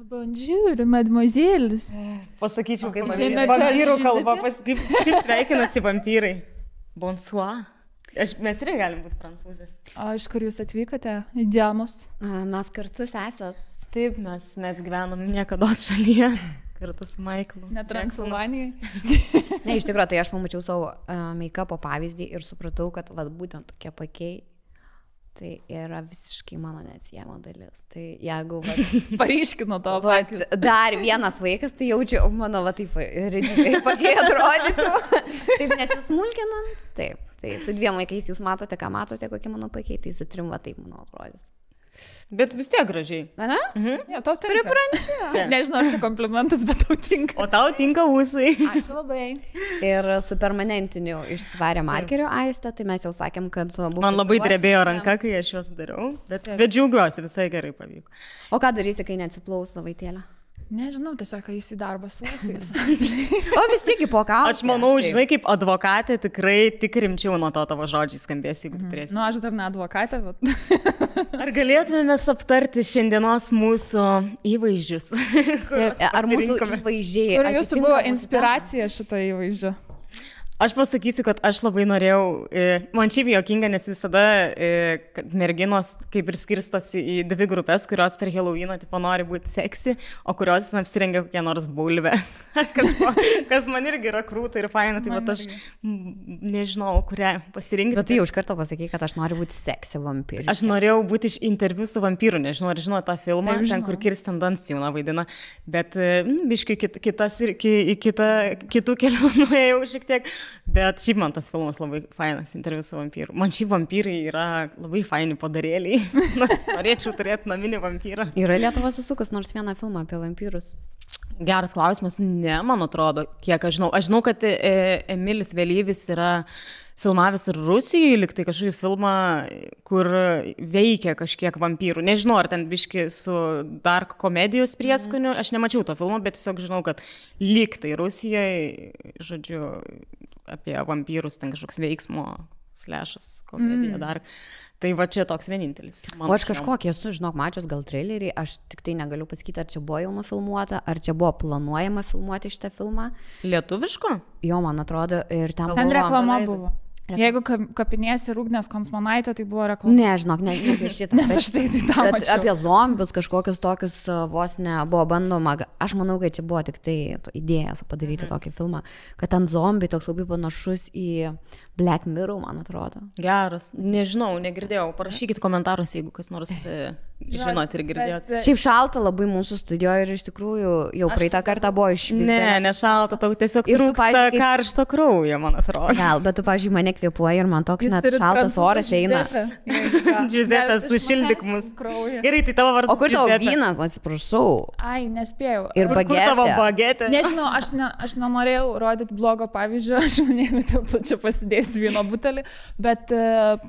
Bonjour, mademoiselles. Pasakyčiau, kaip Mademoiselle vampyrų kalba, Giuseppe. kaip sveikinasi vampyrai. Bonsoir. Mes irgi galim būti prancūzės. O iš kur jūs atvykote? Įdėmus. Mes kartu sesės. Taip, mes gyvenom niekados šalyje. Kartu su Michaelu. Ne Transilvanijai. Ne, iš tikrųjų, tai aš pamačiau savo make-upo pavyzdį ir supratau, kad vat, būtent tokie pakiai, tai yra visiškai mano neatsiejama dalis. Tai jeigu Paryškino to vat, pakius. dar vienas vaikas, tai jaučiu, mano va taip redžiai pakiai atrodytų. Taip nesismulkinant. Taip, tai su 2 vaikais jūs matote, ką matote, kokie mano pakiai, tai su 3 va taip mano atrodys. Bet vis tiek gražiai. Na? Jo, tau tinka. Nežinau, ar čia komplimentas, bet tau tinka. O tau tinka ūsai. Ačiū labai. Ir su permanentiniu išsivarė markeriu Aistę, tai mes jau sakėm, kad buvo... Man labai drebėjo ranka, kai aš juos dariau, bet džiaugiuosi, visai gerai pavyko. O ką darysi, kai neatsiplaus savaitėlę? Nežinau, tiesiog jis į darbą su ūsais. O vis tik po ką? Aš manau, žinai, kaip advokatė tikrai tik rimčiau nuo to tavo žodžiai skambės, jeigu tu turėsi. Nu, aš dar ne advokatė, bet... Ar galėtume aptarti šiandienos mūsų įvaizdžius? Ar mūsų įvaizdžiai... Kur jūsų buvo inspiracija šito įvaizdžio? Aš pasakysiu, kad aš labai norėjau, man šiaip juokinga, nes visada merginos kaip ir skirstosi į 2 grupės, kurios per Halloweeną tipo nori būti seksi, o kurios apsirengia kokią nors bulvę. Kas man irgi yra krūta ir faina, tai vat aš nežinau, kurią pasirinkti. Bet tu jau iš karto pasakai, kad aš noriu būti seksi vampyrė. Aš norėjau būti iš interviu su vampyru, nežinau, ar žinau tą filmą, ten kur Kirsten Dunst jauna vaidina, bet biškai kitų kelių nuėjau šiek tiek. Bet šiaip man tas filmas labai fainas, interviu su vampyru. Man šiaip vampyrai yra labai faini padarėliai. Norėčiau turėti naminį vampyrą. Yra Lietuva susukus nors vieną filmą apie vampyrus? Geras klausimas, ne, man atrodo, kiek aš žinau. Aš žinau, kad Emilis Vėlyvis yra filmavęs ir Rusijoje, liktai kažkokį filmą, kur veikia kažkiek vampyrų. Nežinau, ar ten biški su dark komedijos prieskoniu. Aš nemačiau to filmo, bet tiesiog žinau, kad liktai Rusijoje, žodžiu, apie vampyrus, ten kažkoks veiksmo slešas, komedija dar. Tai va čia toks vienintelis. O aš kažkokį esu, žinok, mačius gal trailerį, aš tik tai negaliu pasakyti, ar čia buvo jau nufilmuota, ar čia buvo planuojama filmuoti šitą filmą. Lietuviško? Jo, man atrodo, ir ten Ten reklama buvo. Jeigu kapinėsi Rūgnės Konsmanaitė, tai buvo reklama. Ne, žinok, ne apie šitą. Nes aš tai tą mačiau. Apie zombius kažkokius tokius vos ne buvo bandoma. Aš manau, kad čia buvo tik tai idėja padaryti tokį filmą, kad ten zombiai toks labai panašus į Black Mirror, man atrodo. Geras. Nežinau, negirdėjau. Parašykit komentarus, jeigu kas nors žinot ir girdėjot. Šiaip šalta labai mūsų studijoje ir iš tikrųjų jau praeitą kartą buvo išvis. Ne šalta, tau tiesiog trūksta karšto kraujo, man atrodo. Gal, bet tu, pavyzdžiui, mane kvėpuoja ir man toks net šaltas oras eina. Giuseppe, sušildyk mus. Gerai, tai tavo vardas. O kur tavo vynas, atsiprašau? Ai, nespėjau. Ir bagetė. Kur tavo bagetė? Nežinau, aš nenorėjau rodyti blogo pavyzdžio, aš manėjau, dėl čia pasidėsiu vyno butelį, bet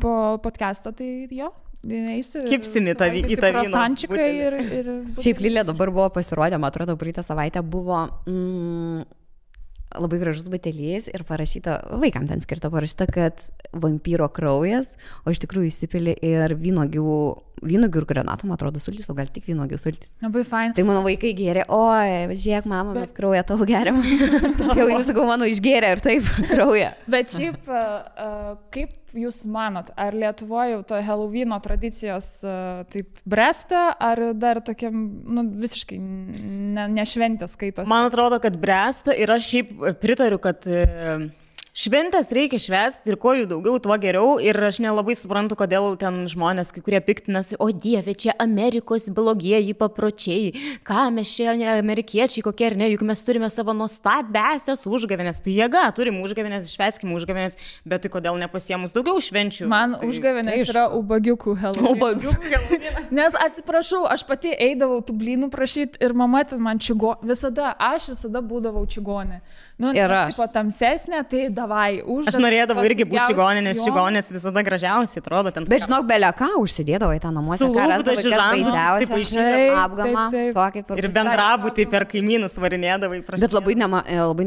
po podcast'o tai jo. Kipsimi į tą vyną. Ir šiaip Lilė dabar buvo pasirodę, man atrodo, praeitą savaitę buvo labai gražus butelys ir parašyta, vaikam ten skirta parašyta, kad vampyro kraujas, o iš tikrųjų įsipili ir vynogių ir granatų, man atrodo, sultis, o gal tik vynogių sultis. Labai fain. Tai mano vaikai gėrė, oi, žiūrėk, mama, mes kraują tavo geriam. Jau jūs, sakau, mano išgėrė ir taip kraują. Bet šiaip, kaip jūs manot, ar Lietuvoje jau ta Halloweeno tradicijos taip bręsta, ar dar tokiam, visiškai nešventės skaitosi? Man atrodo, kad bręsta ir aš šiaip pritariu, kad šventės reikia švęsti ir kuo jų daugiau, tuo geriau. Ir aš nelabai suprantu, kodėl ten žmonės, kai kurie piktinasi, o Dieve, čia Amerikos blogieji papročiai, ką mes čia amerikiečiai kokie ar ne, juk mes turime savo nuostabesias užgavėnės. Tai jėga, turim užgavėnės, švęskim užgavėnės, bet tai kodėl nepasiemus daugiau švenčių? Man tai, užgavėnės yra ubagiukų Halloweenas. Nes atsiprašau, aš pati eidavau tų blynų prašyti ir mama ten man visada būdavau čigonė. Nu, Ir nes, aš. tipo, tamsesnė, tai davai už. Aš norėdavau irgi būti čigonė, nes čigonės visada gražiausiai atrodo ten. Bet žinok, belia ką užsidėdavo į tą namuose, Su ką lūpdažiu žandus baisiausia. įsipaišydavo. Apgamą, Taip. tokį kur. Ir bendrabutį per kaimynus varinėdavai. Bet labai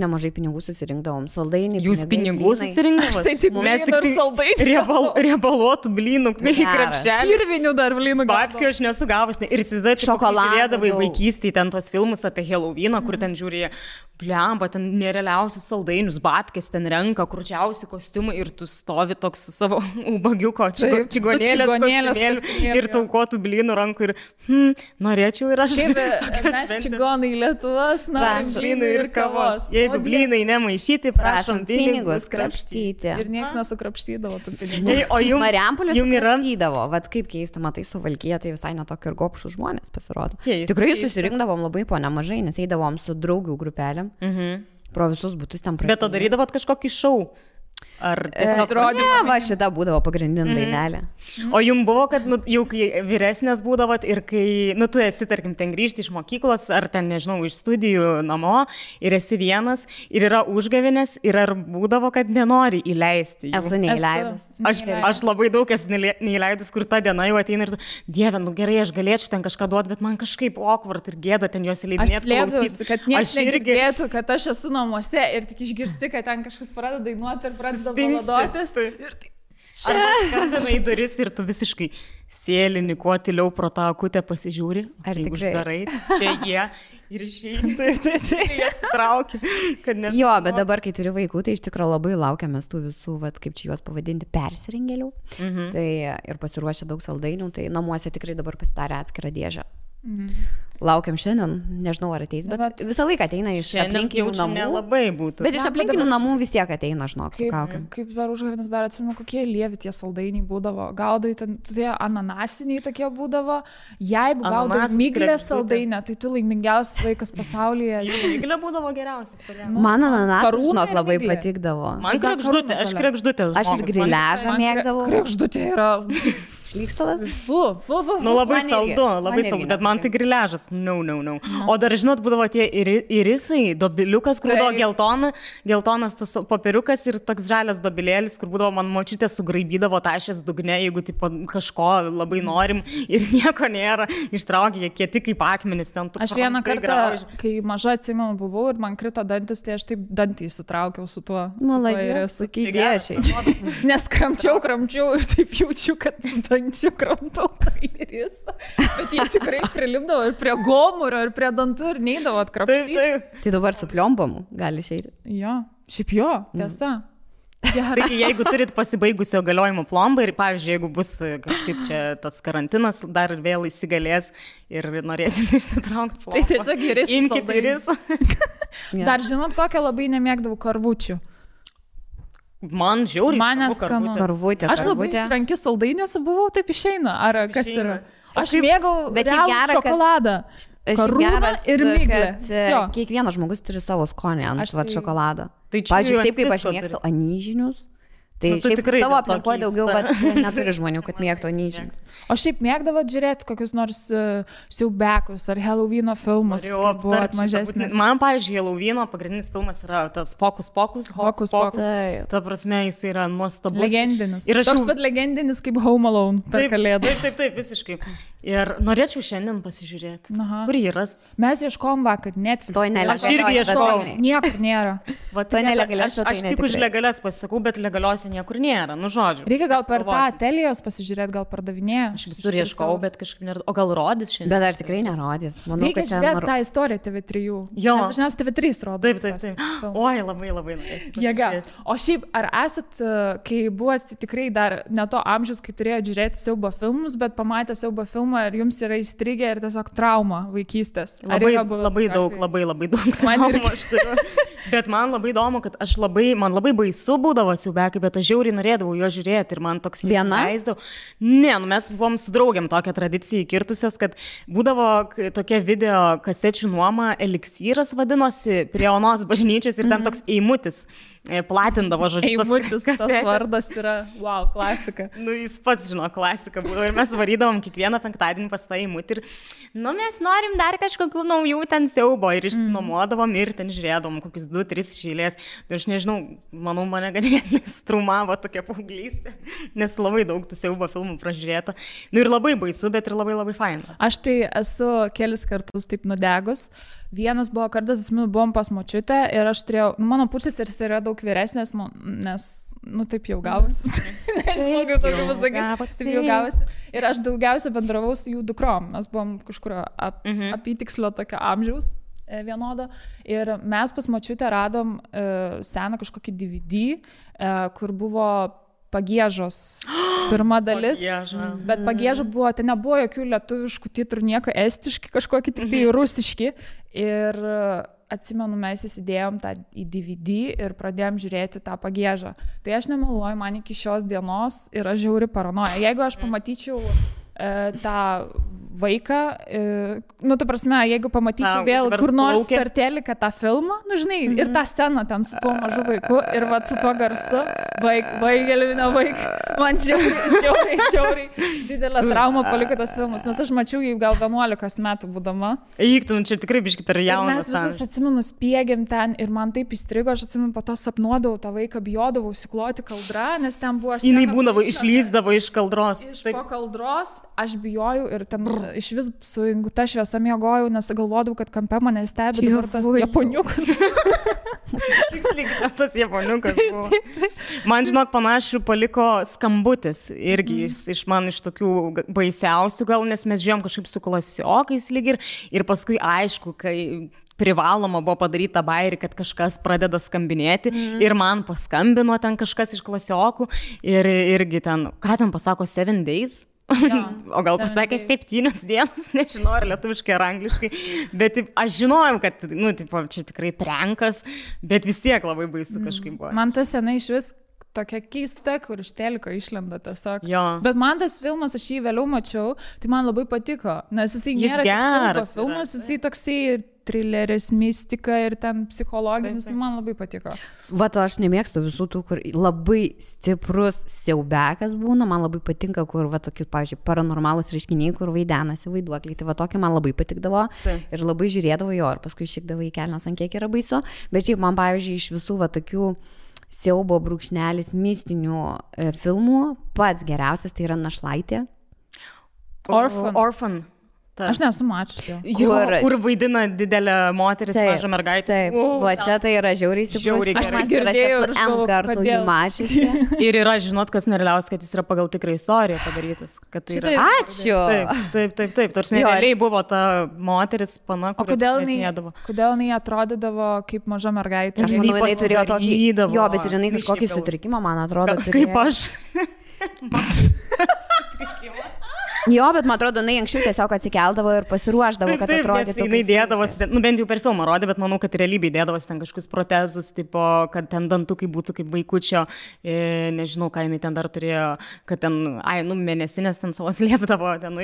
nemažai pinigų susirinkdavom. Saldainį. Jūs pinigų susirinkdavote? Tai tik Mes blynų ir saldainių. Riebaluotų blynų, krepšelį. Čirvinių dar blynų. Babkių aš nesu gavus. Ir įsivaizduoju, Šokoladą žiūrėdavai daug. vaikystėje ten tos filmus apie Halloweeną, kur ten žiūrėjo, blemba, ten nerealiausius saldainius, babkės ten renka, krūčiausi kostiumai ir tu stovi toks su savo ubagiuko Taip, su čigonėlės čigonėlės kostiumėliu kostiumėliu, ir taukotų blynų rankų ir norėčiau ir aš. Kaip tokios mes šventės. čigonai Lietuvos, na, Prašom. Blynų ir kavos. Jeigu blynai nemaišyti, prašom pinigus krapštyti. Ir niekas nesukrapštydavo tų pinigų. Ei, o jums Marijampolės yra sukrapštydavo. Vat kaip keista, matai, Suvalkija, tai visai netokie ir gopšų žmonės pasirodo. Keista, Tikrai keista. susirinkdavom labai po nemažai, nes eidavom su draugių grupelėm. Pro visus būtus ten Bet to darydavot kažkokį šou? Ar tiesiog Ne, va šita būdavo pagrindinė dainelė. O jums buvo, kad jau kai vyresnės būdavot ir kai, tu esi, tarkim, ten grįžti iš mokyklos ar ten, nežinau, iš studijų namo ir esi vienas ir yra užgavinės ir ar būdavo, kad nenori įleisti jų? Esu neįleidus. Aš labai daug esu neįleidus, kur ta diena jau ateina ir tu, Dieve, gerai, aš galėčiau ten kažką duoti, bet man kažkaip awkward ir gėda ten juos Aš įleidinėti. slėpdavausi, kad niekas negirdėtų, kad aš esu namuose ir tik išgirsti, kad ten kažkas pradeda dainuoti ir pradeda valadotis. Arba skambina į duris ir tu visiškai sėlini, kuo tyliau pro tą akutę pasižiūri. Ar Jeigu tikrai? uždarai, čia jie ir išeini. Jie atsitraukia. Jo, bet dabar, kai turiu vaikų, tai iš tikrųjų labai laukiamės tų visų, vat, kaip čia juos pavadinti, persirengėlių. Tai ir pasiruošę daug saldainių, tai namuose tikrai dabar pasidarė atskirą dėžę. Laukiam šiandien, nežinau ar ateis, bet visą laiką ateina iš aplinkinių namų. Nelabai būtų. Bet iš aplinkinių namų vis tiek ateina, žinok, su kaukiam. Kaip per užgavėnes dar atsimenu, kokie lievi tie saldainiai būdavo. Gaudai, tie ananasiniai tokie būdavo. Jeigu gaudai Ananasas, miglės kregždutė. saldainę, tai tu laimingiausias vaikas pasaulyje. Miglė būdavo geriausias. Man ananasas, karūna žinok, ir labai miglė. patikdavo. Man kregždutė, aš kregždutė. Aš ir griležą mėgdavau. Kregždutė yra. Šlykstalas? Nu labai Man irgi, saldu, man labai irgi saldu, bet man tai nepatinka. griležas. No. O dar žinot, būdavo tie irisai, dobiliukas, kur būdavo geltonas tas popieriukas ir toks žalias dobilėlis, kur būdavo man močiutė sugraibydavo tašės dugne, jeigu tipo, kažko labai norim ir nieko nėra, ištraukė, jie kieti kaip akmenis ten. Aš vieną kartą, kai maža atsimenu buvau ir man krito dantis, tai aš taip dantį įsitraukiau su tuo. Maladės, sakai, dėšiai. Nes kramčiau ir taip jaučiu, kad su dančiu kramtau tą irisą. Bet jie tikrai prilipdavo ir prie gomurio, ir prie dantų, ir neįdavo atkrapštyti. Taip. Tai dabar su pliombomu gali išeiti. Jo, šiaip jo, tiesa. Taigi, jeigu turit pasibaigusio galiojimo plombą ir, pavyzdžiui, jeigu bus kažkaip čia tas karantinas, dar vėl įsigalės ir norėsit išsitraukti plombą. Tai tiesiog irisas Imkite saldainis. irisą. Dar žinot, kokią labai nemėgdavau karvučių. Man žiauriai. Man smagu neskanu. karvutės. Karvutė, Aš labai karvutė. frankis saldainiuose buvau, taip išeina. Ar kas Išeina. yra? Aš mėgau Bet čia realų gera, kad- šokoladą. Karūną ir miglę. Vsio. Kiekvienas žmogus turi savo skonį ant Aš vat tai- šokolado. Tai čia Pavyzdžiui, jau taip kaip ant aš visko mėgstu turi. anyžinius. Tai Nu, tu šiaip tikrai tavo dėl to aplinkoje daugiau, keista. bet neturi žmonių, kad mėgtų anyžinius. O šiaip mėgdavo žiūrėti kokius nors siaubekus ar Halloweeno filmus. Norėjau kai buvot aptart šitą mažesnis. būtinai. Man, pavyzdžiui, Halloween'o pagrindinis filmas yra tas Fokus Pokus. Hokus Pokus. Pokus. Taip. Ta prasme, jis yra nuostabus. Legendinis. Ir aš Toks jau- pat legendinis kaip Home Alone per Taip, kalėdą. taip, visiškai. Ir norėčiau šiandien pasižiūrėti. Aha. Kur jį rast? Mes ieškom vakar Netflix. Toj Aš irgi ieškojau. Niekur nėra. Va, To nelegalias aš svetainė tik už tikrai. legalias pasisakau, bet legaliuose niekur nėra. Nu, žodžiu. Reikia gal per tą Pagalvosim. Telijos pasižiūrėti, gal pardavinėja. Aš visur ieškau, bet kažkaip nėra. O gal rodys šiandien? Bet ar tikrai nerodys? Manau, Reikia kad čia žiūrėti tą istoriją TV3. Jo. Nes dažniausiai TV3 rodo. Taip. tuos filmus. Oi, labai norėsiu. Jėga. O šiaip, ar esat, kai buvote tikrai dar ne to amžiaus, kai turėjote žiūrėti siaubo filmus, bet pamatę siaubo filmą ir jums yra įstrigę ir tiesiog trauma vaikystės? Ar Labai, yra buvę labai tokių daug, atvejų? labai daug. Man traumų irgi. aš turiu. Bet man labai įdomu, kad man labai baisu būdavo siaubekai, bet aš žiauriai norėdavau jo žiūrėti ir man toks Viena? leisdavau. Ne, mes buvom su draugiam tokią tradiciją įkirtusios, kad būdavo tokia video kasečių nuoma Eliksyras vadinosi prie Onos bažnyčios ir ten toks eimutis. platindavo, žodžiu. Eimutis, tas vardas yra, wow, klasika. Nu, jis pats žino, klasika buvo ir mes varydavom kiekvieną penktadienį pas tą Eimutį ir, nu, mes norim dar kažkokių naujų ten siaubo ir išsinuomodavom ir ten žiūrėdavom kokius 2-3 išėlės. Ir aš nežinau, manau, mane ganėtinai strumavo tokia paauglystė, nes labai daug tų siaubo filmų pražiūrėta. Nu ir labai baisu, bet ir labai labai faina. Aš tai esu kelis kartus taip nudegus. Vienas buvo kartas, atsimenu, buvom pas močiutę ir aš turėjau, nu, mano pusseseris yra daug vyresnės, nes, nu, taip jau gavosi. Nežinau, kaip tokio pasakyti, taip jau gavosi. Ir aš daugiausia bendravau su jų dukrom. Mes buvom kažkurio apytikslio tokio amžiaus vienodo. Ir mes pas močiutę radom seną kažkokį DVD, kur buvo Pagiežos pirma dalis, bet Pagieža buvo, ten nebuvo jokių lietuviškų titrų, nieko estiški, kažkokie tik tai rusiški. Ir atsimenu, mes įsidėjom tą į DVD ir pradėjom žiūrėti tą Pagiežą. Tai aš nemeluoju, man iki šios dienos yra žiauri paranoja. Jeigu aš pamatyčiau tą vaiką, nu, ta prasme, jeigu pamatyčiau vėl kur nors per teliką tą filmą, nu, žinai, ir tą sceną ten su tuo mažu vaiku, ir va su tuo garsu, man žiauriai didelę traumą paliko tas filmas, nes aš mačiau jį gal 11 metų būdama. Eiktum, čia tikrai biški per jaunas. Mes visus, atsimenu, spiegėm ten ir man taip įstrigo, aš atsimenu, po to sapnuodavau tą vaiką, bijodavau įsikloti kaldrą, nes ten buvo... Jinai būdavo, išlįsdavo iš kaldros. Po kaldros aš bijojau ir ten iš vis su inguta šviesa miegojau, nes galvodavau, kad kampe mane stebi dabar tas japoniukas. Tas japoniukas buvo. Man, žinok, panašių paliko Skambutis. Irgi iš man iš tokių baisiausių gal, nes mes žiūrėjom kažkaip su klasiokais lyg ir paskui aišku, kai privaloma buvo padaryti tą bairį, kad kažkas pradeda skambinėti ir man paskambino ten kažkas iš klasiokų ir irgi ten, ką ten pasako, 7 days? Ja, o gal pasakė 7 dienas, nežinau, ar lietuviškai, ar angliškai, bet aš žinojau, kad, nu, tipo, čia tikrai prankas, bet vis tiek labai baisu kažkaip buvo. Man tas senai iš vis tokia keista, kur iš teliko išlenda tiesiog. Jo. Bet man tas filmas, aš jį vėliau mačiau, tai man labai patiko, nes jisai nėra geras filmas, jisai toksai trileris, mistika ir ten psichologinis, man labai patiko. Va, to aš nemėgstu visų tų, kur labai stiprus siaubekas būna, man labai patinka, kur, va, tokius, pavyzdžiui, paranormalus reiškiniai, kur vaidenasi vaiduokliai, tai va, tokie man labai patikdavo ir labai žiūrėdavo jo, ir paskui šikdavo į kelnes, ant kiek yra baisu, bet šiaip man, pavyzdžiui, iš visų, va, tokių siaubo brūkšnelis mistinių filmų, pats geriausias tai yra Našlaitė. Orphan. Aš nesu mačiusi. Kur vaidina didelę moteris, mažą mergaitę. Taip, va čia tai yra žiauriai stiprus. Aš tai girdėjau ir M kartų jį mačiusi. Ir yra, žinot, kas nerealiausia, kad jis yra pagal tikrą istoriją padarytas. Tai yra... Ačiū! Taip. Tarsi realiai buvo ta moteris pana, kuri apsmėtinėdavo. Kodėl jinai atrodydavo kaip maža mergaitė? Aš manau, jinai turėjo tokį... Jo, bet ir jinai kažkokį sutrikimą, man atrodo. Kaip aš. Jo, bet man atrodo, jinai anksčiau tiesiog atsikeldavo ir pasiruošdavo, kad atrodytų. Taip, jinai dėdavosi, nu bent jau per filmą rodė, bet manau, kad realybėje dėdavosi ten kažkokius protezus, tipo, kad ten dantukai būtų kaip vaikučio, nežinau, ką jinai ten dar turėjo, kad ten, mėnesinės ten savo slėpdavo, ten,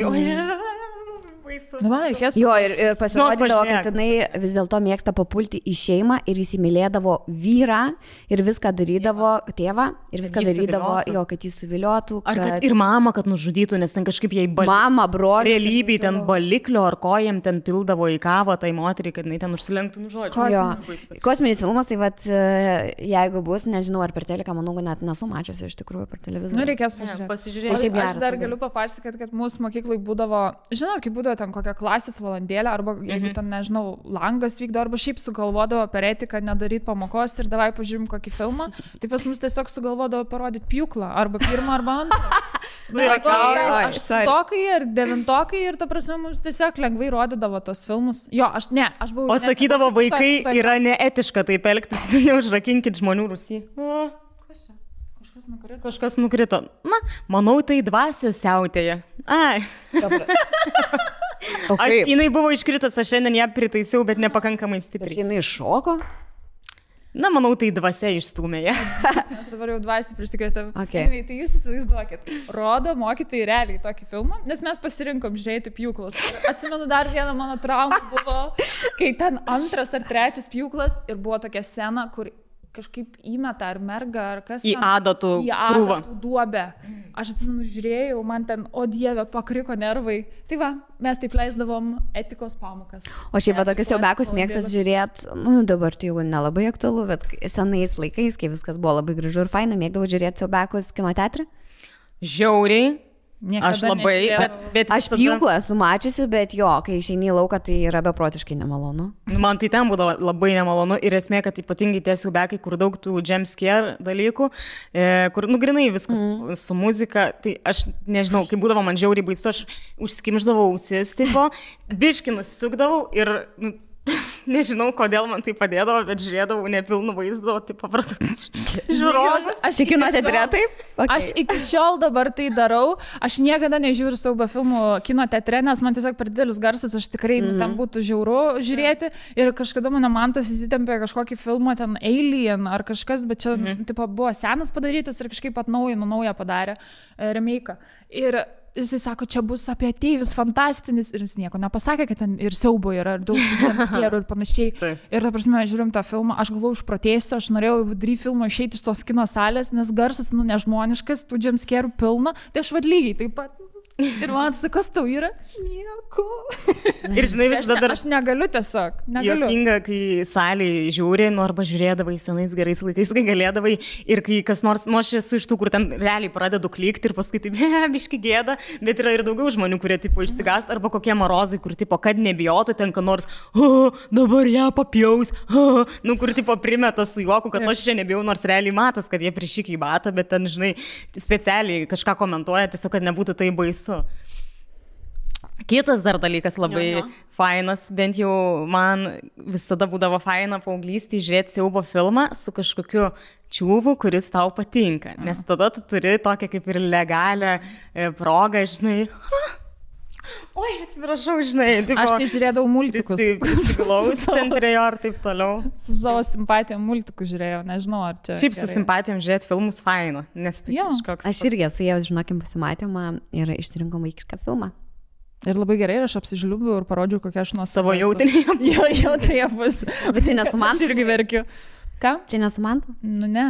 Jo, ir pasirodydavo, kad jinai vis dėlto mėgsta papulti į šeimą ir įsimylėdavo vyrą ir viską darydavo, tėvą, ir viską darydavo, jo, kad jį suviliotų. Ar kad ir mamą, kad nužudytų, nes ten kažkaip jai mama, brolį. Realybėj ten baliklio ar kojam ten pildavo į kavą tai moteriai, kad jinai ten užsilenktų nužodžiu. Kosminis filmas, tai vat, jeigu bus, nežinau, ar per teleką, manau, net nesu mačiusi iš tikrųjų per televizorių. Nu, reikės pasižiūrėti. Aš dar galiu papasakoti, kad mūsų mokyklai būdavo, žinot, kaip būdavo ten kokią klasės valandėlę, arba jeigu ten, nežinau, langas vykdo, arba šiaip sugalvodavo per etiką nedaryti pamokos ir davai pažiūrim kokį filmą, tai pas mus tiesiog sugalvodavo parodyti pjūklą, arba pirmą, arba antrą. Aštuntokai ir devintokai ir ta prasme mums tiesiog lengvai rodydavo tos filmus. Jo, aš buvau... O sakydavo, vaikai yra neetiška taip elgtis, neužrakinkit žmonių Rusijai. Kažkas nukrito. Na, manau, tai dvasios siautėja. Ai. Jinai buvo iškritus, aš šiandien ją pritaisiau, bet nepakankamai stipriai. Bet jinai iššoko? Na, manau, tai dvasia išstūmė ją. Mes dabar jau dvasią prisikretėm. Okay. Tai jūs įsivaizduokit, rodo mokytojai realiai tokį filmą, nes mes pasirinkom žiūrėti pjūklas. Atsimenu, dar vieną mano traumą buvo, kai ten 2. ar 3. pjūklas ir buvo tokia scena, kur kažkaip įmeta ar merga, ar kas Į adatų krūvą. Adatų duobę. Aš atsimenu, žiūrėjau, man ten, o dieve, pakriko nervai. Tai va, mes taip leisdavom etikos pamokas. O šiaip tokius siaubekus mėgstat žiūrėti, nu dabar tai jau nelabai aktualu, bet senais laikais, kai viskas buvo labai gražu ir faina, mėgdavau žiūrėti siaubekus kino teatre. Žiauriai. Niekada Aš labai, bet aš pjūklą esu mačiusi, bet jo, kai išeini į lauką, tai yra beprotiškai nemalonu. Man tai ten būdavo labai nemalonu ir esmė, kad ypatingai tie siaubekai, kur daug tų jump scare dalykų, kur, nu, grinai viskas su muzika, tai aš nežinau, kai būdavo man žiauriai baisu, aš užsikimždavau ausis, tipo, biškį nusisukdavau ir... Nežinau, kodėl man tai padėdavo, bet žiūrėdavau nepilnų vaizdų, tai papratus žiūrovus. Aš kino teatre taip? Okay. Aš iki šiol dabar tai darau. Aš niekada nežiūriu siaubo filmų kino teatre, nes man tiesiog per didelis garsas, aš tikrai ten būtų žiauru žiūrėti. Ir kažkada mano mantas įsitempė kažkokį filmą, ten Alien ar kažkas, bet čia tipo, buvo senas padarytas ir kažkaip naują padarė remake. Ir jisai sako, čia bus apie ateivius fantastinis ir jis nieko nepasakė, kad ten ir siaubo yra, ir daug jumpscare'ų ir panašiai. Ir ta prasme, žiūrim tą filmą, aš galvojau, išprotėsiu, aš norėjau vidury filmo išeiti iš tos kino salės, nes garsas, nu, nežmoniškas, tų jumpscare'ų pilna, tai aš vad lygiai taip pat. Ir man sako, kas tau yra? Nieko. Ir žinai, vis dar... Aš negaliu tiesiog. Negaliu. Jokinga, kai salėje žiūri, nu arba žiūrėdavai senais gerais laikais, kai galėdavai ir kai kas nors, nu aš esu iš tų, kur ten realiai pradedu klikti ir paskui taip, biški gėda, bet yra ir daugiau žmonių, kurie tipo išsigąst, arba kokie marozai, kur tipo, kad nebijotų, ten ką nors, dabar ją papjaus, nu kur tipo primeta su juoku, kad aš čia nebijau, nors realiai matas, kad jie prišykia į batą, bet ten, žinai, specialiai kažką komentuoja, tiesiog, kad nebūtų tai baisu. Kitas dar dalykas labai fainas, bent jau man visada būdavo faina paauglystėje žiūrėti siaubo filmą su kažkokiu čiūvu, kuris tau patinka, nes tada tu turi tokią kaip ir legalią progą, žinai. Oi, atsiprašau, žinai. Tipo, aš tai žiūrėdavau multikus. Prisiglausti ten prie jo ir taip toliau. Su savo simpatijom multikus žiūrėjau, nežinau, ar čia... Šiaip su simpatijom žiūrėti filmus faina, nes tai kažkoks... Aš irgi esu jau, žinokim, pasimatymą ir išsirinkom vaikišką filmą. Ir labai gerai, ir aš apsižliubiu ir parodžiu, kokia aš nuo savo jautinėje. Jo, jautinėje bus. Bet čia nesu man. Aš irgi verkiu. Ką? Čia nesu man? Nu ne.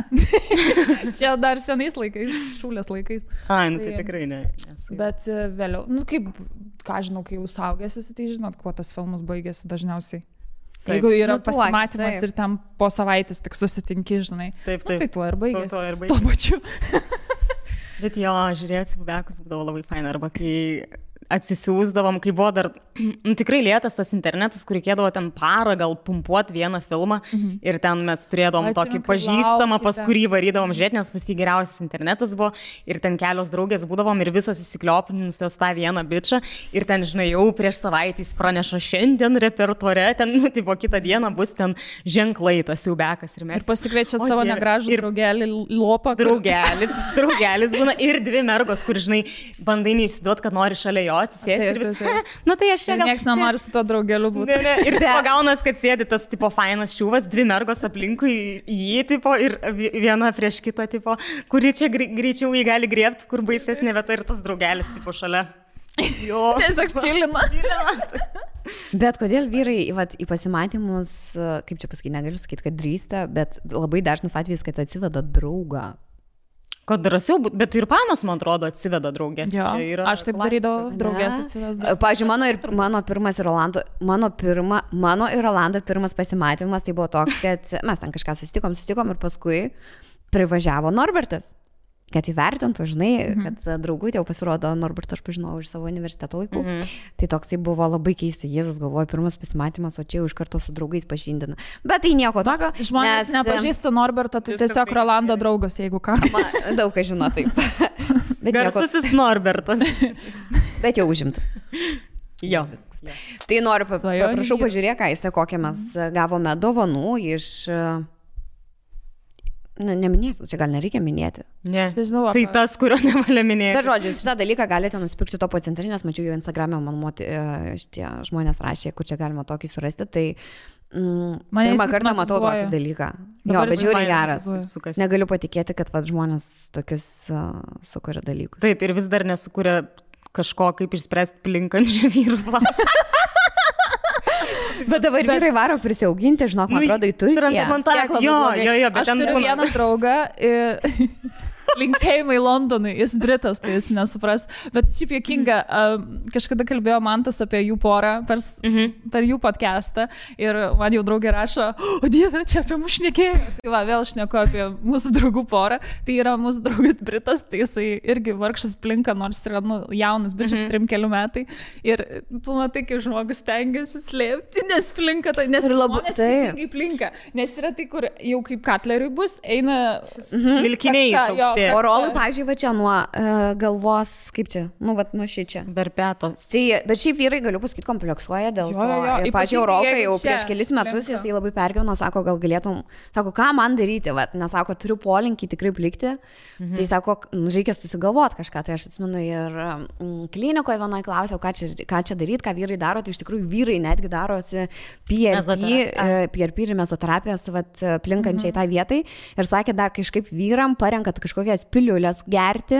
Čia dar senais laikais, šūlės laikais. Ai, nu tai tikrai ne. Bet vėliau, nu kaip, ką žinau, kai jau saugėsi, tai žinot, kuo tas filmas baigėsi dažniausiai. Taip. Jeigu yra pasimatymas ir ten po savaitės tik susitinki, žinai. Taip. Nu, tai tuo ir baigėsi. Tuo pačiu. Bet jo, žiūrėti, bekus būdavo labai faina, arba kai atsisiųsdavom, kai buvo dar tikrai lėtas tas internetas, kur reikėdavo ten parą gal pumpuoti vieną filmą ir ten mes turėdavom tokį pažįstamą, pas kurį varydavom žiūrėti, nes pas jį geriausias internetas buvo ir ten kelios draugės būdavom ir visos įsikliopinusios tą vieną bičą ir ten, žinai, jau prieš savaitę jis praneša šiandien repertuare, ten, nu, tipo, kitą dieną bus ten ženklai tas siaubekas ir mes. Ir pasikviečia savo negražų draugelį lopą. Draugelis būna ir dvi mergos, kur, žinai, bandai neišsiduot, kad nori šalia jo atsisėsti ir vis. Nu tai aš čia gal... Niekas nenori su to draugeliu būti. Ir tai pagaunas, kad sėdi tas tipo fainas šiūvas, dvi mergos aplinkui jį tipo ir viena prieš kitą tipo, kuri čia greičiau jį gali griebti, kur baisesnė vieta ir tas draugelis tipo šalia. Jo. Tiesiog čilina. Bet kodėl vyrai į pasimatymus, kaip čia pasakyti, negaliu sakyti, kad drįsta, bet labai dažnas atvejis, kad atsiveda draugą. Kad drąsiau, bet ir panos, man atrodo, atsiveda draugės. Jo, aš taip darydavau, draugės atsiveda. Pavyzdžiui, mano pirmas ir mano ir Rolando pirmas pasimatymas, tai buvo toks, kad mes ten kažką susitikom ir paskui privažiavo Norbertas. Kad įvertintų, žinai, kad draugutė jau pasirodo, Norbertą aš pažinojau iš savo universiteto laikų. Tai toksai buvo labai keistai, Jėzus galvoja, pirmas pasimatymas, o čia jau iš karto su draugais pažindina. Bet tai nieko tokio. Žmonės nepažįsta Norberto, tai tiesiog Rolando draugas, jeigu ką. Daug kas žino taip. Garsusis Norbertas. Bet jau užimtas. Jo. Tai noriu, prašau, pažiūrėk, Aiste, kokią mes gavome dovanų iš... Neminėsiu, čia gal nereikia minėti. Ne, tai tas, kurio nevalia minėti. Bet žodžiu, šitą dalyką galite nusipirkti Topo centre, nes mačiau jau Instagram'e, man šitie žmonės rašė, kur čia galima tokį surasti, tai pirmą kartą matau tokį dalyką. Jo, bet žiūri geras. Negaliu patikėti, kad žmonės tokius sukuria dalykus. Taip, ir vis dar nesukuria kažko, kaip išspręsti plinkančių vyrų. Bet dabar vyrai varo prisiauginti, žinok, man atrodo, į Turkiją. Transplantacija. Jo, bet aš turiu vieną draugą. Linkėjimai Londonui, jis Britas, tai jis nesupras. Bet šiaip juokinga, kažkada kalbėjo Mantas apie jų porą per jų podcastą ir man jau draugė rašo, o Dieve, čia apie mus šnekėjo. Tai va, vėl šneku apie mūsų draugų porą. Tai yra mūsų draugas Britas, tai jisai irgi vargšas plinka, nors yra jaunas bičias 3-4 metai. Ir tu matai, kaip žmogus stengiasi slėpti, nes plinka, tai nes žmonės skirtingai plinka. Nes yra tai, kur jau kaip katleriui bus, eina milkiniai išaukšti. O rolai, pažiūrėjau, va čia nuo galvos, kaip čia, nuo šičia. Berpetos. Tai, bet šiaip vyrai, galiu pasakyti, kompleksuoja dėl to. Ir, pažiūrėjau, Rolkai jau prieš kelis metus jisai labai pergyveno, sako, gal galėtum, sako, ką man daryti, nesako, turiu polinkį tikrai plikti. Tai sako, reikia susigalvoti kažką. Tai aš atsimenu ir klinikoje vienoje klausiau, ką čia daryti, ką vyrai daro. Tai iš tikrųjų vyrai netgi darosi PRP ir mezoterapijos plinkančiai tai vietai. Ir sakė, dar kažkaip vyram parenkat kažkokias piliulės gerti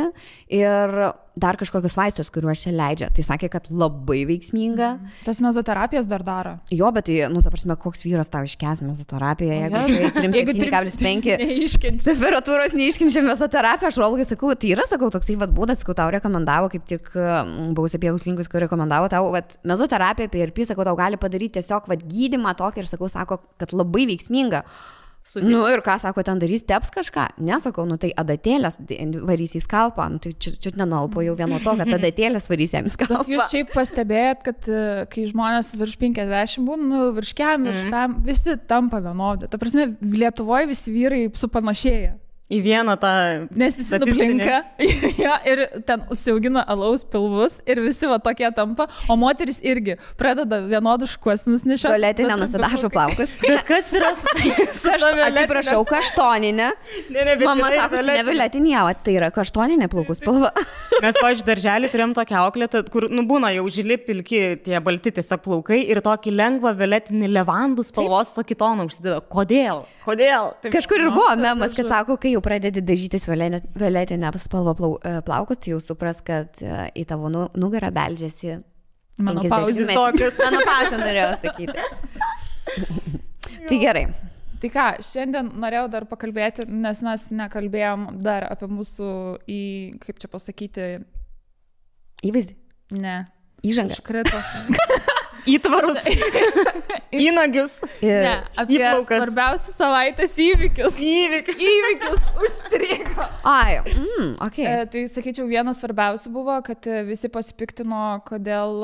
ir dar kažkokius vaistus, kuriuos čia leidžia. Tai sakė, kad labai veiksminga. Tas mezoterapijas dar daro. Jo, bet tai, ta prasme, koks vyras tau iškės mezoterapiją, jeigu 3,5 temperatūros neiškenčia mezoterapiją, aš Rolgai sakau, tai yra, sakau, toksai būdas, sakau, tau rekomendavo, kaip tik buvusi Pieguslinkus, kur rekomendavo tau, mezoterapiją, PRP, sakau, tau gali padaryti tiesiog gydymą tokį ir sakau, sako, kad labai veiksminga. Ir ką sako, ten darys, teps kažką? Nesakau, tai adatėlės varys į skalpą, tai čia nenalpo jau vieno to, kad adatėlės varys jam į skalpą. Jūs šiaip pastebėjot, kad kai žmonės virš 50 būna, virš kem, visi tampa vienodi. Ta prasme, Lietuvoje visi vyrai supanašėja. Į vieną tą... Nes jis nuplinka ir ten užsiaugina alaus pilvus ir visi tokie tampa, o moteris irgi pradeda vienodus šukuosinus nešioti. Violetinė nenusidažo plaukus. Bet kas yra atsiprašau, kaštoninė. Mama sako, čia ne violetinė, tai yra kaštoninė plaukus spalva. Mes, pavyzdžiui, darželį turėjom tokią auklėtą, kur, būna jau žili pilki tie balti tiesiog plaukai ir tokį lengvą violetinį levandų spalvos tokį toną užsideda. Kodėl? Kažkur ir buvo memas, kad sako, kai jau pradedi dažytis violetinę spalvą plaukus, tai jau supras, kad į tavo nugarą beldžiasi menopauzės. Menopauzę norėjau sakyti. Tai gerai. Tai ką, šiandien norėjau dar pakalbėti, nes mes nekalbėjom dar apie mūsų kaip čia pasakyti... Įvaizdį? Ne. Įžangą. Iškrito. Įtvarus. Įnagius. Ne, apie svarbiausius savaitės įvykius. Įvykius užstrigo. Ai, okay. Tai sakyčiau, vienas svarbiausių buvo, kad visi pasipiktino, kodėl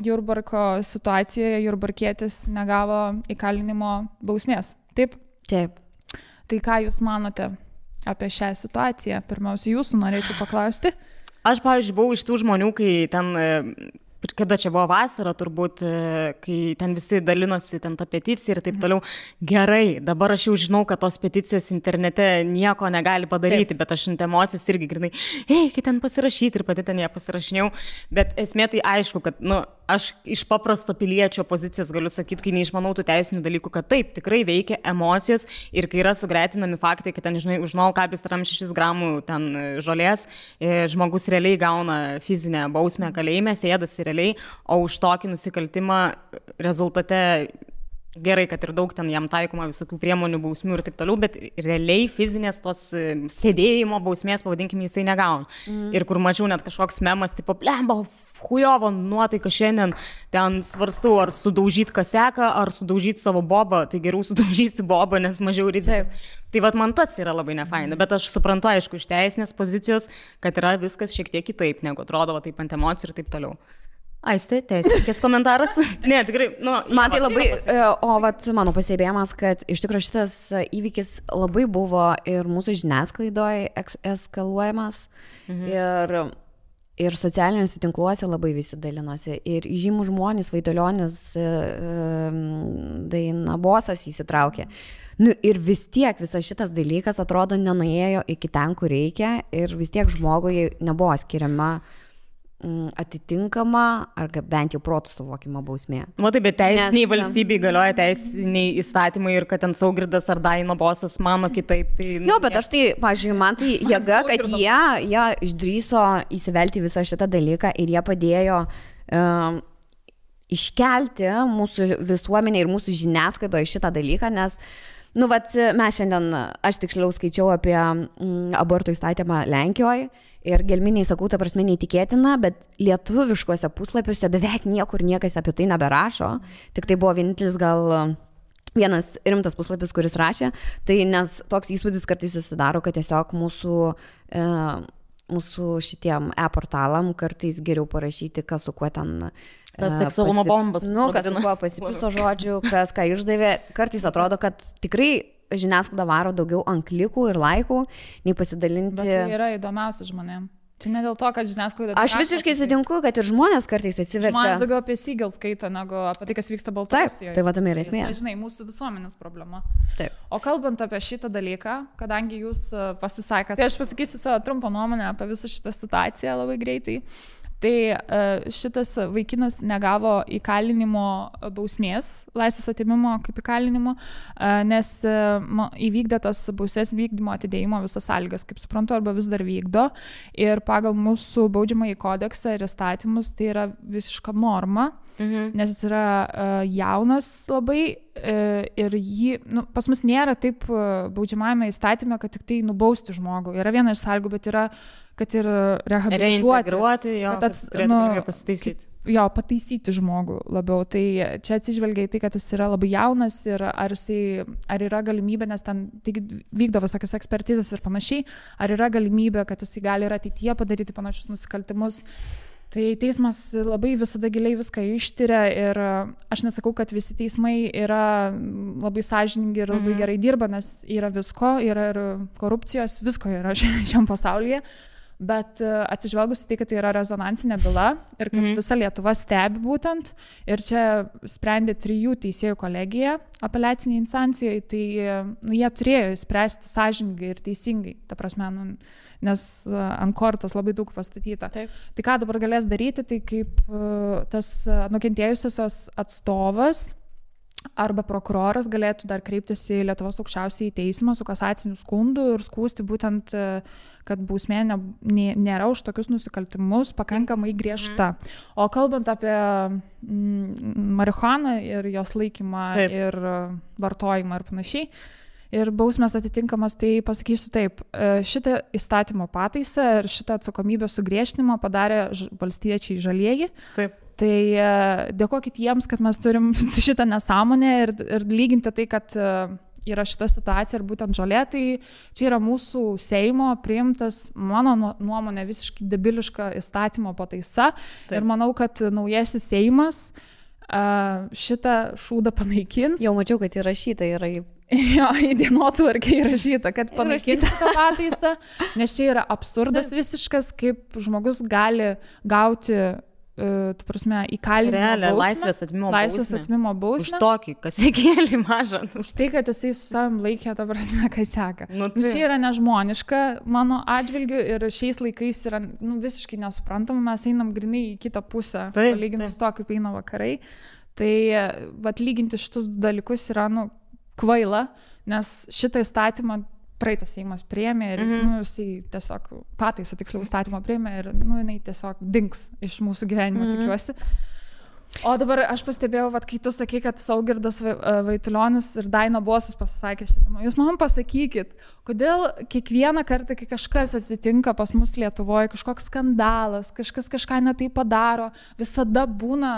Jurbarko situacijoje Jurbarkietis negavo įkalinimo bausmės. Taip? Taip. Tai ką jūs manote apie šią situaciją? Pirmiausia, jūsų norėčiau paklausti. Aš, pavyzdžiui, buvau iš tų žmonių, kai ten... Kada čia buvo vasara, turbūt, kai ten visi dalinosi ten tą peticiją ir taip toliau. Gerai, dabar aš jau žinau, kad tos peticijos internete nieko negali padaryti, bet aš ant emocijos irgi grinai, kai ten pasirašyti ir pati ten ją pasirašinėjau. Bet esmė tai aišku, kad, aš iš paprasto piliečio pozicijos galiu sakyti, kai neišmanau tų teisinių dalykų, kad taip, tikrai veikia emocijos ir kai yra sugretinami faktai, kad ten, žinai, už 0,6 gramų ten žolės žmogus realiai gauna fizinę bausmę kalėjime, sėdasi realiai, o už tokį nusikaltimą rezultate gerai, kad ir daug ten jam taikoma visokių priemonių, bausmių ir taip toliau, bet realiai fizinės tos sėdėjimo bausmės, pavadinkim, jisai negauna. Ir kur mačiau net kažkoks memas, tipo, blemba, hujovo nuotaika šiandien, ten svarstau, ar sudaužyti kaseką, ar sudaužyti savo bobą, tai geriau sudaužysi bobą, nes mažiau rizikas. Tai vat man tas yra labai nefaina, bet aš suprantu, aišku, iš teisinės pozicijos, kad yra viskas šiek tiek kitaip, negu atrodo, taip ant emocijų ir taip toliau. Aistė, teisininkės komentaras? Ne, tikrai, man tai labai, mano pasibėjimas, kad iš tikrųjų šitas įvykis labai buvo ir mūsų žiniasklaidoje eskaluojamas ir socialiniuose tinkluose labai visi dalinosi. Ir žymų žmonės, Vaitulionis, Dainabosas įsitraukė. Ir vis tiek visas šitas dalykas atrodo nenuėjo iki ten, kur reikia ir vis tiek žmogui nebuvo skiriama atitinkama ar bent jau protų suvokimo bausmė. Matai, bet teisiniai valstybei galioja teisiniai įstatymai ir kad ten Saugirdas ar Dainabosas mano kitaip. Tai, bet aš tai, pažiūrėjau, man tai jėga, kad jie išdrįso įsivelti visą šitą dalyką ir jie padėjo iškelti mūsų visuomenė ir mūsų žiniasklaidoje šitą dalyką, nes mes šiandien, aš tiksliau skaičiau apie abortų įstatymą Lenkijoje ir gelminiai sakau, ta prasme neįtikėtina, bet lietuviškuose puslapiuose beveik niekur niekas apie tai neberašo, tik tai buvo vienintelis gal vienas rimtas puslapis, kuris rašė, tai nes toks įspūdis kartais susidaro, kad tiesiog mūsų šitiem e-portalam kartais geriau parašyti, kas su kuo ten seksualumo bombas. Kas su kuo pasipiso žodžių, kas ką išdavė. Kartais atrodo, kad tikrai žiniasklaida varo daugiau ant klikų ir laikų, nei pasidalinti. Bet tai yra įdomiausia žmonėm. Čia ne dėl to, kad žiniasklaida... Aš visiškai sutinku, kad ir žmonės kartais atsiverčia. Žmonės daugiau apie Siegel skaito, negu apie tai, kas vyksta Baltarusijoje. Taip, tai tame yra esmė. Tai, žinai, mūsų visuomenės problema. Taip. O kalbant apie šitą dalyką, kadangi jūs pasisakėte, tai aš pasakysiu savo trumpą nuomonę apie visą šitą situaciją labai greitai. Tai šitas vaikinas negavo įkalinimo bausmės, laisvės atėmimo kaip įkalinimo, nes įvykdė tas bausmės vykdymo atidėjimo visas sąlygas, kaip suprantu, arba vis dar vykdo. Ir pagal mūsų baudžiamąjį kodeksą ir įstatymus tai yra visiška norma, nes jis yra jaunas labai ir jį, pas mus nėra taip baudžiamajame įstatyme, kad tik tai nubausti žmogų. Yra viena iš sąlygų, bet yra, kad ir reintegruoti, kad turėtų pasitaisyti. Jo, pataisyti žmogų labiau. Tai čia atsižvelgia į tai, kad jis yra labai jaunas ir ar yra galimybė, nes ten vykdo visokias ekspertizės ir panašiai, ar yra galimybė, kad jis gali ir ateityje padaryti panašius nusikaltimus. Tai teismas labai visada giliai viską ištyria ir aš nesakau, kad visi teismai yra labai sąžiningi ir labai gerai dirba, nes yra visko, yra ir korupcijos, visko yra šiam pasaulyje. Bet atsižvelgus į tai, kad tai yra rezonansinė byla ir kad visa Lietuva stebi būtent ir čia sprendė 3 teisėjų kolegija apeliaciniai instancijai, tai jie turėjo spręsti sąžiningai ir teisingai, ta prasme, nes ant kortos labai daug pastatyta. Taip. Tai ką dabar galės daryti, tai kaip tas nukentėjusiosios atstovas arba prokuroras galėtų dar kreiptis į Lietuvos aukščiausiąjį teismą su kasaciniu skundu ir skųsti būtent, kad bausmė nėra už tokius nusikaltimus pakankamai griežta. O kalbant apie marihuaną ir jos laikymą ir vartojimą ir panašiai, ir bausmės atitinkamas, tai pasakysiu taip, šitą įstatymo pataisą ir šitą atsakomybę sugriežtinimą padarė valstiečiai žalieji. Taip. Tai dėkokit jiems, kad mes turim šitą nesąmonę ir lyginti tai, kad yra šita situacija ir būtent žolė, tai čia yra mūsų Seimo priimtas, mano nuomonė, visiškai debiliška įstatymo pataisa. Taip. Ir manau, kad naujasis Seimas šitą šūdą panaikins. Jau mačiau, kad įrašyta yra į... Jo, į dienotvarkę įrašyta, kad panaikins tą pataisą, nes čia yra absurdas visiškas, kaip žmogus gali gauti tu prasme, įkalinimo bausmę. Laisvės atmimo bausmę. Už tokį kasekėlį mažą. Už tai, kad jisai su savim laikė, ta prasme, kaseką. Tai yra nežmoniška mano atžvilgiu ir šiais laikais yra visiškai nesuprantama, mes einam grinai į kitą pusę, palyginti su to, kaip eina vakarai. Tai lyginti šitus dalykus yra kvaila, nes šitą įstatymą praeitas Seimas priėmė ir jisai tiesiog pataisą tiksliau įstatymą priėmė ir jinai tiesiog dings iš mūsų gyvenimo, tikiuosi. O dabar aš pastebėjau, kai tu sakai, kad Saugirdas Vaitulionis ir Daina Bosas pasisakė šitą temą. Jūs man pasakykit, kodėl kiekvieną kartą, kai kažkas atsitinka pas mus Lietuvoje, kažkoks skandalas, kažkas kažką netai padaro, visada būna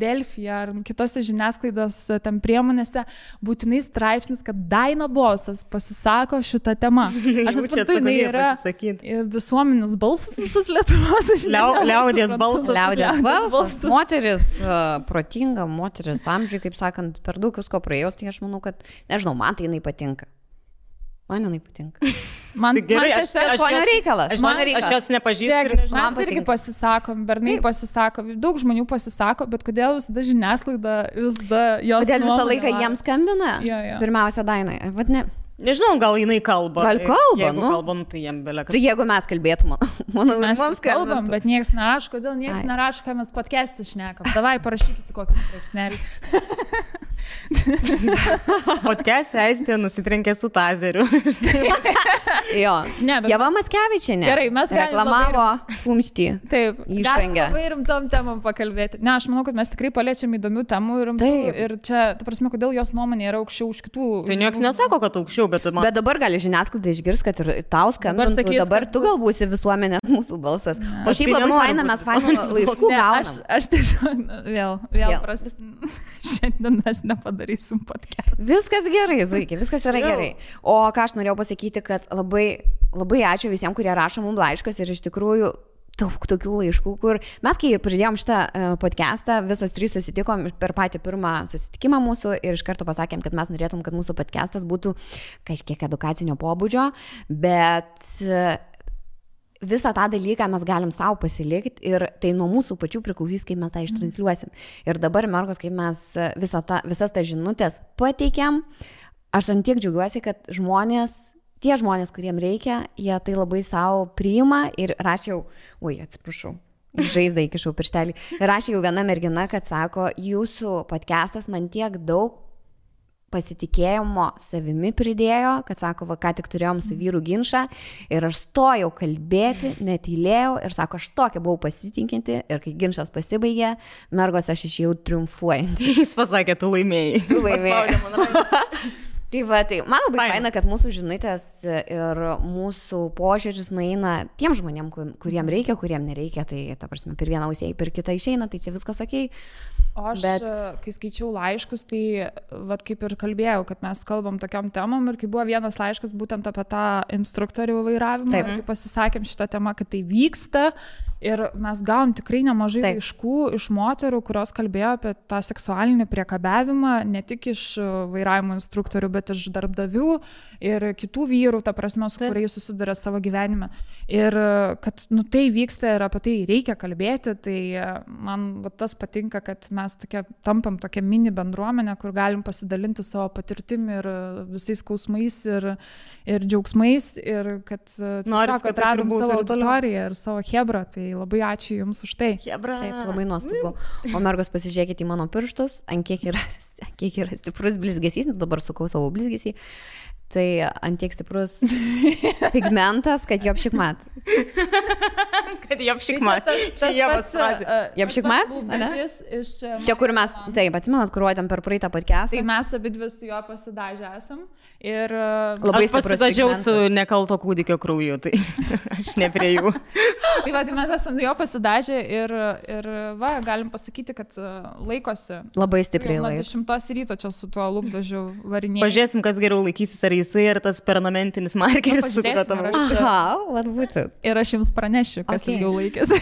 Delfyje ar kitose žiniasklaidos ten priemonėse būtinai straipsnis, kad Daina Bosas pasisako šitą temą. Aš nesuprantu, jinai yra visuomenės balsas visas Lietuvos. Liaudies balsas. Liaudies balsas. Moteris protinga, moteris amžiui, kaip sakant, per daug visko praėjus, tai aš manau, kad, nežinau, man tai jinai patinka. Man jinai patinka. Man tiesiog skonio reikalas. Aš jos nepažįstu. Mes irgi pasisakom, bernai pasisako, daug žmonių pasisako, bet kodėl visada žiniasklaida visada jos... Kodėl visą laiką jiems skambina? Pirmiausia, Dainai. Nežinau, gal jinai kalba. Gal kalba, jeigu kalba, tai jiem beleka. Tai jeigu mes kalbėtume, manau, mes kalbam, bet niekas nerašo, kodėl niekas nerašo, ką mes podcast'e šnekam. Davai, parašykite kokį straipsnelį. Podcast'e Aistė nusitrenkė su tazeriu. Jo. Ne, bet Ieva Mackevičienė. Gerai, mes galim reklamavo kumštį. Taip, Išrangę. labai rimtom temom pakalbėti. Ne, aš manau, kad mes tikrai paliečiam įdomių temų ir rimtų. Taip. Ir čia, ta prasme, kodėl jos nuomonė yra aukščiau už kitų. Tai nieks nesako, kad aukščiau, bet man... Bet dabar gali žiniasklaida išgirs, kad ir tau skambintų, sakys, dabar kad tu gal būsi visuomenės mūsų balsas. O Aš šiaip tai labai nenoriu faina, būt mes fainų visuomenės laiškų Ne, gaunam. aš tiesiog vėl Vėl. šiandien mes nepadarysim podcast. Viskas gerai, Zuikė, viskas yra Jau. gerai. O ką aš norėjau pasakyti, kad labai, labai ačiū visiems, kurie rašo mums laiškus ir iš tikrųjų daug tokių laiškų, kur mes, kai pradėjom šitą podcastą, visos trys susitikom per patį pirmą susitikimą mūsų ir iš karto pasakėm, kad mes norėtum, kad mūsų podcastas būtų kažkiek edukacinio pobūdžio, bet visą tą dalyką mes galim savo pasilikti ir tai nuo mūsų pačių priklausys, kaip mes tą ištransliuosim. Ir dabar, mergos, kaip mes visas tas žinutės pateikėm, aš ant tiek džiaugiuosi, kad tie žmonės, kuriem reikia, jie tai labai savo priima ir rašiau, atsiprašau, žaizdą įkišau pirštelį, rašė jau viena mergina, kad sako, jūsų podcastas man tiek daug pasitikėjimo savimi pridėjo, kad sako, va, ką tik turėjom su vyru ginčą ir aš stojau kalbėti, netylėjau ir sako, aš tokia buvau pasitikinti ir kai ginčas pasibaigė, mergos aš išėjau triumfuojantį. Jis pasakė, tu laimėjai. Tu laimėjai. Paspaudė man ranką. Tai va, tai man labai faina, kad mūsų žinutės ir mūsų požiūris nueina tiem žmonėm, kuriem reikia, kuriem nereikia, tai ta prasme, per vieną ausį, per kitą išeina, tai čia viskas okei. O aš, kai skaičiau laiškus, tai vat, kaip ir kalbėjau, kad mes kalbam tokiam temom ir kai buvo vienas laiškas būtent apie tą instruktorių vairavimą, ir kai pasisakėm šitą temą, kad tai vyksta ir mes gavom tikrai nemažai laiškų iš moterų, kurios kalbėjo apie tą seksualinį priekabiavimą, ne tik iš vairavimo instruktorių, bet iš darbdavių ir kitų vyrų, ta prasme, su kuriais susiduria savo gyvenime. Ir kad tai vyksta ir apie tai reikia kalbėti, tai man tas patinka, kad mes tampam tokia mini bendruomenė, kur galim pasidalinti savo patirtim ir visais skausmais ir džiaugsmais ir kad tiesiog atradom savo auditoriją ir savo hebrą. Tai labai ačiū Jums už tai. Hebra. Taip, labai nuostabu. O mergos, pasižiūrėkite į mano pirštus, ant kiek yra stiprus blizgesys, dabar sukau savo blizgesį. Tai ant tiek stiprus pigmentas, kad jo apšikmat. Kad jo apšikmat. Jo apšikmat? Čia kur mes, taip, atsimenat, kur rodėm per praeitą podcastą. Tai mes abi dvi su juo pasidažę esam. Ir labai aš pasidažiau su nekalto kūdikio krauju, tai aš ne prie jų. Tai va, tai mes esam jo pasidažę ir va, galim pasakyti, kad laikosi. Labai stipriai laikosi. 10 ryto čia su tuo lūpdažiu varinėjimu. Pažiūrėsim, kas geriau laikysis, ar jisai, ar tas permanentinis markeris, su kuriuo tavo. Aha, vad būtent. Ir aš Jums pranešiu, kas ilgiau laikėsi.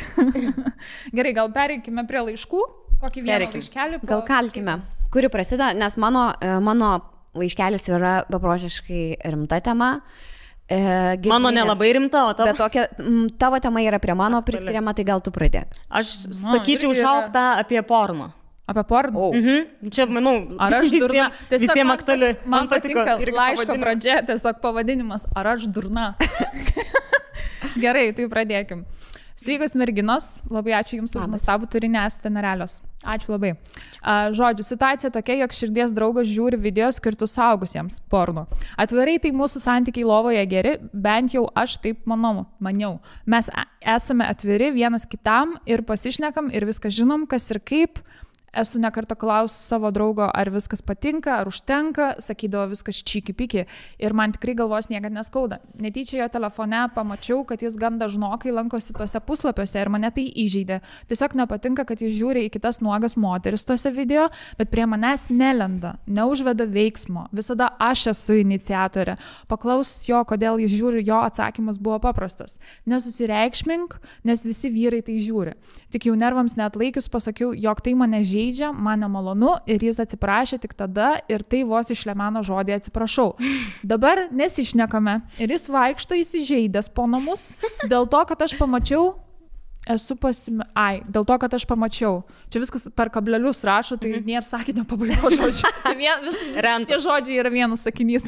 Gerai, gal pereikime prie laiškų. Kokį vieną laiškelį? Gal kalkime. Kuri prasideda, nes mano laiškelis yra beprotiškai rimta tema. Mano nelabai rimta, o tavo? Bet tokia, tavo tema yra prie mano priskiriama, tai gal tu pradėk. Aš sakyčiau šauktą apie porno. Apie porno? Čia, manau, ar aš durna? Visiems aktuali. Man patinka laiško pradžia, tiesiog pavadinimas, ar aš durna? Gerai, tai pradėkim. Sveikos merginos, labai ačiū Jums už nuostabų turinį, esate nerealios. Ačiū labai. Žodžiu, situacija tokia, jog širdies draugas žiūri video skirtus suaugusiems porno. Atvirai tai mūsų santykiai lovoje geri, bent jau aš taip maniau. Mes esame atviri vienas kitam ir pasišnekam ir viską žinom, kas ir kaip. Esu nekartą klausus savo draugo, ar viskas patinka, ar užtenka, sakydavo viskas čiki-piki ir man tikrai galvos niekad neskauda. Netyčia jo telefone pamačiau, kad jis gan dažnokai lankosi tose puslapiuose ir mane tai įžeidė. Tiesiog nepatinka, kad jis žiūri į kitas nuogas moteris tose video, bet prie manęs nelenda, neužveda veiksmo. Visada aš esu iniciatorė. Paklausus jo, kodėl jis žiūri, jo atsakymas buvo paprastas. Nesusireikšmink, nes visi vyrai tai žiūri. Tik jau nervams neatlaikius pasakiau, jog tai mane žeidžia, man nemalonu ir jis atsiprašė tik tada ir tai vos išlemeno žodį atsiprašau. Dabar nesišnekame ir jis vaikšto įsižeidęs po namus dėl to, kad aš pamačiau, dėl to, kad aš pamačiau. Čia viskas per kablelius rašo, tai nėra sakinio pabaigos žodžių. Visi tie žodžiai yra vienas sakinys,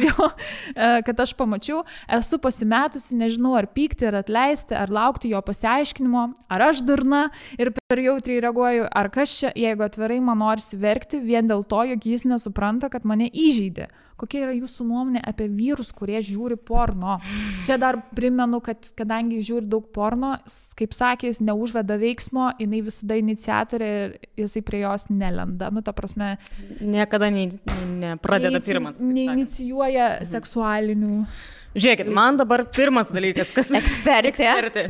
kad aš pamačiau, esu pasimetusi, nežinau ar pykti, ar atleisti, ar laukti jo pasiaiškinimo, ar aš durna ir Per jautriai reaguoju, ar kas čia, jeigu atvirai man norisi verkti vien dėl to, jog jis nesupranta, kad mane įžeidė. Kokia yra jūsų nuomonė apie vyrus, kurie žiūri porno? Čia dar primenu, kad kadangi žiūri daug porno, kaip sakė, jis neužveda veiksmo, jinai visada iniciatorė ir jisai prie jos nelenda. Nu, ta prasme... Niekada nepradeda pirmas. Neinicijuoja seksualinių... Žiūrėkit, man dabar pirmas dalykas, kas... Ekspertė.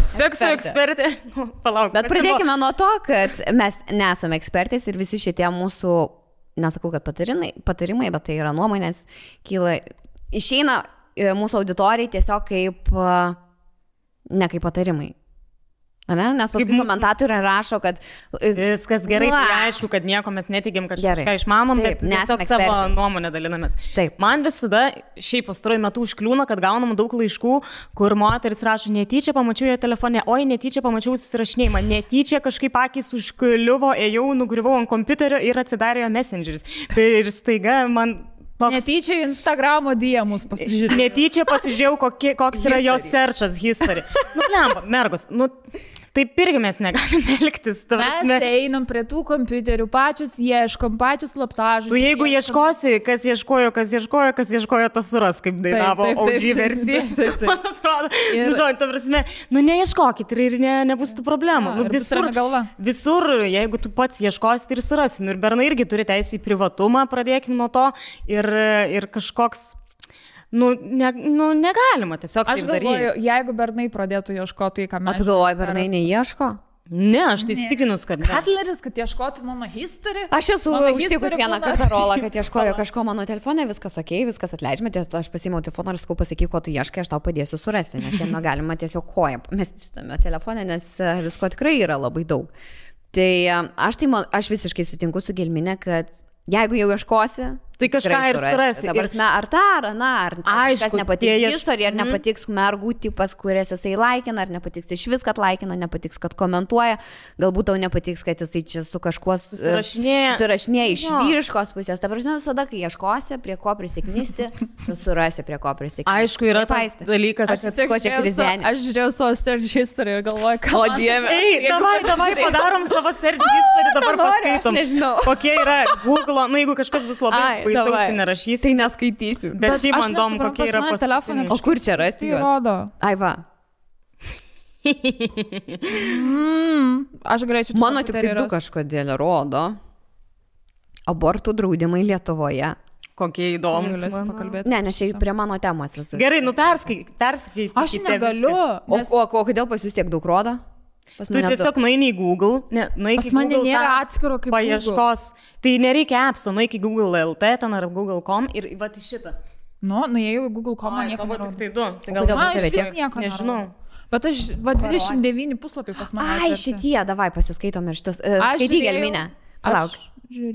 Sekso ekspertė. Palauk. Bet pradėkime nuo to, kad mes nesame ekspertės ir visi šitie mūsų, nesakau, kad patarimai, bet tai yra nuomonės, išeina mūsų auditorijai tiesiog kaip, ne kaip patarimai. Ne? Nes paskui komentatoriai rašo, kad... Viskas gerai, tai aišku, kad nieko mes netigim, kad kažką išmanom, bet tiesiog savo nuomonę dalinamės. Taip. Man visada šiaip pastaruoju metu užkliūna, kad gaunam daug laiškų, kur moteris rašo, netyčia pamačiau jo telefone, oi, netyčia pamačiau susirašinėjimą, netyčia kažkaip akis užkliuvo, ėjau, nugriuvau ant kompiuterio ir atsidarė jo messengeris. Ir staiga man... Netyčia Instagramo DM'us pasižiūrėjau. Netyčia pasižiūrėjau, koks yra jo searchas history. Lemba, mergos, taip irgi mes negalime elgtis. Mes einam prie tų kompiuterių, pačius ieškom, pačius slaptažodžius. Tu jeigu ieškosi, kas ieškojo, tas suras, kaip dainavo OG versija. Man atrodo, ta prasme, neieškokit ir nebus tų problemų. Visur, jeigu tu pats ieškosi, tai ir surasi. Ir bernai irgi turi teisę į privatumą, pradėkim nuo to. Ir kažkoks... negalima tiesiog taip daryti. Aš galvoju, jeigu bernai pradėtų ieškoti, ką mes... O tu galvoji, bernai neieško? Ne, aš tai įstikinus, kad... Katleris, kad ieškotų mano history. Aš esu užtikus vieną kartą rolą, kad ieškojo kažko mano telefone, viskas okei, viskas atleidžiame, aš pasiėmiau telefoną ir sakau, pasakyk, ko tu ieškai, aš tau padėsiu surasti, nes jame galima tiesiog koją mesti šitame telefone, nes visko tikrai yra labai daug. Tai aš visiškai sutinku su Gelmine, kad jeigu jau ieškosi, tai kažką ir surasi. Ta prasme, ar tą, ar aną, ar kažkas nepatiks istorija, ar nepatiks mergų tipas, kurias jisai laikina, ar nepatiks iš vis, kad laikina, nepatiks, kad komentuoja, galbūt tau nepatiks, kad jisai čia su kažkuo susirašinėja iš vyriškos pusės. Ta prasme, visada, kai ieškosi, prie ko prisiknisti, tu surasi, prie ko prisiknisti. Aišku, yra tas dalykas, aš žiūrėjau savo search history ir galvoju, ką... O Dieve. Davai padarom savo search history, dabar paskaitom. Nežinau. Kokie yra Google, jeigu kažkas bus labai baisaus, tai nerašysi. Tai neskaitysiu. Bet šiaip man įdomu, kokie yra paskutiniai. O kur čia rasti juos? Rodo. Ai va. Aš galėčiau... Mano tik tai 2 kažkodėl rodo. Abortų draudimai Lietuvoje. Kokie įdomus. Ne, nes čia prie mano temos visas. Gerai, perskaitai. Aš negaliu. O kodėl pas jūs tiek daug rodo? Tu tiesiog nueini į Google, pas mane nėra atskiro kaip paieškos. Tai nereikia appso, nueik į Google.lt ten ar Google.com ir va į šitą. Nuėjau į Google.com, man nieko nerodo. Tai du. Tai gal man iš vis nieko nežinau. Bet aš, 29 puslapiai pas mane. Ai, šitie, davai pasiskaitom ir šitus. Skaityk, Gelmine. Palauk.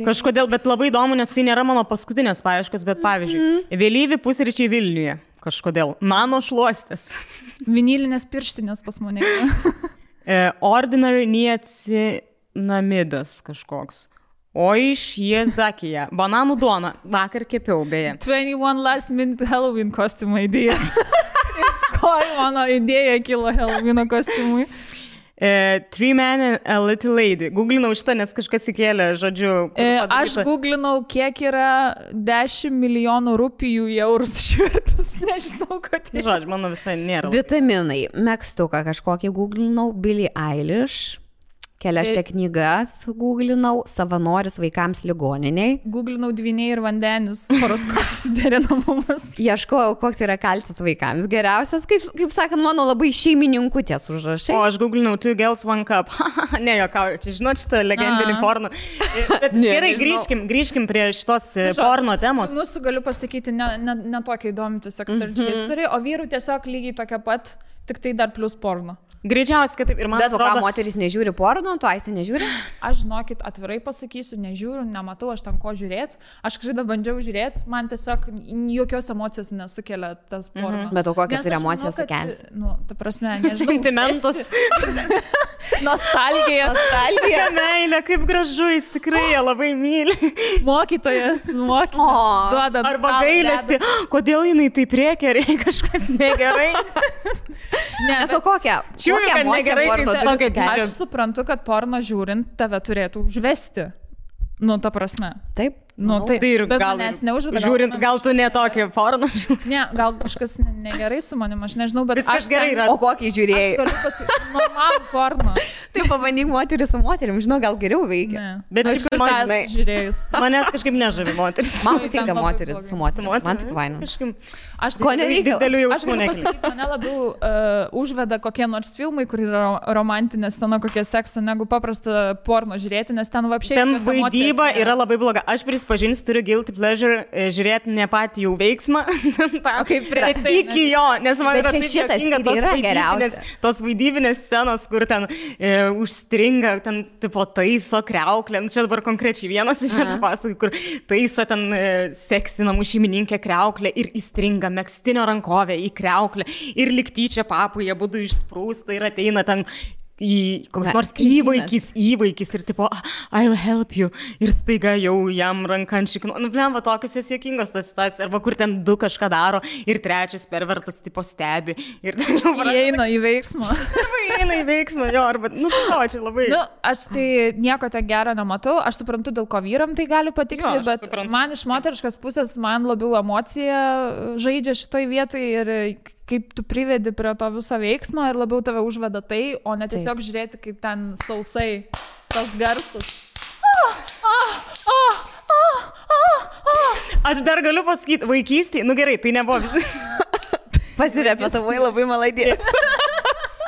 Kažkodėl, bet labai įdomu, nes tai nėra mano paskutinės paieškos, bet pavyzdžiui, vėlyvi pusryčiai Vilniuje. Kažkodėl. Nano šluostės. Vinilinės pirštinės pas mane. Ordinary niacinamidas kažkoks. O iš Jezakija. Bananų duona. Vakar kepiau, beje. 21 last minute Halloween kostiumo idėjas. Ko mano idėja kilo Halloweeno kostiumui? 3 men and a little lady. Googlinau šitą, nes kažkas įkėlė, žodžiu. Aš googlinau, kiek yra 10 milijonų rupijų į eurus išvertus. Nežinau, kad tai. Žodžiu, mano visai nėra. Vitaminai. Megztuką kažkokį googlinau. Billie Eilish. Kelias čia knygas googlinau. Savanoris vaikams ligoniniai. Googlinau dvyniai ir vandenis. Horoskopas suderinamumas. Ieškojau, koks yra kalcis vaikams. Geriausias, kaip sakant, mano labai šeimininkutės užrašai. O aš googlinau 2 girls 1 cup. Ne, jokauju, čia žinot šitą legendinį porno. Bet gerai, grįžkim prie šitos porno temos. Mūsų galiu pasakyti, ne tokia įdomi tiesiog search history, o vyrų tiesiog lygiai tokia pat, tik tai dar plus porno. Greičiausiai, kad taip ir man atrodo. Bet ką, moteris nežiūri porno, tu Aistė nežiūri? Aš, žinokit, atvirai pasakysiu, nežiūriu, nematau, aš ten ko žiūrėti. Aš kažkaip bandžiau žiūrėti, man tiesiog jokios emocijos nesukelia tas porno. Bet o kokią turi emociją sukelti? Ta prasme, nežinau. Sentimentus. Nostalgija. Meilė. Dievulė, kaip gražu, jis tikrai ją labai myli. Mokytojas, duoda. Arba gailesti, kodėl jinai taip rėkia, ar jai kažkas negerai. Nesu kokia negerai, Aš suprantu, kad porno žiūrint tave turėtų užvesti. Nu, ta prasme. Taip. Nu, tai ir bet gal, manęs neužveda. Žiūrint, gal tu netokį porno žiūri. Ne, gal kažkas negerai su manim, aš nežinau, bet aš gerai yra. O kokį žiūrėjai? Aš galiu pasakyti, normalų porno. Tai pabandyk moterį su moterim, žinau, gal geriau veikia. Ne. Bet aš kažkas žiūrėjus. Manęs kažkaip nežavi moteris. Man patinka moteris su moterim. Man tik vaina. Aš ko nereikia. Didelių Aš jausmų galiu nekelia. pasakyti, mane labiau užveda kokie nors filmai, kur yra romantinė scena, kokie seksą, negu paprasta porno žiūrėti, nes ten vapšiai... Ten vaidyba yra labai bloga. Aš prisipažinsiu, turiu guilty pleasure žiūrėti ne patį jau veiksmą. kaip prieš tai. Iki jo, nes man yra taip juokinga tos vaidybinės scenos, kur ten užstringa, ten tipo taiso kreuklę. Čia dabar konkrečiai vienas iš šiandien pasakai, kur taiso ten seksinamų šeimininkė kreuklę ir įstringa megztinio rankovę į kreuklę ir liktyčia papų jie būtų išsprūsta ir ateina ten į koks nors įvaikis ir tipo, I'll help you ir staiga jau jam ranką ant šikno. Nu, blemba, tokios jas juokingos tas situacijos, arba kur ten du kažką daro ir trečias pervertas tipo stebi ir ten jau įeina į veiksmą. Įeina į veiksmą, jo, arba, nu, čia labai. Nu, aš tai nieko ten gero nematau, aš suprantu, dėl ko vyram tai gali patikti, bet man iš moteriškos pusės man labiau emocija žaidžia šitoj vietoj ir kaip tu privedi prie to viso veiksmo ir labiau tave užveda tai, o ne tiesiog žiūrėti, kaip ten sausai tas garsas. Aš dar galiu pasakyti, vaikystėje, nu gerai, tai nebuvo visi. Pasirepetavai labai malaidė.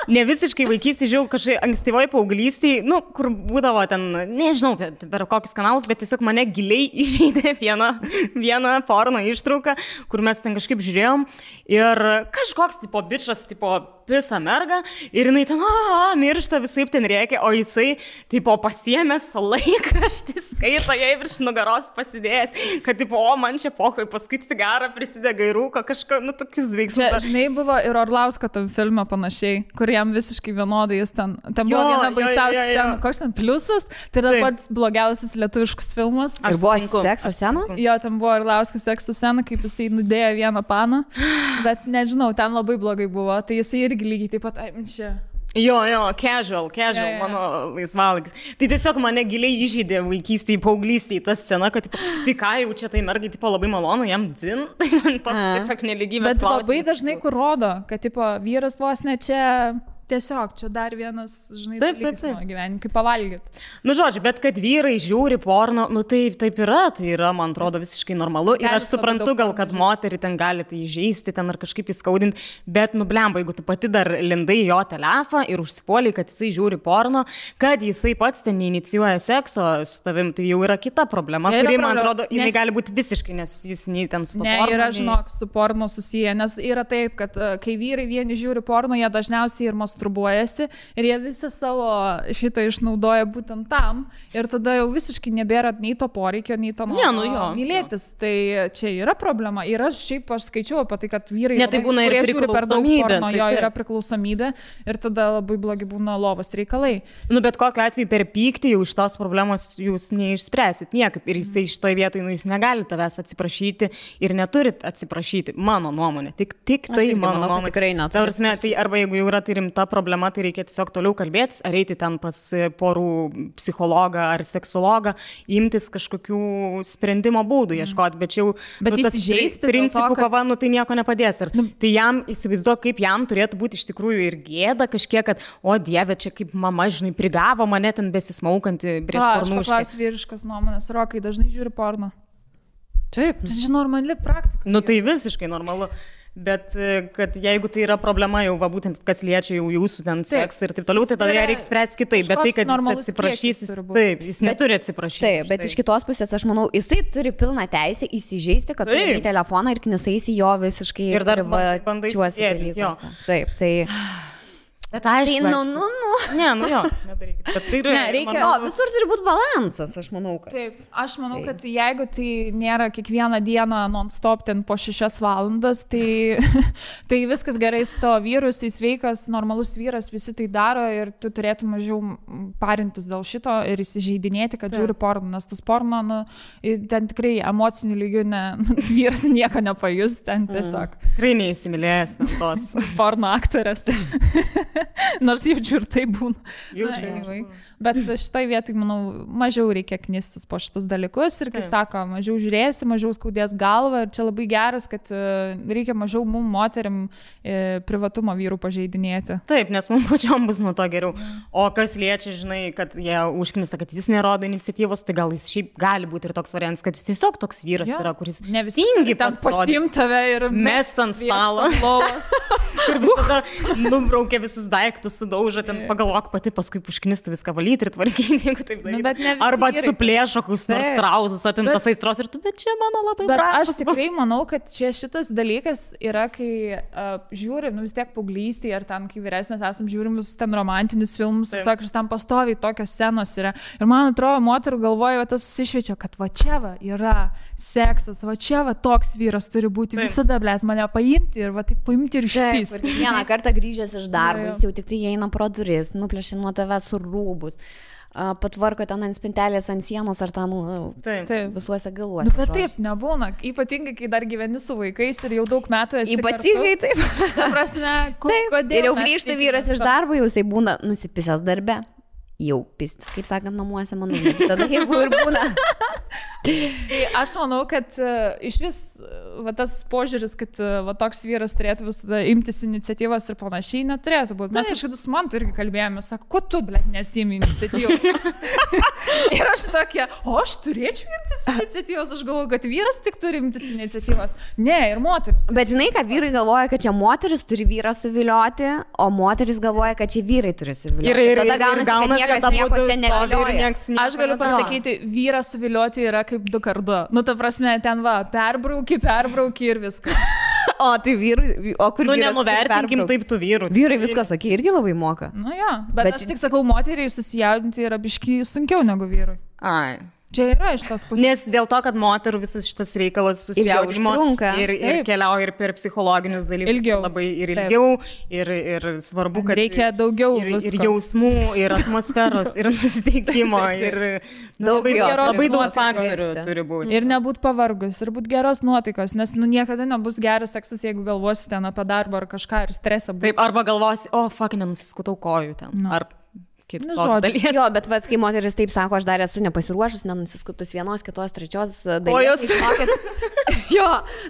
Ne visiškai vaikystėje, žiūrėjau, kažkaip ankstyvoje paauglystėje, nu, kur būdavo ten, nežinau, per kokius kanalus, bet tiesiog mane giliai įžeidė viena porno ištrauka, kur mes ten kažkaip žiūrėjom ir kažkoks tipo bičas, tipo pisa merga ir jinai ten, miršta, visaip ten rėkia, o jisai, tipo, pasiėmęs laikraštį, skaito jai virš nugaros pasidėjęs, kad, tipo, man čia pohoj, paskui cigarą prisidega į rūką, kažką, nu, tokius veiksmus. Čia, žinai, buvo ir Orlausko tam filme panašiai, kur jam visiškai vienodai jis ten buvo viena baisiausia scena, koks ten pliusas, tai yra pats blogiausias lietuviškas filmas. Ir buvo sekso scenos? Jo, ten buvo Orlausko sekso scena, kaip jisai nudėjo vieną paną, bet nežinau, ten labai blogai buvo, tai jisai irgi lygiai taip pat, čia. Jo, casual, mano laisvalaikis. Tai tiesiog mane giliai įžeidė vaikystėje, paauglystėje ta scena, kad tai ką jau čia tai mergai, tipo, labai malonu, jam dzin, tai man toks tiesiog nelygybės bet klausimas. Bet labai dažnai kur rodo, kad, tipo, vyras vos ne čia... Tiesiog, čia dar vienas, žinai, dalykas mano gyvenime, kaip pavalgyti. Nu, žodžiu, bet kad vyrai žiūri porno, nu taip yra, tai yra, man atrodo, visiškai normalu. Ir aš suprantu gal, kad moterį ten gali tai įžeisti, ten ar kažkaip įskaudinti, bet, nu, blemba, jeigu tu pati dar lindai jo telefą ir užsipuoliai, kad jisai žiūri porno, kad jisai pats ten neinicijuoja sekso su tavim, tai jau yra kita problema, kuri, man atrodo, jinai gali būti visiškai nesusijusi nei ten su porno. Ne, yra, žinok, su porno susiję, nes yra taip, kad kai vyrai vieni žiūri porno, jie dažniausiai ir masturbuojasi ir jie visą savo šitą išnaudoja būtent tam ir tada jau visiškai nebėra nei to poreikio, nei to noro mylėtis. Tai čia yra problema. Ir aš skaičiau apie tai, kad vyrai, tai būna ir kurie žiūri per daug porno, tai yra priklausomybė ir tada labai blogi būna lovos reikalai. Nu, bet kokiu atveju per pyktį jau iš tos problemos jūs neišspręsit niekaip. Ir jisai šitoj vietoj, nu, jis negali tavęs atsiprašyti ir neturit atsiprašyti. Mano nuomonė. Tik tai mano nuomonė. Tikrai neturi. Tai arba jeigu jau yra tai rimta problema, tai reikia tiesiog toliau kalbėtis, ar eiti ten pas porų psichologą ar seksologą, imtis kažkokių sprendimo būdų ieškoti, bet jau tas principų kova, nu, tai nieko nepadės. Ir tai jam, įsivaizduok, kaip jam turėtų būti iš tikrųjų ir gėda kažkiek, kad, o Dieve, čia kaip mama, žinai, prigavo mane ten besismaukantį prieš pornų. Aš paklausiu vyriškas nuomonės, Rokai dažnai žiūri porno. Taip. Tai čia normali praktika. Nu, tai visiškai normalu. Bet kad jeigu tai yra problema jau, va, būtent kas liečia jau jūsų ten seksą ir taip toliau, tai tada ją reikia spręsti kitaip. Bet tai, kad jis atsiprašys, jis neturi atsiprašyti. Taip, bet iš kitos pusės, aš manau, jisai turi pilną teisę įsižeisti, kad turi į telefoną ir knisaisi jo visiškai ir dar bandai sėdėti. Taip, tai... Bet aišku. Tai, Ne, jo, nedarykit. Bet tai yra, reikia- visur turi būti balansas, aš manau, kad. Taip, aš manau, kad jeigu tai nėra kiekvieną dieną non-stop ten po 6 valandas, tai, tai viskas gerai su tavo vyrus, tai sveikas, normalus vyras, visi tai daro ir tu turėtum mažiau parintis dėl šito ir įsižeidinėti, kad žiūri porno, nes tas porno, ten tikrai emocinių lygių vyras nieko nepajus, ten tiesiog. Tikrai neįsimylėjęs tos porno aktorės. Nors jaučiu ir tai būna. Anyway. Bet šitoj vietoj, manau, mažiau reikia knistis po šitus dalykus ir, kaip sako, mažiau žiūrėsi, mažiau skaudės galvą ir čia labai geras, kad reikia mažiau mum moterim privatumo vyrų pažeidinėti. Taip, nes mums pačiom bus nuo to geriau. O kas liečia, žinai, kad jie užknisa, kad jis nerodo iniciatyvos, tai gal jis šiaip gali būti ir toks variantas, kad jis tiesiog toks vyras yra, kuris ne visi ten pasiim tave ir mest ant stalo. Ir visada nubraukia visus daiktus, sudaužo, ten pagalvok pati, paskui užknistų viską valyti ir tvarkyti, jeigu taip daryti. Arba suplėšo kokius nors trauzus, apimtas aistros ir tu, bet čia mano labai brangus. Aš tikrai manau, kad čia šitas dalykas yra, kai žiūri, vis tiek paauglystėje ar ten, kai vyresnės esam, žiūrim visus ten romantinius filmus, visokius, ir ten pastoviai tokios scenos yra. Ir man atrodo, moterų galvoja, tas susišviečia, kad va čia va yra seksas, va čia va toks vyras turi būti, visada, blėt, mane paimti ir va taip paimti ir išpys. Vieną kartą grįžęs iš darbo, jis jau tik tai eina pro duris, nuplėšia nuo tavęs su rūbus, patvarko ten ant spintelės, ant sienos ar ten visuose galuose. Bet taip nebūna, ypatingai, kai dar gyveni su vaikais ir jau daug metų esi ypatingai kartu. Taip. Ta prasme, kodėl? Ir jau grįžta vyras iš darbo, jau jisai būna nusipisęs darbe. Jau pistis, kaip sakant, namuose, manau, tada jeigu ir būna. Tai aš manau, kad iš vis va, tas požiūris, kad va, toks vyras turėtų visada imtis iniciatyvos ir panašiai, neturėtų būti. Mes kažkada su Mantu irgi kalbėjome, sako, ko tu, blėt, nesimi iniciatyvos? Ir aš tokia, o aš turėčiau imtis iniciatyvos, aš galvoju, kad vyras tik turi imtis iniciatyvos. Ne, ir moteris. Bet žinai, kad vyrai galvoja, kad čia moteris turi vyrą suvilioti, o moteris galvoja, kad čia vyrai turi suvilioti. Tada gaunasi, kad nieko čia negalioja. Aš galiu pasakyti, vyrą suvilioti yra kaip 2x2. Nu, ta prasme, ten va, perbrauki ir viskas. O tai vyrai, o kur vyras? Nenuvertinkim taip tų vyrų. Vyrai viskas, sakė, irgi labai moka. Nu jo, bet aš tik sakau, moteriai susijaudinti yra biški sunkiau negu vyrui. Ai. Čia yra iš tos pusės. Nes dėl to, kad moterų visas šitas reikalas susijaudimo ir keliauja ir per psichologinius dalykus labai ir ilgiau, ir svarbu, kad reikia daugiau ir jausmų, ir atmosferos, ir nusiteikimo, ir labai daug faktorių turi būti. Ir nebūt pavargus, ir būt geros nuotaikos, nes niekada nebus geras seksas, jeigu galvosi ten apie darbą ar kažką ir stresą bus. Taip, arba galvosi, o, fuck, nenusiskutau kojų ten. Ar kitos dalies. Jo, bet vat, kai moteris taip sako, aš dar esu nepasiruošus, nenusiskutus vienos, kitos, trečios dalies. Jo,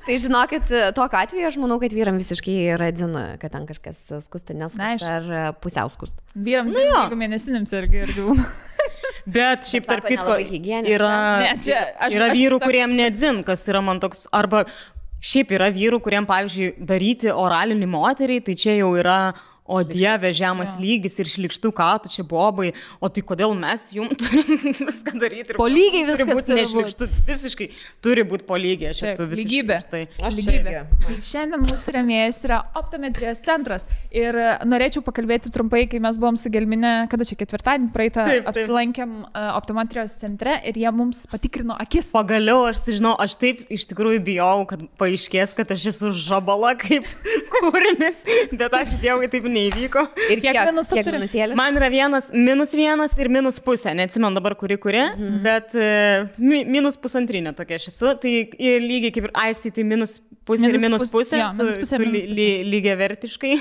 tai žinokit, tokiu atveju aš manau, kad vyram visiškai radzina, kad ten kažkas skusta, neskusta ar pusiau skusta. Vyram, jeigu mėnesinėms irgi būna. Bet šiaip tarp kitko yra vyrų, kuriem nedzin, kas yra man toks, arba šiaip yra vyrų, kuriem, pavyzdžiui, daryti oralinį moteriai, tai čia jau yra o dieve, žemas lygis ir šlikštų, ką tu čia bobai, o tai kodėl mes jums turim viską daryti? Po lygiai viskas turi būti. Visiškai turi būti po lygiai, aš esu visiškai. Lygybė. Šiandien mūsų rėmėjas yra optometrijos centras ir norėčiau pakalbėti trumpai, kai mes buvom su Gelmine, kada čia ketvirtadienį praeitą apsilankėm optometrijos centre ir jie mums patikrino akis. Pagaliau aš sužinau, aš taip iš tikrųjų bijau, kad paaiškės, kad aš esu žabala kaip kūrinis, bet aš dievui taip neįvyko. Ir kiek minusėlis? Man yra -1 ir -0,5. Neatsimenu dabar kuri, bet -1,5 tokia aš esu. Tai lygiai kaip ir Aistai, tai -0,5 ir -0,5. Lygiai vertiškai.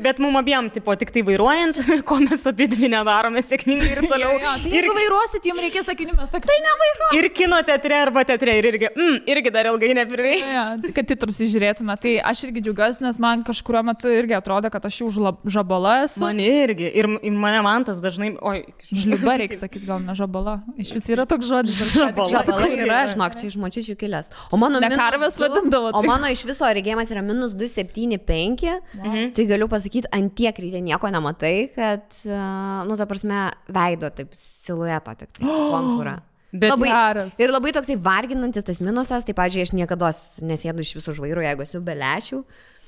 Bet mum abiem, tipo, tik tai vairuojant, ko mes apie dvi nedarome sėkmingai ir toliau. Tai jeigu vairuosit, jums reikės sakinių, mes tokia, tai nevairuoju. Ir kino teatre arba teatre irgi dar ilgai neprireiks. Kad titrus įžiūrėtume. Tai aš irgi džiaugiuosi, nes man kažkuriuo metu irgi atrodo, kad aš jau žabala esu. Man irgi. Ir mane Mantas dažnai... Žliuba reikia sakyti, gal ne žabala. Iš vis yra toks žodis. Žabala yra, žinok, čia iš močičių kilęs. O mano karvės vadindavo. O mano iš viso regėjimas yra -2,75. Tai galiu pasakyti, ant tiek ryte nieko nematai, kad, nu, ta prasme, veido taip siluetą, tik tai kontūrą. Bet geras. Ir labai toksai varginantis tas minusas, tai, pavyzdžiui, aš niekada nesėdu iš visų žvairų, jeigu esu be lęšių.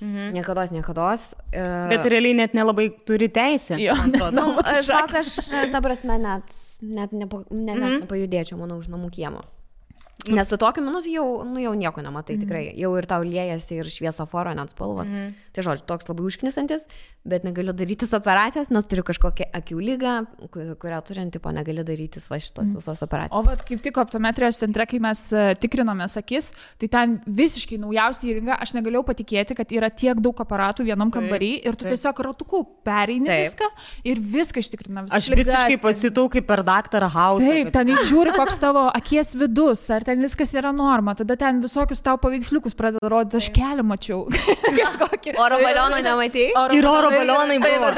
Niekados. Bet realiai net nelabai turi teisę. Jo, Žinok, aš, ta prasme, net nepajudėčiau, manau, už namų kiemo. Nes su tokiu minusu jau nieko nematai, tikrai. Jau ir tau liejasi ir šviesoforo net spalvos. Tai žodžiu, toks labai užknisantis, bet negaliu darytis operacijos, nes turiu kažkokią akių lygą, kurią turint, tipo, negali darytis va šitos visos operacijos. O vat kaip tik optometrijos centre, kai mes tikrinomės akis, tai ten visiškai naujausia įranga, aš negalėjau patikėti, kad yra tiek daug aparatų vienam kambarį ir tu tiesiog ratuku pereini viską ir viską ištikrina. Aš visiškai pasitau kaip per Dr. House. Taip, ten žiūri, koks tavo akies vidus, ar ten viskas yra norma, tada ten visokius tau paveiksliukus pradeda rodyti, aš kelią mačiau. Kažkokį. Oro balioną nematei? Ir oro balionai buvo.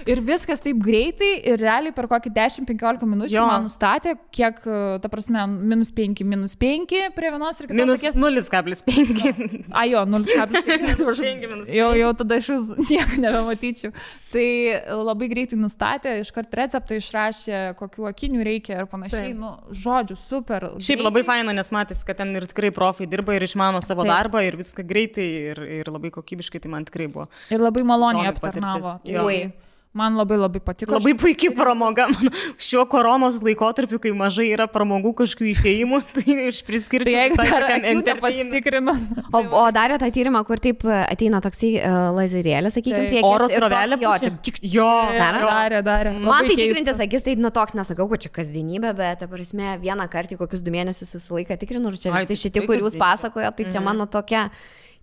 Ir viskas taip greitai ir realiai per kokį 10-15 minučių man nustatė, kiek, ta prasme, -5, -5 prie vienos ir kitos akies. -0,5. Jo, 0,5. Jau tada iš vis nieko nebematyčiau. Tai labai greitai nustatė, iškart receptą išrašė, kokių akinių reikia ir panašiai. Nu, žodžiu, super. Šiaip labai faina, nes matys, kad ten ir tikrai profai dirba ir išmano savo darbą ir viską greitai ir labai kokybiškai, tai man tikrai buvo. Ir labai maloniai aptarnavo. Man labai patiko. Labai puikiai pramoga. Šiuo koronos laikotarpiu, kai mažai yra pramogų kažkokių išėjimų, tai iš priskirti. Tai jeigu dar akių pasitikrinus. O darė tą tyrimą, kur taip ateina toksai lazerėlis, sakykime, priekis. Oro srovelė. Jo, darė. Man tai tikrintis akis, tai toks nesakau, kad čia kasdienybė, bet, ta prasme, vieną kartą kokius 2 mėnesius visą laiką tikrinu, ir čia visi šitie, kur jūs pasakojo, tai čia mano tokia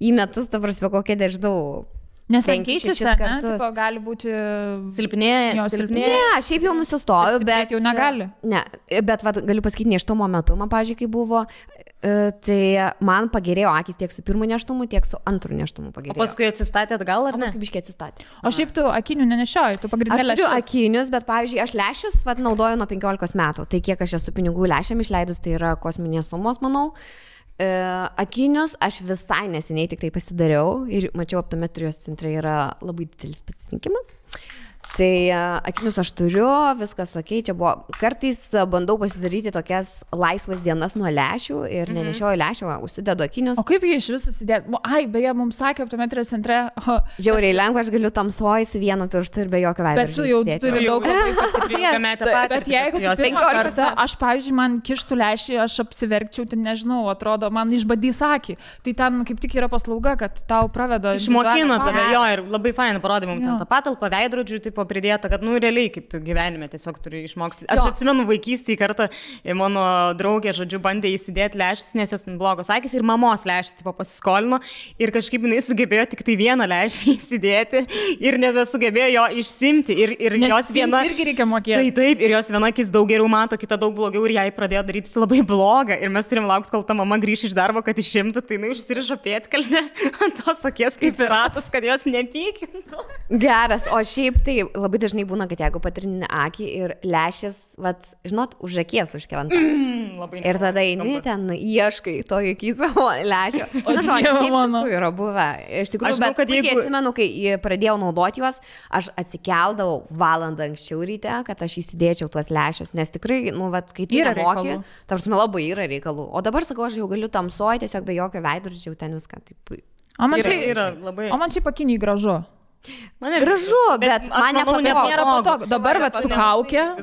į metus, ta prasme, kokia nežinau. Nes ten keičiasi, tipo, gali būti silpnėja. Ne, šiaip jau nusistoviu, bet jau negali. Ne, bet galiu pasakyti, nėštumo metu, man, pavyzdžiui, kai buvo, tai man pagerėjo akis tiek su pirmu nėštumu, tiek su antru nėštumu pagerėjo. O paskui atsistatė atgal, ar ne? Paskui biškiai atsistatė. O šiaip tu akinių nenešioji, tu pagrindinė lęšius. Aš turiu akinius, bet, pavyzdžiui, aš lęšius naudoju nuo 15 metų. Tai kiek aš esu pinigų lęšiam išleidus, tai yra kosminės sumos, manau. Akinius aš visai neseniai tik tai pasidariau ir mačiau, optometrijos centre yra labai didelis pasirinkimas. Tai akinius aš turiu, viskas okei, čia buvo, kartais bandau pasidaryti tokias laisvas dienas nuo lęšių ir nenešioju lęšių, užsidedu akinius. O kaip jie iš viso susidėti? Ai, beje, mums sakė optometrijos centre. Žiauriai lengva, aš galiu tamsoj su vienu pirštu ir be jokio veidrodžio. Bet tu jau turi daug patirties. Bet jeigu tu 15 aš, pavyzdžiui, man kištų lęšį, aš apsiverkčiau, tai nežinau, atrodo, man išbadys akį. Tai ten kaip tik yra paslauga, kad tau praveda. Išmokino tave, jo, ir labai fainai parodė mums ten tą patalpą, veidrodžių, taip pridėta, kad, realiai, kaip tu gyvenime tiesiog turi išmokti. Aš atsimenu vaikystėje kartą, mano draugė, žodžiu, bandė įsidėti lęšius, nes jos ten blogos akys ir mamos lęšius pasiskolino ir kažkaip jinai sugebėjo tik tai vieną lęšį įsidėti ir nebesugebėjo jo išsimti. Ir jos viena... irgi reikia mokėti. Taip, ir jos viena akis daug geriau mato, kita daug blogiau ir jai pradėjo daryti labai blogą. Ir mes turim laukti, kol ta mama grįš iš darbo, kad išimtų, tai jinai užsirišo pėdkelnę ant tos akies kaip piratas, kad jos nepykintų. Geras, o šiaip tai labai dažnai būna, kad jeigu patrini akį ir lęšis, žinot, už akies užkrenta. Ir tada eini ten, ieškai to akį savo lęšio. O žinau, yra buvę. Iš tikrųjų, bet kad atsimenu, kai pradėjau naudoti juos, aš atsikeldavau valandą anksčiau ryte, kad aš įsidėčiau tuos lęšius, nes tikrai, kai tu nemoki, tarsi labai yra reikalų. O dabar, sakau, aš jau galiu tamsoj, tiesiog be jokio veidrodžio, ten viską taip. O man čia pakiniai gražu. Gražu, bet man nėra patogu. Dabar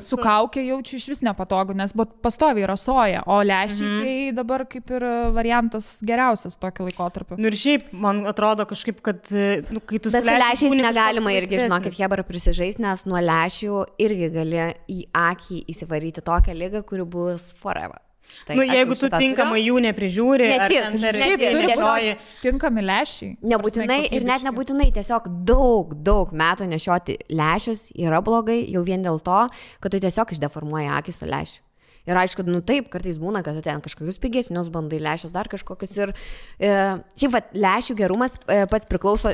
su kaukė jaučiu iš vis nepatogu, nes pastoviai rasoja, o lęšiai tai dabar kaip ir variantas geriausias tokio laikotarpio. Ir šiaip, man atrodo kažkaip, kad kai tu... Bet su lęšiais negalima irgi, žinokit, Hebra prisižais, nes nuo lęšių irgi gali į akį įsivaryti tokią ligą, kuri bus forever. Jeigu tu tinkamai jų neprižiūri, tinkami lęšiai. Nebūtinai ir net nebūtinai, tiesiog daug metų nešioti lęšius yra blogai jau vien dėl to, kad tu tiesiog išdeformuoji akį su lęšiu. Ir aišku, taip, kartais būna, kad tu ten kažkokius pigesnius bandai lęšius, dar kažkokius ir šiaip lęšių gerumas pats priklauso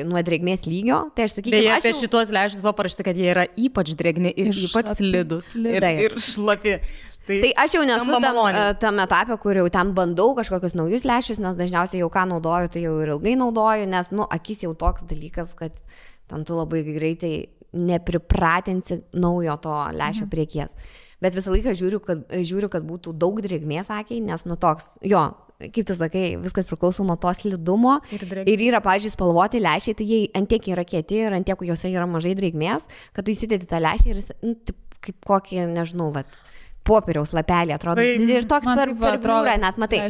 nuo drėgmės lygio. Tai aš sakyčiau, apie šitos lęšius buvo parašyta, kad jie yra ypač drėgni ir ypač slidus ir šlapi. Tai aš jau nesu tam etape, kur jau ten bandau kažkokius naujus lęšius, nes dažniausiai jau ką naudoju, tai jau ir ilgai naudoju, nes, akis jau toks dalykas, kad ten tu labai greitai nepripratinsi naujo to lęšio priekies. bet visą laiką žiūriu, kad būtų daug drėgmės akiai, nes nu toks, jo, kaip tu sakai, viskas priklauso nuo to slidumo ir yra, pavyzdžiui, spalvoti lęšiai, tai jie antiek yra kieti ir antiek juose yra mažai drėgmės, kad tu įsidedi tą lęšį ir jis, nu, kaip kokį, nežinau, popieriaus lapelį atrodo. Ir toks per bliūrą net, matai.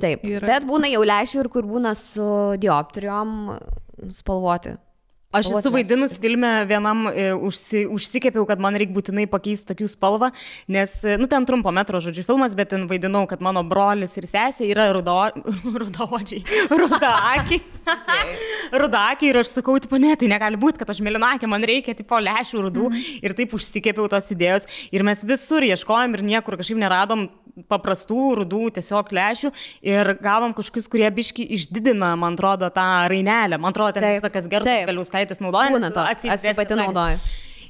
Taip, bet būna jau lęšių ir kur būna su dioptrijom spalvoti. Aš esu vaidinus filme vienam, užsikepiau, kad man reikia būtinai pakeisti akių spalvą, nes, nu, ten trumpo metro, žodžiu, filmas, bet ten vaidinau, kad mano brolis ir sesė yra rudaodžiai, rudakiai ir aš sakau, tipo, ne, tai negali būti, kad aš mėlynakė, man reikia, tipo, lęšių rudų ir taip užsikepiau tos idėjos ir mes visur ieškojom ir niekur kažkaip neradom paprastų rudų tiesiog lęšių ir gavom kažkokius, kurie biški išdidina, man atrodo, tą rainelę, man atrodo, ten visokias Gertos Galiauskaitės naudoja. Būna to, aš pati naudoju.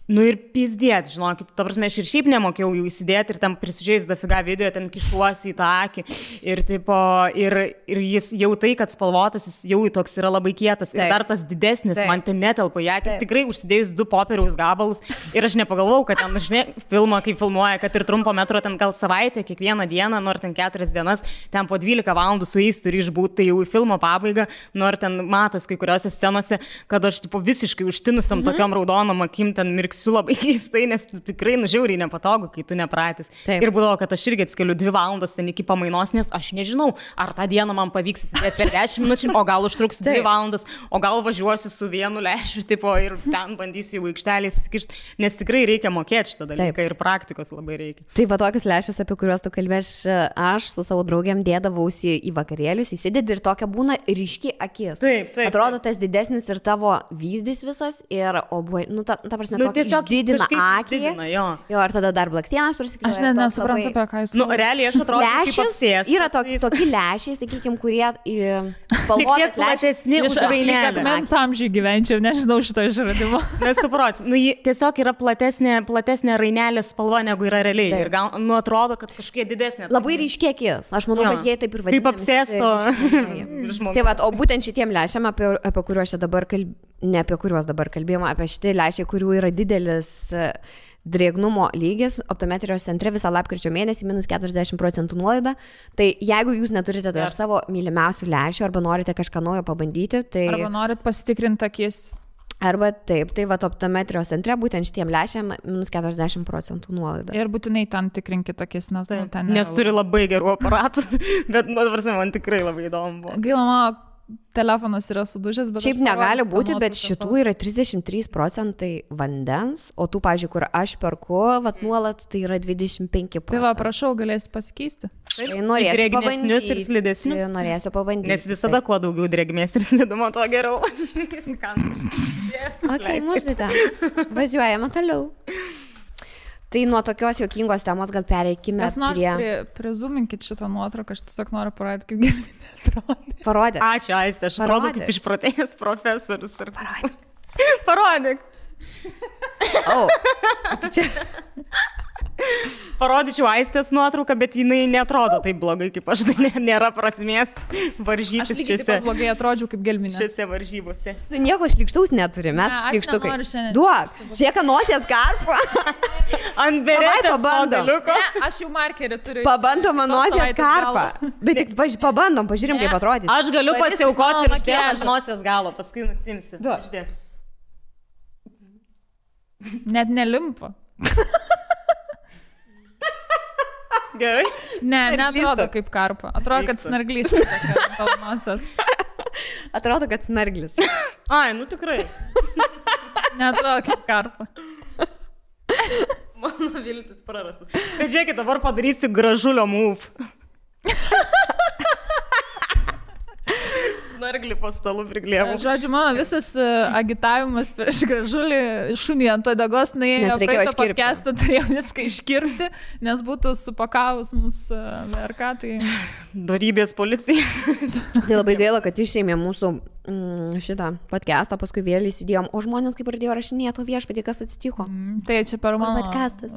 Nu ir pizdėt, žinokit, ta prasme, aš ir šiaip nemokėjau jų įsidėti ir ten prisižiūrėjus dafiga video, ten kišuosi į tą akį ir, tipo, ir jis jau tai, kad spalvotas, jis jau toks yra labai kietas ir dar tas didesnis, man ten netelpa į akį, tikrai užsidėjus 2 popieriaus gabalus ir aš nepagalvojau, kad ten, žinai, filmą, kai filmuoja, kad ir trumpo metro ten gal savaitę, kiekvieną dieną, nors ten 4 dienas, ten po 12 valandų su jais turi išbūti, tai jau į filmo pabaigą, nors ten matos kai kuriuose scenose, kad aš, tipo, visiškai užtinusiam tokiam raudonom akim ten mirksiu labai keistai, nes tikrai nužiauriai nepatogu, kai tu nepratęs. Ir būdavo, kad aš irgi atskeliu 2 valandas ten iki pamainos, nes aš nežinau, ar tą dieną man pavyks įsidėti per 10 minučių, o gal užtruks 2 valandas, o gal važiuosiu su vienu lęšiu, tipo, ir ten bandysiu į aikštelį susikišti, nes tikrai reikia mokėti šitą dalyką ir praktikos labai reikia. Taip, va tokius lęšius, apie kuriuos tu kalbėš, aš su savo draugėm dėdavausi į vakarėlius, įsidedi ir tokia būna ryški akis. Taip. Atrodo tas didesnis ir tavo vyzdys visas ir, nu, ta prasme, tokia išdidina akį. Jo, ir tada dar blakstienas prisikliuoja. Aš nesuprantu, apie ką jūs. Nu, realiai aš atrodo, kaip apsės. Yra tokie lęšiai, sakykime, kurie spalvotas platesni už rainelę. Mens amžiai gyvenčiau, nežinau šito išradimo. Nesuprats. Nu, tiesiog yra platesnė rainelės spalva, negu yra realiai. Ir gal, nu, atrodo, kad kažkokie didesnė. Labai ryškiai akis. Aš manau, kad jie taip ir vadinasi. Kaip apsėsto. Tai va, o būtent šitiem lęšiam, apie kuriuos čia dabar ne apie kuriuos dabar kalbėjome, apie šitie lęšiai, kurių yra didelis drėgnumo lygis, optometrijos centre visą lapkričio mėnesį -40% nuolaida. Tai jeigu jūs neturite dar savo mylimiausių lęšių arba norite kažką naujo pabandyti, tai... Arba norit pasitikrinti akis. Arba taip, tai va optometrijos centre būtent šitiem lęšiam -40% nuolaida. Ir būtinai ten tikrinkit akis, nes ten... Nes turi labai gerų aparatų, bet man tikrai labai įdomu buvo. Gaila, mano telefonas yra sudužęs, bet... Šiaip negali būti, bet šitų yra 33% vandens, o tų, pavyzdžiui, kur aš perku, vat nuolat, tai yra 25%. Tai va, prašau, galėsi pasikeisti. Tai norėsiu pabandyti. Ir slidesnius. Norėsiu pabandyti. Nes visada kuo daugiau drėgmės ir slidumo, to geriau. Ok, mūsite. Važiuojame toliau. Tai nuo tokios juokingos temos gal pereikime prie... Prizuminkit šitą nuotrauką, aš tiesiog noriu parodyti, kaip Gelminė atrodo. Parodyk. Ačiū, Aiste, aš atrodo kaip išprotėjęs profesorius. Parodyk. Čia... Parodyčiau Aistės nuotrauką, bet jinai neatrodo taip blogai kaip aš, tai nėra prasmės varžytis šiuose. Aš taip blogai atrodžiau kaip Gelminė. Šiuose varžybose. Nieko šlykštaus neturi, mes šlykštukai. Duok, žiūrėk, nosies karpą. Ant beretės pabandom. Aš jau markerį turiu. Pabandom nosies karpą. Bet tik pabandom, pažiūrim, kaip atrodys. Aš galiu pasiaukoti ir uždėti nosies galo, paskui nusimsiu. Net nelimpa. Gerai? Ne, neatrodo kaip karpa. Atrodo, kad snarglys. Atrodo, kad snarglis. Ai, nu tikrai. Neatrodo kaip karpa. Mano viltis prarastas. Bet žiūrėkit, dabar padarysiu gražulio move. Snarglį po stalu priglėmų. Žodžiu, mano visas agitavimas prieš gražulį šunį ant odegos nuėjo praeitą podcastą, turėjau viską iškirpti, nes būtų supakavus mūsų VRK. Tai... Dorybės policija. Tai labai gaila, kad išėmė mūsų šitą podcastą, paskui vėl įsidėjom, o žmonės kaip pradėjo rašinėti, o viešpatie, kas atsitiko. Tai čia per mano podcastas.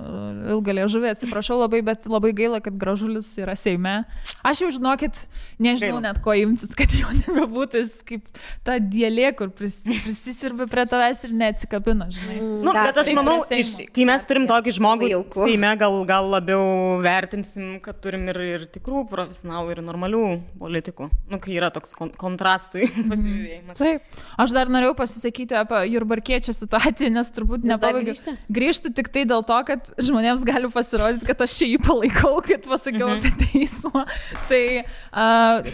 Ilgą liežuvį, atsiprašau labai, bet labai gaila, kad Gražulis yra Seime. Aš jau žinokit, nežinau net ko imtis, kad jo nebebūtų, jis kaip ta dėlė, kur prisisirbė prie tavęs ir neatsikabina, žinai. Nu, bet aš manau, kai mes turim tokį žmogų Seime, gal labiau vertinsim, kad turim ir tikrų profesionalų, ir normalių politikų. Nu, kai yra toks kontrastui pasižiūrėjimas. Taip. Aš dar norėjau pasisakyti apie Jurbarkiečio situaciją, nes turbūt nepabaigiu. Grįžtu tik tai dėl to, kad žmonėms gali pasirodyti, kad aš čia jį palaikau, kad pasakiau apie teismą. Tai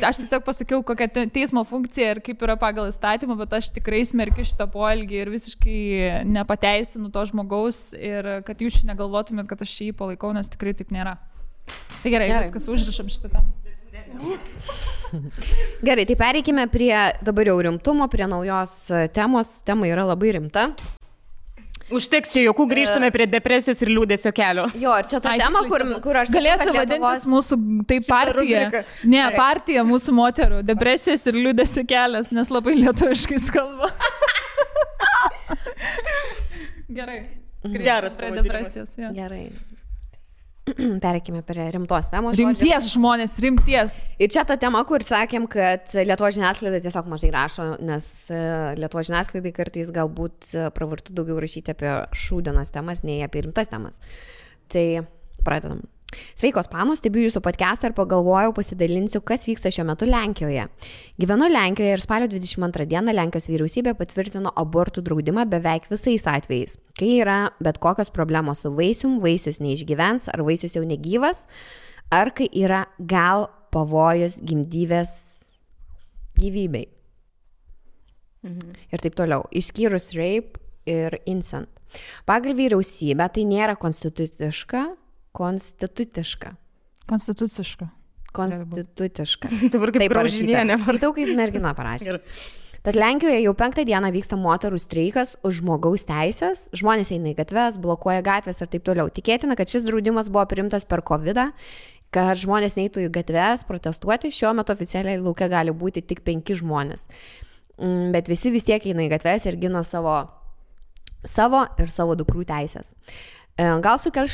aš tiesiog pasakiau, kokia teismo funkcija ir kaip yra pagal įstatymą, bet aš tikrai smerkiu šitą poelgį ir visiškai nepateisinu to žmogaus ir kad jūs negalvotumėt, kad aš čia jį palaikau, nes tikrai taip nėra. Tai gerai. Viskas užrašam šitą temą. Gerai, tai pereikime prie dabar jau rimtumo, prie naujos temos. Tema yra labai rimta. Užteks čia jokių, grįžtame prie depresijos ir liūdesio kelio. Jo, ir čia ta tema, kur aš... Galėtų vadintis mūsų, tai partija. Ne, partija mūsų moterų. Depresijos ir liūdesio kelias, nes labai lietuviškai skamba. Gerai. Geras prie depresijos. Ja. Gerai. Pereikime prie rimtos temos. Rimties žmonės, rimties. Ir čia ta tema, kur sakėm, kad Lietuvos žiniasklaida tiesiog mažai rašo, nes Lietuvos žiniasklaidai kartais galbūt pravartu daugiau rašyti apie šūdienos temas, nei apie rimtas temas. Tai pradedam. Sveikos panos, stebiu jūsų podcastą ir pagalvojau, pasidalinsiu, kas vyksta šiuo metu Lenkijoje. Gyvenu Lenkijoje ir spalio 22 dieną Lenkijos vyriausybė patvirtino abortų draudimą beveik visais atvejais. Kai yra bet kokios problemos su vaisium, vaisius neišgyvens, ar vaisius jau negyvas, ar kai yra gal pavojus gimdyvės gyvybei. Ir taip toliau. Išskyrus rape ir incest. Pagal vyriausybę tai nėra konstituciška. Dabar kaip Graužinienė. Matau, kaip mergina parašė. Tad Lenkijoje jau 5 dieną vyksta moterų streikas už žmogaus teisės. Žmonės eina į gatves, blokuoja gatvės ir taip toliau. Tikėtina, kad šis draudimas buvo priimtas per COVID, kad žmonės neitų į gatves protestuoti. Šiuo metu oficialiai lauke gali būti tik 5 žmonės. Bet visi vis tiek eina į gatves ir gina savo ir savo dukrų teisės. Gal sukels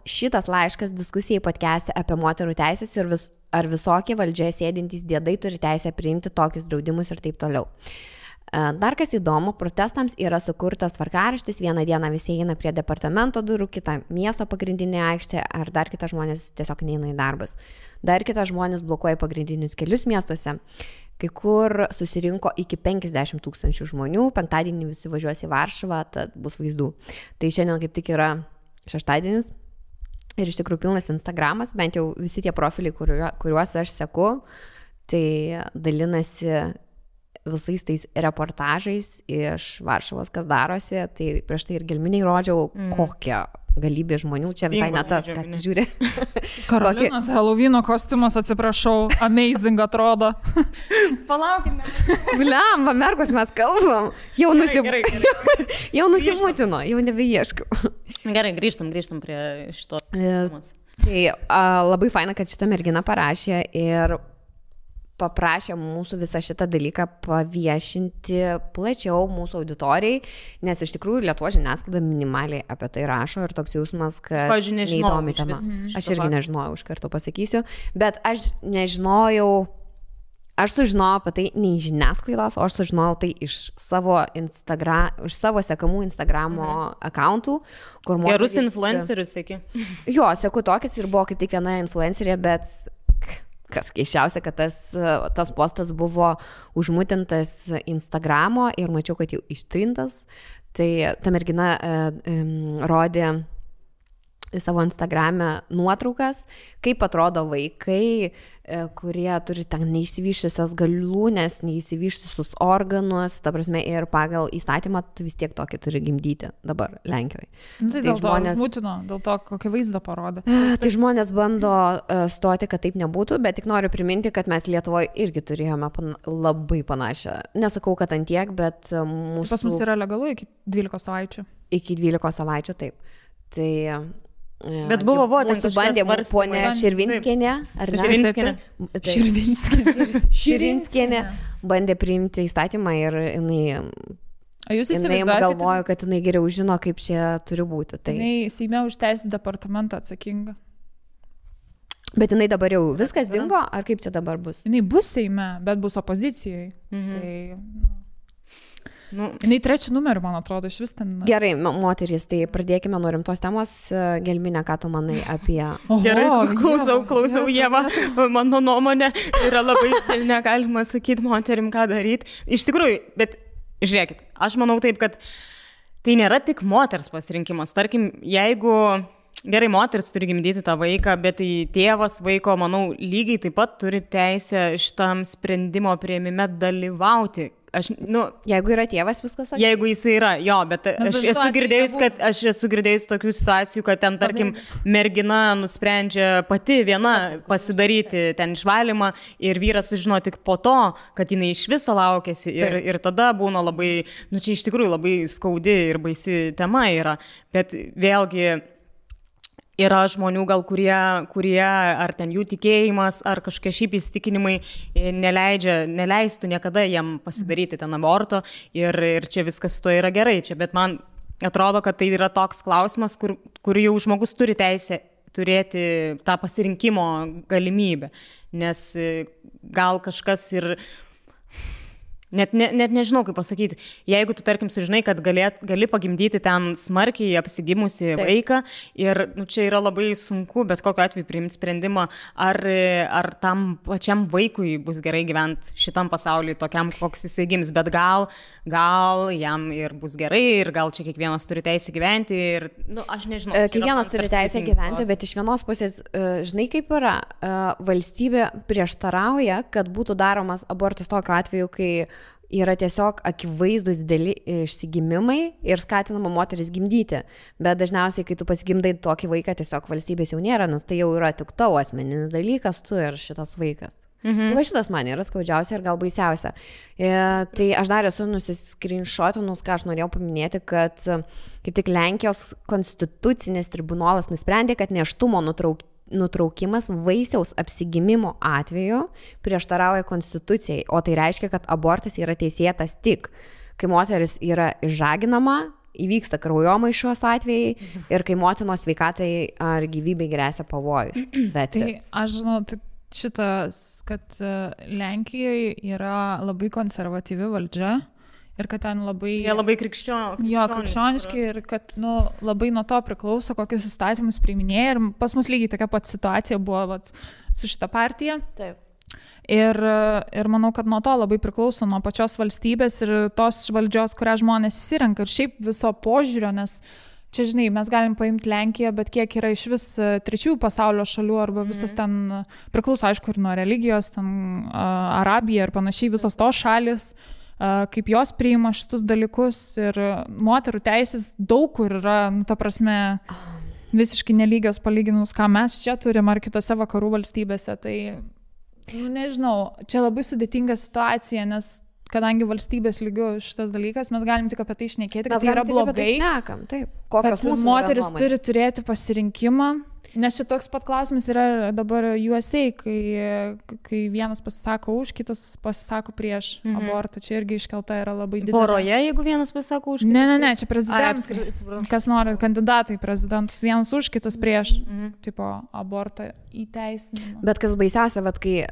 šitas laiškas diskusijai podcast'e apie moterų teisės ir ar visokie valdžioje sėdintys diedai turi teisę priimti tokius draudimus ir taip toliau. Dar kas įdomu, protestams yra sukurtas tvarkaraštis, vieną dieną visi eina prie departamento durų, kitą miesto pagrindinė aikštė, ar dar kitas žmonės tiesiog neina į darbus. Dar kitas žmonės blokuoja pagrindinius kelius miestuose. Kai kur susirinko iki 50 000 žmonių, penktadienį visi važiuos į Varšuvą, tad bus vaizdų. Tai šiandien kaip tik yra šeštadienis ir iš tikrųjų pilnas Instagramas, bent jau visi tie profiliai, kuriuos aš seku, tai dalinasi visais tais reportažais iš Varšuvos, kas darosi, tai prieš tai ir gelminiai rodžiau, kokią galybė žmonių, čia visai ne tas, kad žiūri. Karolinos Halloween kostiumas, atsiprašau, amazing atrodo. Palaukime. Blemba, mergos mes kalbam. Jau nusimutino, jau nebeieškau. Gerai, grįžtam prie šitos temos. Tai labai faina, kad šita mergina parašė ir paprašė mūsų visą šitą dalyką paviešinti plačiau mūsų auditorijai, nes iš tikrųjų Lietuvos žiniasklaida minimaliai apie tai rašo ir toks jausmas, kad neįdomi tema. Aš irgi nežinojau, iš karto pasakysiu, bet aš sužinojau apie tai ne iš žiniasklaidos, o aš sužinojau tai iš savo sekamų Instagramo akauntų, kur moterys... Gerus influencerius, sėki. Jo, seku tokias ir buvo kaip tik viena influencerė, bet... Kas keiščiausia, kad tas postas buvo užmutintas Instagramo ir mačiau, kad jau ištrintas. Tai ta mergina rodė savo Instagrame nuotraukas, kaip atrodo vaikai, kurie turi ten neišsivyščiusios galūnės, neišsivyščiusius organus, ta prasme, ir pagal įstatymą tu vis tiek tokį turi gimdyti dabar Lenkijoje. Tai dėl žmonės... to smutino, dėl to kokį vaizdą parodė. Tai žmonės bando stoti, kad taip nebūtų, bet tik noriu priminti, kad mes Lietuvoje irgi turėjome labai panašią. Nesakau, kad ant tiek, bet mūsų... Pas mus yra legalu iki 12 savaičių. Iki 12 savaičių, taip. Tai... Bet buvo ten mūsų bandė ponė Širvinskienė, ar ne? Širvinskienė bandė priimti įstatymą ir jinai galvojo, kad jinai geriau žino, kaip čia turi būti. Tai jinai Seime už teisės departamentą atsakinga. Bet jinai dabar jau viskas dingo, ar kaip čia dabar bus? Jinai bus Seime, bet bus opozicijoje. Tai, jinai 3 numeriu, man atrodo, iš vis ten. Gerai, moterys, tai pradėkime nuo rimtos temos. Gelminė, ką tu manai apie... Gerai, klausau, Ieva. Mano nuomonė yra labai negalima sakyti moterim, ką daryti. Iš tikrųjų, bet žiūrėkit, aš manau taip, kad tai nėra tik moters pasirinkimas. Tarkim, jeigu gerai moteris turi gimdyti tą vaiką, bet tai tėvas vaiko, manau, lygiai taip pat turi teisę šitam sprendimo priėmime dalyvauti. Jeigu yra tėvas, viskas sakė. Jeigu jis yra, jo, bet aš esu girdėjus tokių situacijų, kad ten, tarkim, mergina nusprendžia pati viena pasidaryti ten išvalymą ir vyras sužino tik po to, kad jinai iš viso laukėsi ir tada būna labai, čia iš tikrųjų labai skaudi ir baisi tema yra, bet vėlgi yra žmonių gal, kurie ar ten jų tikėjimas, ar kažkokie šiaip įsitikinimai neleistų niekada jam pasidaryti ten aborto ir čia viskas su to yra gerai. Bet man atrodo, kad tai yra toks klausimas, kur jau žmogus turi teisę turėti tą pasirinkimo galimybę, nes gal kažkas ir... Net nežinau, kaip pasakyti, jeigu tu, tarkim, sužinai, kad gali pagimdyti ten smarkiai apsigimusi vaiką ir čia yra labai sunku, bet kokiu atveju priimti sprendimą, ar tam pačiam vaikui bus gerai gyventi šitam pasauliui, tokiam, koks jisai gims, bet gal jam ir bus gerai ir gal čia kiekvienas turi teisę gyventi ir, aš nežinau. Kiekvienas turi teisę gyventi, bet iš vienos pusės, žinai kaip yra, valstybė prieštarauja, kad būtų daromas abortas tokiu atveju, kai yra tiesiog akivaizdus dideli išsigimimai ir skatinama moteris gimdyti. Bet dažniausiai, kai tu pasigimdai tokį vaiką, tiesiog valstybės jau nėra, nes tai jau yra tik tavo asmeninis dalykas, tu ir šitas vaikas. Tai šitas man yra skaudžiausia ir gal baisiausia. Tai aš dar esu nusiskrinšotinus, ką aš norėjau paminėti, kad kaip tik Lenkijos konstitucinis tribunolas nusprendė, kad nėštumo nutraukimas vaisiaus apsigimimo atveju prieštarauja konstitucijai, o tai reiškia, kad abortas yra teisėtas tik, kai moteris yra išžaginama, įvyksta kraujomaišos atvejai ir kai motinos sveikatai ar gyvybei gresia pavojus. Tai aš žinau, šitas, kad Lenkijoje yra labai konservatyvi valdžia. Ir kad ten labai... Jie labai krikščioniški ir kad labai nuo to priklauso, kokius įstatymus priiminėja. Ir pas mus lygiai tokia pat situacija buvo su šita partija. Taip. Ir manau, kad nuo to labai priklauso nuo pačios valstybės ir tos valdžios, kurią žmonės įsirenka. Ir šiaip viso požiūrio, nes čia, žinai, mes galim paimti Lenkiją, bet kiek yra iš vis trečiųjų pasaulio šalių arba visos ten priklauso, aišku, ir nuo religijos, ten Arabija ir panašiai, visos tos šalis, kaip jos priima šitus dalykus ir moterų teisės daug kur yra, ta prasme, visiškai nelygios palyginus, ką mes čia turim ar kitose vakarų valstybėse. Tai, nežinau, čia labai sudėtinga situacija, nes kadangi valstybės lygių šitas dalykas, mes galim tik apie tai šnekėti, kad tai yra blogai, kad moteris turi turėti pasirinkimą. Nes šitoks pat klausimas yra dabar USA, kai vienas pasisako už, kitas pasisako prieš abortą. Čia irgi iškelta yra labai didelė. Poroje, jeigu vienas pasisako už? Ne, čia prezidentas. Kas nori, kandidatai prezidentus. Vienas už, kitas prieš. Tipo, abortą įteisinimą. Bet kas baisiausia, kai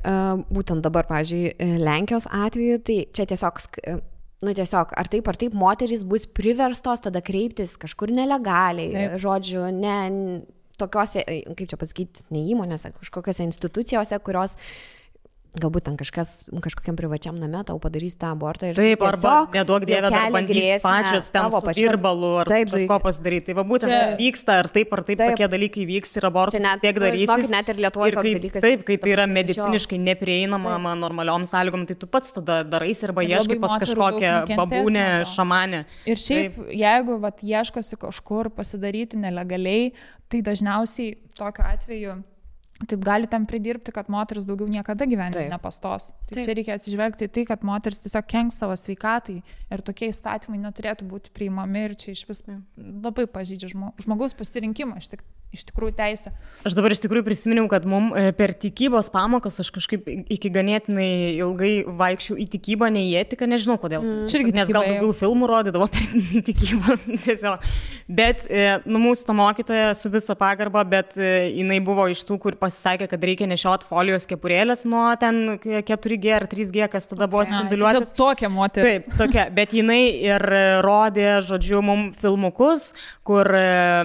būtent dabar, pavyzdžiui, Lenkijos atveju, tai čia tiesiog, ar taip, moterys bus priverstos tada kreiptis kažkur nelegaliai. Žodžiu, tokiose, kaip čia pasakyti, ne įmonėse, kažkokiose institucijose, kurios galbūt ten kažkokiam privačiam name tau padarys tą abortą. Taip, arba neduok dievę, dar bandys pačios ten su virbalu ar kažko pasidaryti. Tai va būtent vyksta, ar taip tokie dalykai vyks ir abortus tiek darysis. Žinokit, net ir Lietuvoje toks dalykas. Taip, kai tai yra mediciniškai neprieinama normaliom sąlygom, tai tu pats tada darais arba ieškai pas kažkokią babūnę, šamanę. Ir šiaip, jeigu ieškosi kažkur pasidaryti nelegaliai, tai dažniausiai tokiu atveju taip gali tam pridirbti, kad moteris daugiau niekada gyvenime nepastos. Tai čia reikia atsižvelgti į tai, kad moteris tiesiog kenks savo sveikatai ir tokie įstatymai neturėtų būti priimami ir čia iš vis labai pažydžia žmogaus pasirinkimą. iš tikrųjų teisė. Aš dabar iš tikrųjų prisiminiau, kad mum per tikybos pamokas aš kažkaip iki ganėtinai ilgai vaikščiau į tikybą, ne į etiką, nežinau kodėl. Nes gal daugiau filmų rodydavo per tikybą. Bet mūsų ta mokytoja su visa pagarba, bet jinai buvo iš tų, kur pasisakė, kad reikia nešioti folijos kepurėlės nuo ten 4G ar 3G, kas tada buvo spinduliuotis. Tokia moteris. Taip, tokia. Bet jinai ir rodė, žodžiu, mum filmukus, kur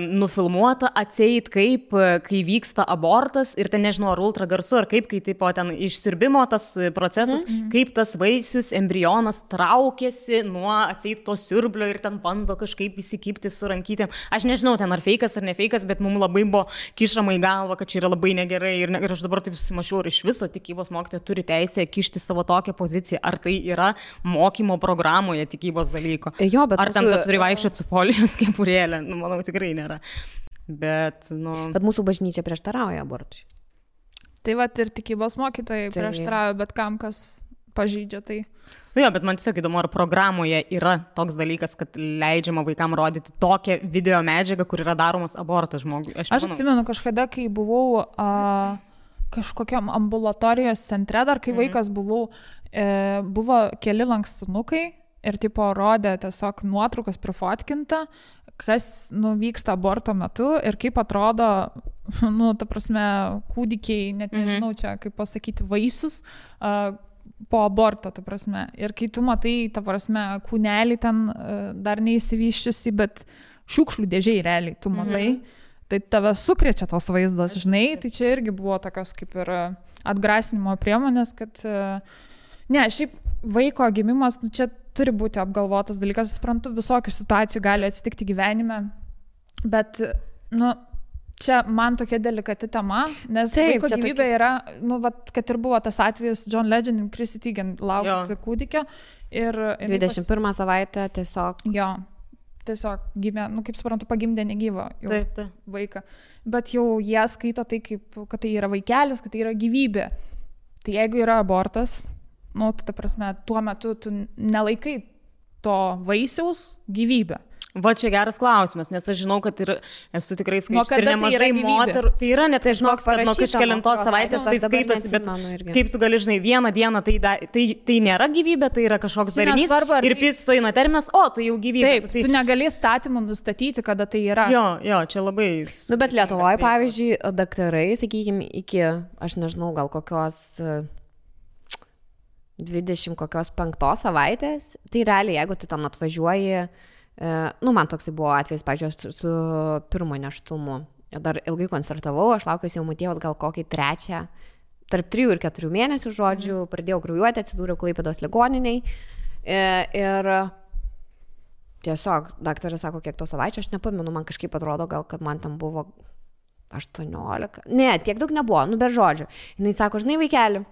nufilmuota atseit kaip, kai vyksta abortas ir ten nežinau, ar ultragarsu, ar kaip, kai tipo ten išsiurbimo tas procesas, kaip tas vaisius, embrionas traukėsi nuo atseit to siurblio ir ten bando kažkaip įsikipti su rankytėm. Aš nežinau, ten ar feikas ar ne feikas, bet mums labai buvo kišama į galvą, kad čia yra labai negerai ir aš dabar taip susimašiau, ar iš viso tikybos mokytoja turi teisę kišti savo tokią poziciją, ar tai yra mokymo programoje tikybos dalyko. Jo, bet ar ten turi vaikščioti su folijos kepurėlė, manau, tikrai nėra. Bet mūsų bažnyčia prieštarauja abortui. Tai va ir tikybos mokytojai prieštarauja, bet kam kas pažydžia tai. Jo, bet man tiesiog įdomu, ar programoje yra toks dalykas, kad leidžiama vaikam rodyti tokią video medžiagą, kur yra daromas abortas žmogui. Aš atsimenu kažkada, kai buvau kažkokiam ambulatorijos centre, dar kai vaikas buvau, buvo keli lankstinukai ir tipo rodė tiesiog nuotraukas prifotkinta, kas vyksta aborto metu ir kaip atrodo, ta prasme, kūdikiai, net nežinau čia, kaip pasakyti, vaisius po aborto, ta prasme. Ir kai tu matai, ta prasme, kūnelį ten dar neįsivyščiusi, bet šiukšlių dėžiai realiai tu matai, tai tave sukrečia tos vaizdas, žinai, tai čia irgi buvo tokios kaip ir atgrasinimo priemonės, kad šiaip vaiko gimimas, čia turi būti apgalvotas dalykas, suprantu, visokių situacijų gali atsitikti gyvenime, bet, čia man tokia delikati tema, nes vaiko gyvybė yra, kad ir buvo tas atvejis John Legend ir Chrissy Teigen laukusi kūdikio ir 21 savaitę tiesiog. Jo, tiesiog gimė, kaip suprantu, pagimdė negyvą vaiką, bet jau jie skaito tai, kad tai yra vaikelis, kad tai yra gyvybė. Tai jeigu yra abortas, ta prasme, tuo metu tu nelaikai to vaisiaus gyvybę. Va čia geras klausimas, nes aš žinau, kad ir esu tikrai skaičius ir nemažai moterų. Tai yra net tai žinok, kad nuo kažkelintos savaitės tai skaitosi, bet kaip tu gali, žinai, vieną dieną tai nėra gyvybė, tai yra kažkoks darinys ir sueina terminas, tai jau gyvybė. Taip, tu negali įstatymų nustatyti, kada tai yra. Jo, čia labai... Bet Lietuvoje, pavyzdžiui, daktarai, sakykime, iki, aš nežinau, gal kokios 25 savaitės, tai realiai, jeigu tu ten atvažiuoji, man toksai buvo atvejs, pavyzdžiui, su pirmo nėštumu. Dar ilgai koncertavau, aš laukiausi jau motiejaus gal kokį 3, tarp 3 ir 4 mėnesių, žodžiu, pradėjau kraujuoti, atsidūriau Klaipėdos ligoniniai ir tiesiog daktaras sako, kiek to savaičių, aš nepamenu, man kažkaip atrodo, gal kad man tam buvo 18, ne, tiek daug nebuvo, bet žodžiu. Jis sako, žinai, vaikeli,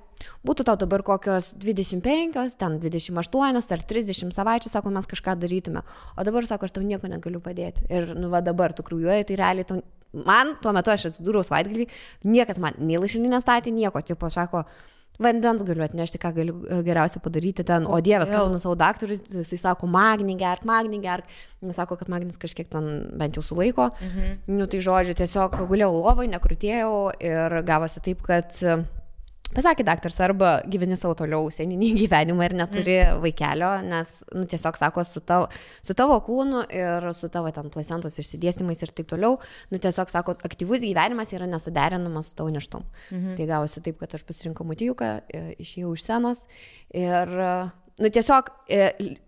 būtų tau dabar kokios 25, ten 28 ar 30 savaičių, sako, mes kažką darytume. O dabar, sako, aš tau nieko negaliu padėti. Ir, dabar tu kraujuoji, tai realiai man, tuo metu aš atsidūriau savaitgalį, niekas man nei lašelinį nestatė, nieko, tipo, sako, vandens galiu atnešti, ką galiu geriausia padaryti ten, o Dievas, kalbinu savo daktarui, jisai sako, magnį gerk, jis sako, kad magnis kažkiek ten bent jau sulaiko, tai žodžiu, tiesiog gulėjau lovai, nekrutėjau ir gavosi taip, kad pasakė daktaras, arba gyveni savo toliau seninį gyvenimą ir neturi vaikelio, nes tiesiog sako, su tavo kūnu ir su tavo ten placentos išsidėstymais ir taip toliau, tiesiog sako, aktyvus gyvenimas yra nesuderinamas su tavo nėštumu. Tai gavosi taip, kad aš pasirinkau motijuką, išėjau iš scenos ir tiesiog,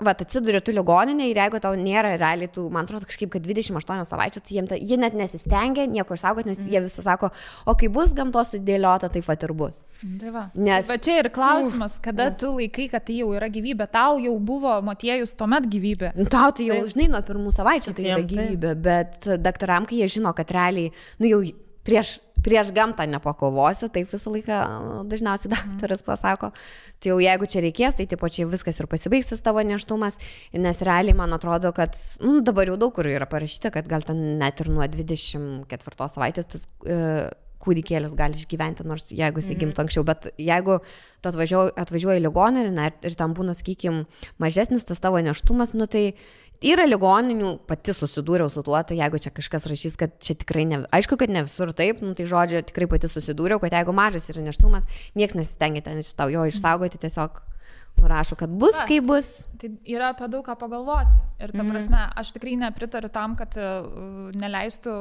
atsiduri tu ligoninė ir jeigu tau nėra realiai, man atrodo kažkaip, kad 28 savaičių, tai jie net nesistengia nieko išsaugoti, nes jie visą sako, o kai bus gamtos sudėliota, taip ir bus. Tai va. Bet čia ir klausimas, kada tu laikai, kad tai jau yra gyvybė, tau jau buvo motiejus tuomet gyvybė. Tau tai jau, žinai, nuo pirmų savaičių tai yra gyvybė, bet daktaram, kai jie žino, kad realiai, jau prieš gamtą nepakovosi, taip visą laiką dažniausiai daktaras pasako. Tai jau jeigu čia reikės, tai tipo čia viskas ir pasibaigs tas tavo nėštumas, nes realiai man atrodo, kad dabar jau daug kur yra parašyta, kad gal ten net ir nuo 24 savaitės tas kūdikėlis gali išgyventi, nors jeigu jis gimtų anksčiau, bet jeigu tu atvažiuoji į ligoninę ir ten būna, sakykime, mažesnis tas tavo nėštumas, tai Yra ligoninių, pati susidūriau su tuo, tai jeigu čia kažkas rašys, kad čia tikrai ne, aišku, kad ne visur taip, nu, tai žodžiu, tikrai pati susidūriau, kad jeigu mažas yra neštumas, nieks nesistengia ten jo išsaugoti, tiesiog nurašo, kad bus, kaip bus. Tai yra apie daug ką pagalvoti. Ir ta prasme, aš tikrai nepritariu tam, kad neleistų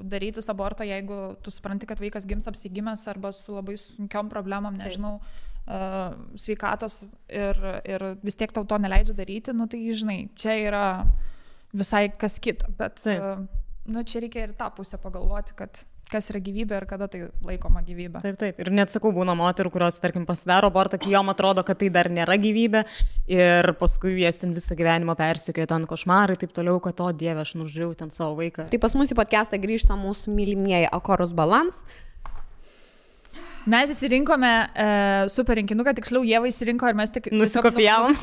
daryti aborto, jeigu tu supranti, kad vaikas gims apsigimęs arba su labai sunkiom problemom, nežinau, sveikatos ir vis tiek tau to neleidžia daryti, nu tai žinai, čia yra visai kas kita, bet nu, čia reikia ir tą pusę pagalvoti, kad kas yra gyvybė ir kada tai laikoma gyvybė. Taip. Ir net sakau, būna moterų, kurios, tarkim, pasidaro abortą, kai jom atrodo, kad tai dar nėra gyvybė ir paskui jas ten visą gyvenimą persikėjo ten košmarai, taip toliau, kad o Dieve, aš nužudžiau ten savo vaiką. Tai pas mus į podcastą grįžta mūsų mylimieji Akorus Balans. Mes įsirinkome super rinkinuką, tiksliau Ieva įsirinko ir mes tik nusikopijavom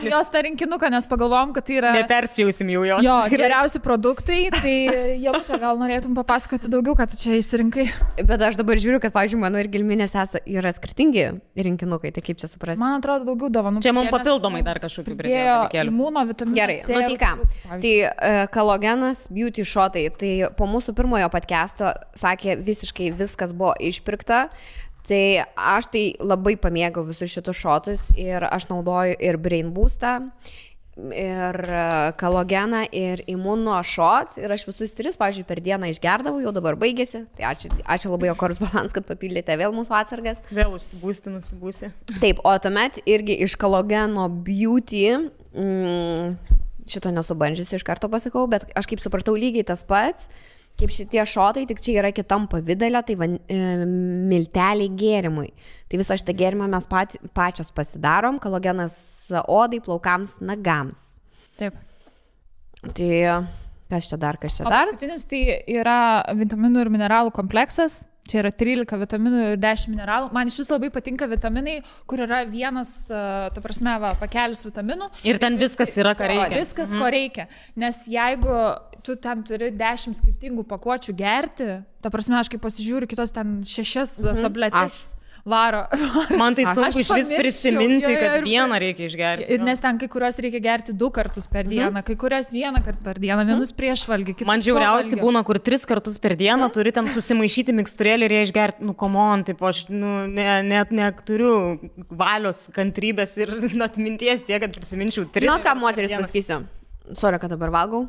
jos tą rinkinuką, nes pagalvojom, kad tai yra... Neperspjausim jau jos. Jo, geriausi produktai, tai Ieva, gal norėtum papasakoti daugiau, kad čia įsirinkai. Bet aš dabar žiūriu, kad, pavyzdžiui, mano ir Gilminės yra skirtingi rinkinukai, tai kaip čia suprasti? Man atrodo, daugiau dovanų. Čia mums papildomai dar kažkokių pridėjo. Imuno, vitaminų. Gerai, nu tai ką. Tai Kalogenas Beauty Shotai, tai po mūsų pirmojo podcast'o sakė, visiškai viskas buvo išpirkta. Tai aš tai labai pamėgau visus šitus šotus ir aš naudoju ir Brain Boostą, ir Kalogeną, ir Imuno šot. Ir aš visus 3, pavyzdžiui, per dieną išgerdavau, jau dabar baigėsi. Tai ačiū labai Akorus Balans, kad papildėte vėl mūsų atsargas. Vėl nusibūsi. Taip, o tuomet irgi iš Kalogeno Beauty, šito nesubandžiusi, iš karto pasakau, bet aš kaip supratau lygiai tas pats. Kaip šitie šotai, tik čia yra kitam pavidalė, tai milteliai gėrimui. Tai visą šitą gėrimą mes pačios pasidarom, Kalogenas odai, plaukams, nagams. Taip. Tai kas čia dar? Paskutinis tai yra vitaminų ir mineralų kompleksas. Čia yra 13 vitaminų ir 10 mineralų. Man iš vis labai patinka vitaminai, kur yra vienas, ta prasme, pakelis vitaminų. Ir ten viskas yra, ką reikia. Viskas, ko reikia. Nes jeigu tu ten turi 10 skirtingų pakuočių gerti, ta prasme, aš kaip pasižiūriu, kitos ten 6 tabletės varo. Man tai sunku iš vis prisiminti, kad vieną reikia išgerti. Ir nes ten kai kurios reikia gerti 2 kartus per dieną, kai kurios 1 kartą per dieną, vienus prieš valgį, kitus man žiauriausiai būna, kur 3 kartus per dieną turi ten susimaišyti miksturėlį ir ją išgerti. Nu, komon, taip, aš net neturiu valios, kantrybės ir atminties tiek, kad prisiminčiau 3. Žinot, ką moteris pasakysiu? Sorry, kad dabar valgau.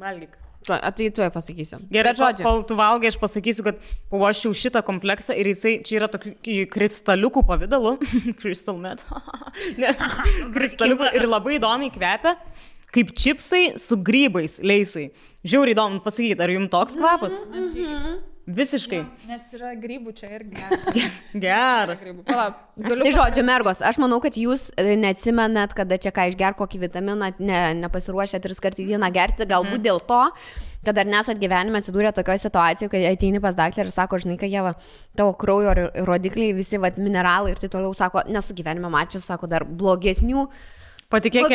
Valgyk. Tai tu pasakysiu. Gerai, kol tu valgai, aš pasakysiu, kad pavoščiau šitą kompleksą ir jisai čia yra tokių kristaliukų pavidalu. Crystal meth. Kristaliukų ir labai įdomiai kvepia, kaip čipsai su grybais, leisai. Žiauriai įdomu pasakyti, ar jums toks kvapas? Visiškai. Nes yra grybų čia irgi. Geras. Tai žodžiu, mergos, aš manau, kad jūs neatsimenat, kada čia ką išger, kokį vitaminą, nepasiruošę 3 kartų į dieną gerti, galbūt dėl to, kad dar nesat gyvenime atsidūrę tokioje situacijoje, kai ateini pas daktarą ir sako, žinai, kad Ieva, tavo kraujo rodikliai, visi mineralai ir tai toliau, sako, nesu gyvenime mačius, sako, dar blogesnių. Patikėk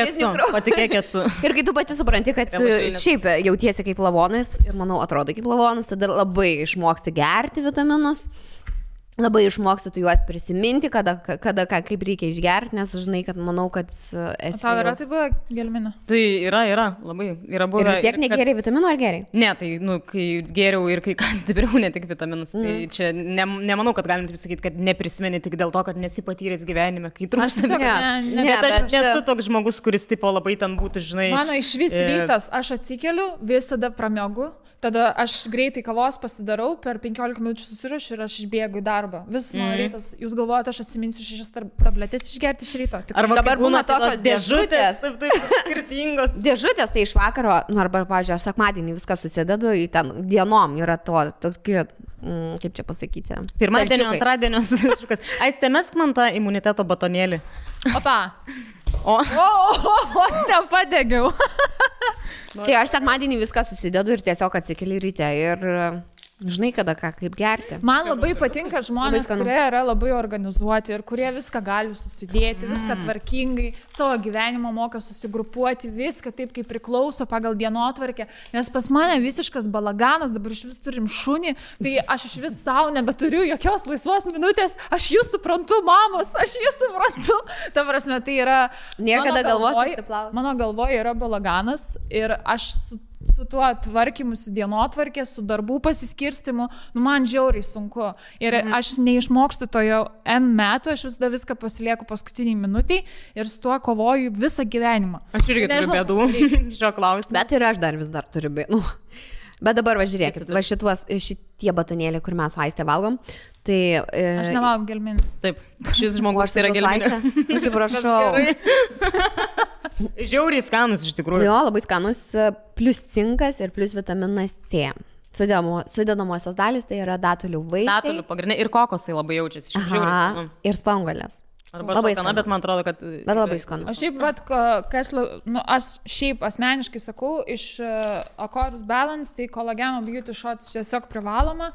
esu. Ir kai tu pati supranti, kad šiaip jautiesi kaip lavonas ir, manau, atrodo kaip lavonas, tada labai išmoksti gerti vitaminus, labai išmoksti tu juos prisiminti, kada kaip reikia išgerti, nes žinai, kad manau, kad esi... Tau yra tai buvo gelminė? Tai yra, labai yra buvę. Ir vis tiek negeriai vitaminų ar geriai? Ne, tai, kai geriau ir kai kas stipriau, ne tik vitaminus, tai čia nemanau, kad galim taip sakyti, kad neprisimeni tik dėl to, kad nesi patyręs gyvenime, kai trūksta. Aš nesu toks žmogus, kuris tipo labai ten būtų, žinai... Mano iš vis rytas, aš atsikeliu, visada pramiegu, tada aš greitai kavos pasidarau, per 15 minučių susirašiu ir aš išbėgu į darbą. Visas mano rytas, jūs galvojate, aš atsiminsiu 6 tabletės išgerti iš ryto. Arba dabar būna tokios dėžutės. Taip, skirtingos. Dėžutės tai iš vakaro, arba, pavyzdžiui, aš sekmadienį viską susidedu į ten dienom, yra tokie, kaip čia pasakyti. Pirmadienio, antradienio. Aiste, mesk man tą imuniteto batonėlį. Opa. Vos nepadegiau. Tai aš sekmadienį viską susidedu ir tiesiog atsikeli ryte ir Žinai, kada ką, kaip gerti. Man labai patinka žmonės, kurie yra labai organizuoti ir kurie viską gali susidėti, viską tvarkingai, savo gyvenimą moka susigrupuoti, viską taip, kaip priklauso pagal dienotvarkę. Nes pas mane visiškas balaganas, dabar iš vis turim šunį, tai aš iš vis savo nebeturiu jokios laisvos minutės, aš jūs suprantu, mamos, aš jūs suprantu. Ta prasme, tai yra... Niekada galvos išsiplauti. Mano galvoje yra balaganas ir aš su tuo tvarkymu, su dienotvarkė, su darbų pasiskirstimu, man žiauriai sunku. Ir aš neišmokstu to jau N metų, aš viską pasilieku paskutiniai minutiai ir su tuo kovoju visą gyvenimą. Aš irgi turiu bėdų šio klausimu. Bet ir aš dar vis dar turiu bėdų. Bet dabar žiūrėkit, šitie batonėliai, kur mes su Aiste valgom, tai... Aš nevalgau gelminį. Taip, šis žmogus yra gelminė. Atsiprašau. Žiauriai skanus iš tikrųjų. Jo, labai skanus, plus cinkas ir plus vitaminas C. Sudedamosios dalis tai yra datulių vaisiai. Datulių pagrindinė ir kokosai labai jaučiasi. Ir spanguolės. Arba labai skanu, bet man atrodo, kad... Bet labai skanu. Aš šiaip asmeniškai sakau, iš Acorus Balance, tai kolageno beauty shots tiesiog privaloma.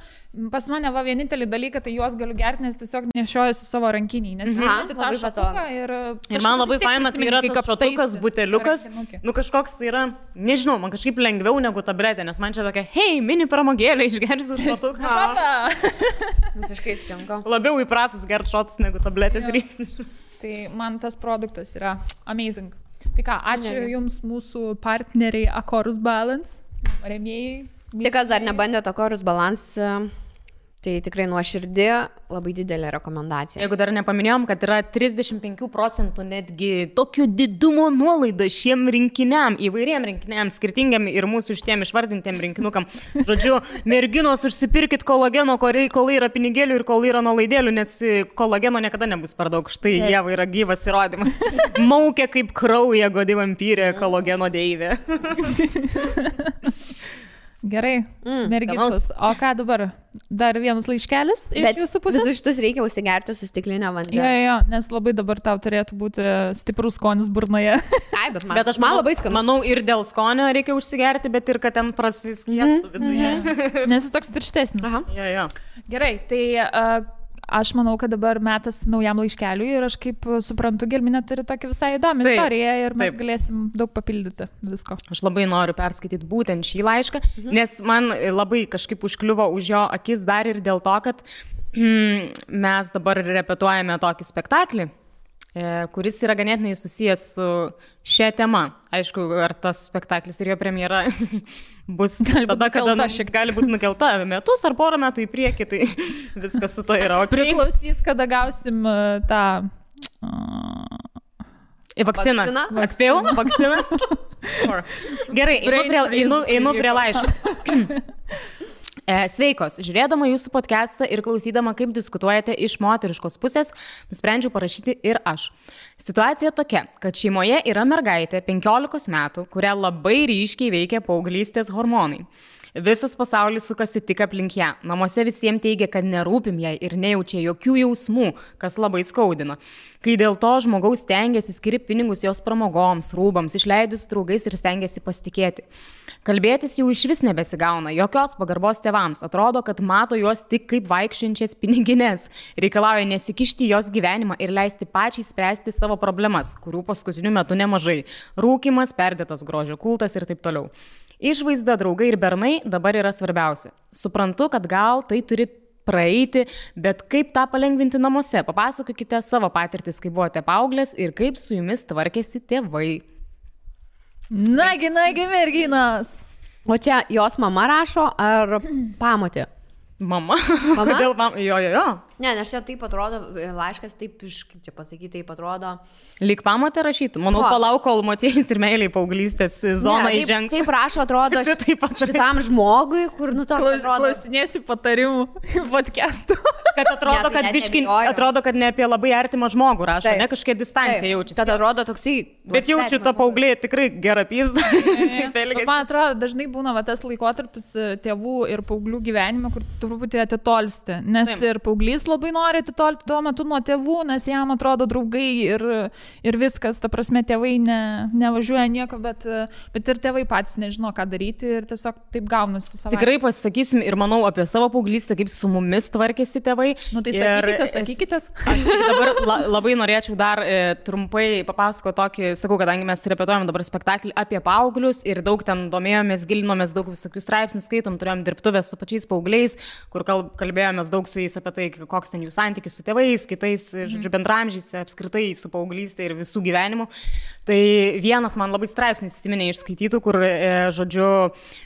Pas mane vienintelį dalyką, tai juos galiu gerti, nes tiesiog nešioju su savo rankiniai. Nes tą šatuką ir man labai faina, tai yra tas šatukas, buteliukas. Nu kažkoks tai yra, nežinau, man kažkaip lengviau negu tabletė, nes man čia tokia, hei, mini pramogėlė, išgersiu šatuką. Visiškai stinka. Labiau įpratus gerti šotus negu tabletės reikia. Tai man tas produktas yra amazing. Tai ką, ačiū Jums mūsų partneriai Acorus Balance, rėmėjai. Tai kas dar nebandėt Acorus Balance, tai tikrai nuoširdį, labai didelė rekomendacija. Jeigu dar nepaminėjom, kad yra 35% netgi tokio didumo nuolaida šiem rinkiniam, įvairiem rinkiniam, skirtingiam ir mūsų šitiem išvardintiem rinkinukam. Žodžiu, merginos, užsipirkit kolageno, kol yra pinigėlių ir kol yra nuolaidėlių, nes kolageno niekada nebus per daug. Štai jie yra gyvas įrodymas. Maukia kaip krauja godi vampyrė kolageno deivė. Gerai, merginos. O ką dabar? Dar vienas laiškelis iš jūsų pusės? Visus šitus reikia užsigerti su stiklinė vandens. Jo, nes labai dabar tau turėtų būti stiprus skonis burnoje. Ai, bet aš man labai skanu. Manau, ir dėl skonio reikia užsigerti, bet ir kad ten prasiskiestų viduje. Nes jis toks tirštesnis. Aha. Jo. Gerai, tai... Aš manau, kad dabar metas naujam laiškeliui ir aš kaip suprantu, Gelminė turi tokią visai įdomią istoriją ir mes galėsim daug papildyti visko. Aš labai noriu perskaityti būtent šį laišką, nes man labai kažkaip užkliuvo už jo akis dar ir dėl to, kad mes dabar repetuojame tokį spektaklį, kuris yra ganėtinai susijęs su šia tema. Aišku, ar tas spektaklis ir jo premjera bus tada, kada gali būti nukelta metus ar porą metų į priekį, tai viskas su to yra. Priklausys, kada gausim tą... Vakciną. Atspėjau? Vakciną? Gerai, einu prie laiško. Sveikos, žiūrėdama jūsų podcastą ir klausydama, kaip diskutuojate iš moteriškos pusės, nusprendžiau parašyti ir aš. Situacija tokia, kad šeimoje yra mergaitė 15 metų, kurią labai ryškiai veikia paauglystės hormonai. Visas pasaulis sukasi tik aplink ją. Namuose visiems teigia, kad nerūpim jai ir nejaučia jokių jausmų, kas labai skaudina. Kai dėl to žmogaus stengiasi skirti pinigus jos pramogoms, rūbams, išleidus draugais ir stengiasi pasitikėti. Kalbėtis jau iš vis nebesigauna, jokios pagarbos tėvams. Atrodo, kad mato juos tik kaip vaikščiančias pinigines. Reikalauja nesikišti jos gyvenimą ir leisti pačiai spręsti savo problemas, kurių paskutiniu metu nemažai. Rūkimas, perdėtas grožio kultas ir taip toliau. Išvaizda, draugai ir bernai dabar yra svarbiausia. Suprantu, kad gal tai turi praeiti, bet kaip tą palengvinti namuose? Papasakokite savo patirtis, kai buvote paauglės ir kaip su jumis tvarkėsi tėvai. Nagi, merginos. O čia jos mama rašo ar pamotė? Mama? Kodėl mama? Jo. Ne, nes čia taip atrodo, laiškas taip, kaip čia pasakyti, taip atrodo. Lyg pamotė rašytų. Manau, palauk, kol moteris ir meiliai paauglystės zoną įžengs. Taip rašo, atrodo, šitam žmogui, kur toks atrodo. Klausinėsi patarimų podcastų. Kad atrodo, kad biškai, atrodo, kad ne apie labai artimą žmogų rašo, ne kažkokia distancija jaučiasi. Tad atrodo toksai. Bet jaučiu tą paauglį tikrai gerą pizdą. Man atrodo, dažnai būna tas laikotarpis tėvų ir paauglių gyvenime, kur truputį atitolsti. Nes ir paauglys jis labai nori atitolti tuo metu nuo tėvų, nes jam atrodo draugai ir viskas, ta prasme, tėvai nevažiuoja nieko, bet ir tėvai patys nežino, ką daryti ir tiesiog taip gaunasi savaime. Tikrai pasisakysim ir manau apie savo paauglystę, kaip su mumis tvarkėsi tėvai. Nu tai sakykitės. Aš dabar labai norėčiau dar trumpai papasakoti tokį, sakau, kadangi mes repetuojam dabar spektaklį apie paauglius ir daug ten domėjomės, gilinomės, daug visokių straipsnių skaitom, turėjom dirbtuvės su pačiais paaugliais, kur kalbėjomės daug su jais apie tai, koks ten jų santykis su tėvais, kitais, žodžiu, bendramžiais, apskritai su paauglystė ir visų gyvenimu. Tai vienas man labai straipsnis įsiminė išskaitytų, kur, žodžiu,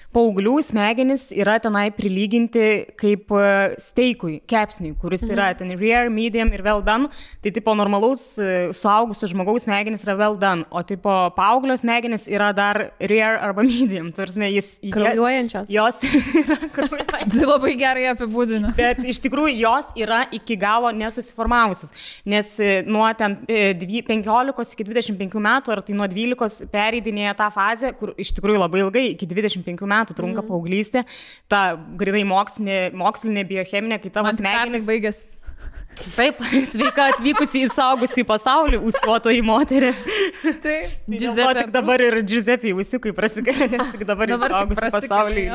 paauglių smegenys yra tenai prilyginti kaip steikui, kepsniui, kuris yra ten rare, medium ir well done. Tai tipo normalaus suaugusio žmogaus smegenys yra well done, o tipo paauglio smegenys yra dar rare arba medium. Tarsi kraujuojančios. Jos yra kraujuojančios. Tai labai gerai apibūdina. Bet iš tikrųjų jos yra iki galo nesusiformavusios, nes nuo ten 15 iki 25 metų, ar tai nuo 12 pereidinėja tą fazę, kur iš tikrųjų labai ilgai, iki 25 metų trunka paauglystė, ta grinai mokslinė biocheminė, kai tavo smegenys baigės. Taip, sveika atvykusi į saugusį pasaulį, ūsuotoji moterį. Taip, tik dabar ir Giuseppe ūsiukai prasikėlė, nes tik dabar į saugusį pasaulį.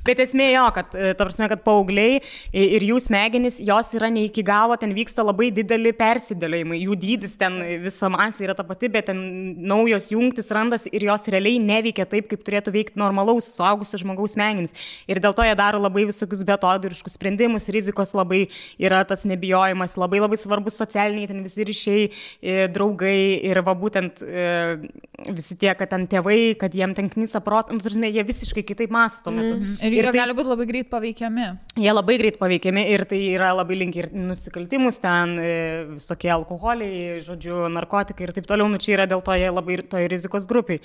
Bet esmė jo, kad, ta prasme, kad paaugliai ir jų smegenys, jos yra ne iki galo, ten vyksta labai dideli persidėliojimai, jų dydis ten visa masė yra ta pati, bet ten naujos jungtis randas ir jos realiai neveikia taip, kaip turėtų veikti normalaus suaugusio žmogaus smegenys. Ir dėl to jie daro labai visokius betodiriškus sprendimus, rizikos labai yra tas nebijojimas, labai labai svarbus socialiniai ten visi ryšiai, draugai ir va būtent visi tie, kad ten tėvai, kad jiem ten knisa protą, jie visiškai kitaip mąsto tuo metu. Ir jie gali būti labai greit paveikiami. Jie labai greit paveikiami ir tai yra labai linki ir nusikaltimus, ten visokie alkoholiai, žodžiu, narkotikai ir taip toliau, nu čia yra dėl to jie labai toje rizikos grupiai.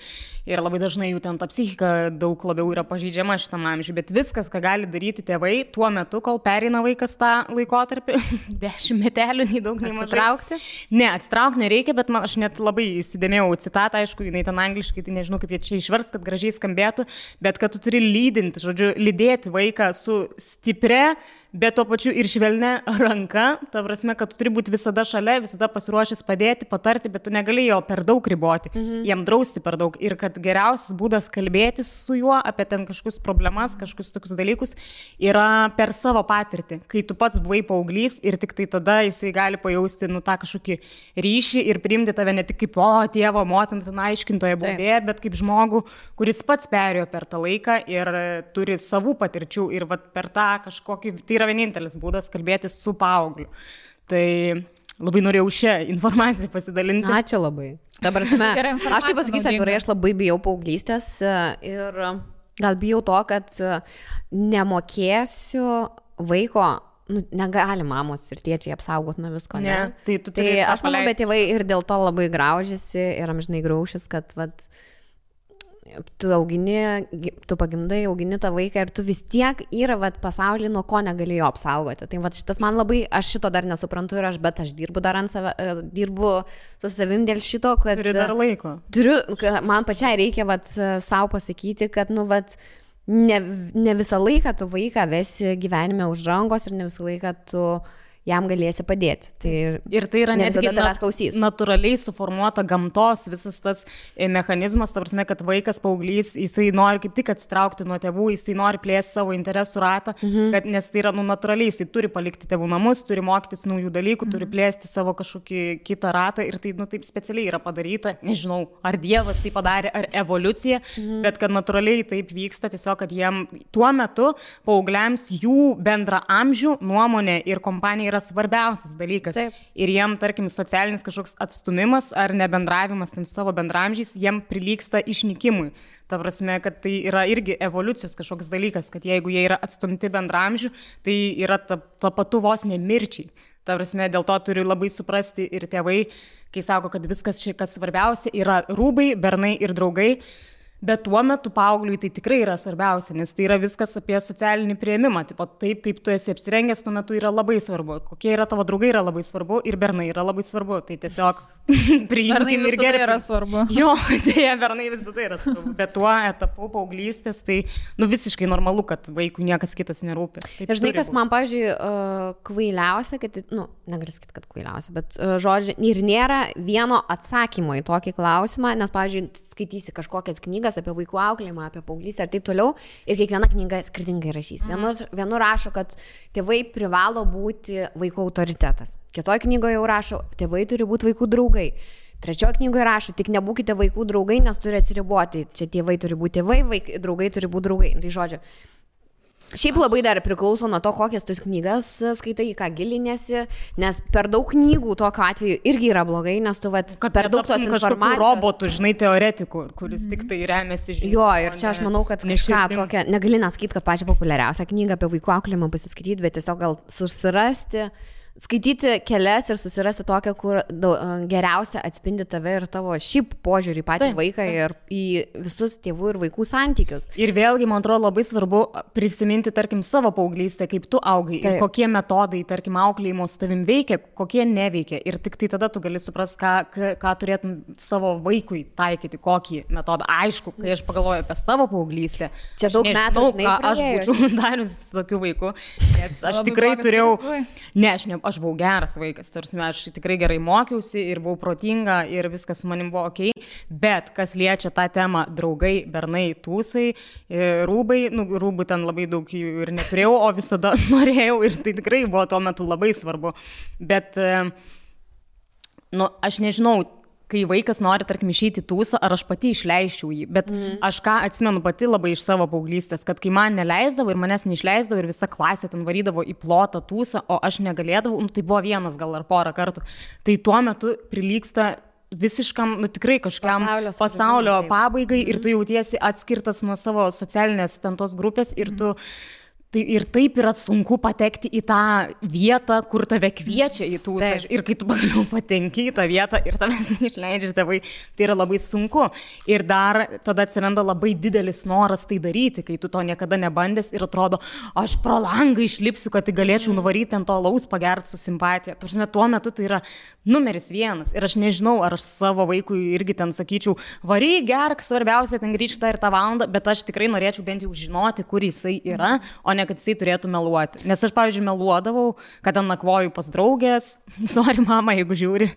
Ir labai dažnai jų ten ta psichika daug labiau yra pažeidžiama šitam amžiui, bet viskas, ką gali daryti tėvai tuo metu, kol pereina vaikas tą laikotarpį, 10 metelių, nei daug, nei mažai. Atsitraukti? Ne, atsitraukti nereikia, bet aš net labai įsidėmėjau citatą, aišku, jinai ten angliškai, tai nežinau, kaip jie čia išvers, kad gražiai skambėtų, bet kad tu turi lydinti, žodžiu, lydėti vaiką su stipria, bet tuo pačiu ir švelnia ranka, ta prasme, kad tu turi būti visada šalia, visada pasiruošęs padėti, patarti, bet tu negali jo per daug riboti, jam drausti per daug. Ir kad geriausias būdas kalbėti su juo apie ten kažkokius problemas, kažkokius tokius dalykus yra per savo patirtį. Kai tu pats buvai paauglys ir tik tai tada jisai gali pajausti tą kažkokį ryšį ir priimti tave ne tik kaip tėvo, motiną, ten aiškintoje būdėje, bet kaip žmogų, kuris pats perėjo per tą laiką ir turi savų patirčių ir per tą kažkokį, tai yra vienintelis būdas kalbėti su paaugliu. Tai labai norėjau šią informaciją pasidalinti. Ačiū labai. Dabar aš tai pasakysiu atvirai, aš labai bijau paauglystės ir gal bijau to, kad nemokėsiu vaiko, negali mamos ir tėčiai apsaugoti nuo visko, ne? Tai aš manau, bet tėvai ir dėl to labai graužiasi ir amžinai graušis, kad tu pagimdai, augini tą vaiką ir tu vis tiek yra pasaulį, nuo ko negalėjo apsaugoti. Tai šitas man labai, aš šito dar nesuprantu bet aš dirbu dar ant save, dirbu su savim dėl šito, kad... Turi dar laiko. Man pačiai reikia savo pasakyti, kad ne visą laiką tu vaiką vesi gyvenime už rankos ir ne visą laiką tu jam galėsi padėti. Ir tai yra netgi natūraliai suformuota gamtos visas tas mechanizmas, ta prasme, kad vaikas, paauglys, jisai nori kaip tik atsitraukti nuo tėvų, jisai nori plėsti savo interesų ratą, nes tai yra natūraliai, jisai turi palikti tėvų namus, turi mokytis naujų dalykų, turi plėsti savo kažkokį kitą ratą ir tai taip specialiai yra padaryta, nežinau, ar Dievas tai padarė, ar evoliucija, bet kad natūraliai taip vyksta, tiesiog, kad jiem tuo metu paaugliams jų bendra amžių, nuomonė ir kompanija yra svarbiausias dalykas. Taip. Ir jiem, tarkim, socialinis kažkoks atstumimas ar nebendravimas su savo bendramžiais, jiem prilygsta išnykimui. Ta prasme, kad tai yra irgi evoliucijos kažkoks dalykas, kad jeigu jie yra atstumti bendramžių, tai yra ta patu vos nemirčiai. Ta prasme, dėl to turi labai suprasti ir tėvai, kai sako, kad viskas čia, kas svarbiausia, yra rūbai, bernai ir draugai. Bet tuo metu paaugliui tai tikrai yra svarbiausia, nes tai yra viskas apie socialinį priėmimą. Taip, kaip tu esi apsirengęs, tuo metu yra labai svarbu. Kokie yra tavo draugai yra labai svarbu ir bernai yra labai svarbu. Tai tiesiog priimkim ir gerai yra svarbu. Jo, dėja, bernai visada yra svarbu, bet tuo etapu paauglystės, tai visiškai normalu, kad vaikui niekas kitas nerūpi. Ir žinai, kas man, pavyzdžiui, kvailiausia, kad, negaliu sakyti, kad kvailiausia, bet žodžiu, ir nėra vieno atsakymo į tokį klausimą, nes, pavyzdžiui, skaitysi kažkokias knygas apie vaikų auklėjimą, apie paauglystę ir taip toliau, ir kiekviena knyga skirtingai rašys. Vienu rašo, kad tėvai privalo būti vaikų autoritetas. Kitoje knygoje jau rašo, tėvai turi būti vaikų draugai. Trečioje knygoje rašo, tik nebūkite vaikų draugai, nes turi atsiriboti. Čia tėvai turi būti tėvai, draugai turi būti draugai. Tai žodžiu, šiaip labai dar priklauso nuo to, kokias tus knygas skaitai, ką gilinėsi, nes per daug knygų tokiu atveju irgi yra blogai, nes tu per daug tos informacijos. Robotų, žinai, teoretikų, kuris tik tai remiasi žinių. Jo, ir čia aš manau, kad kažką tokia, negali nesakyti, kad pačią populiariausią knygą apie vaikų auklėjimą pasiskaityti, bet tiesiog gal susirasti, skaityti kelias ir susirasti tokią, kur geriausia atspindi tave ir tavo šiaip požiūrį į patį vaiką ir į visus tėvų ir vaikų santykius. Ir vėlgi, man atrodo, labai svarbu prisiminti, tarkim, savo paauglystę, kaip tu augai ir kokie metodai, tarkim, auklėjimo su tavim veikia, kokie neveikia. Ir tik tai tada tu gali suprasti, ką turėtum savo vaikui taikyti, kokį metodą. Aišku, kai aš pagalvoju apie savo paauglystę, čia daug metų, aš būčiau darius tokių vaikų, nes aš tikrai turėjau, aš buvau geras vaikas, tarsi aš tikrai gerai mokiausi ir buvau protinga ir viskas su manim buvo ok, bet kas liečia tą temą draugai, bernai, tūsai, rūbai, rūbų ten labai daug jų ir neturėjau, o visada norėjau ir tai tikrai buvo tuo metu labai svarbu, bet aš nežinau, kai vaikas nori, tarkim, išeiti tūsą, ar aš pati išleiščiau jį, bet aš ką atsimenu pati labai iš savo paauglystės, kad kai man neleisdavo ir manęs neišleisdavo ir visa klasė ten varydavo į plotą tūsą, o aš negalėdavau, tai buvo vienas gal ar porą kartų, tai tuo metu prilygsta visiškam, tikrai kažkam pasaulio pabaigai ir tu jautiesi atskirtas nuo savo socialinės ten tos grupės ir tu tai ir taip yra sunku patekti į tą vietą, kur tave kviečia į tūsą. Ir kai tu pagaliau patenki į tą vietą ir tavęs neišleidžia tėvai, tai yra labai sunku. Ir dar tada atsiranda labai didelis noras tai daryti, kai tu to niekada nebandęs ir atrodo, aš pro langą išlipsiu, kad tai galėčiau nuvaryti ant to alaus pagerti su simpatija. Tuo metu tai yra numeris 1. Ir aš nežinau, ar aš savo vaikui irgi ten sakyčiau, varyk, gerk, svarbiausia, ten grįžta ir tą valandą, bet aš tikrai norėčiau bent jau žinoti, kur jisai yra, o ne kad jisai turėtų meluoti. Nes aš, pavyzdžiui, meluodavau, kad ten nakvoju pas draugės, sorry mama, jeigu žiūri,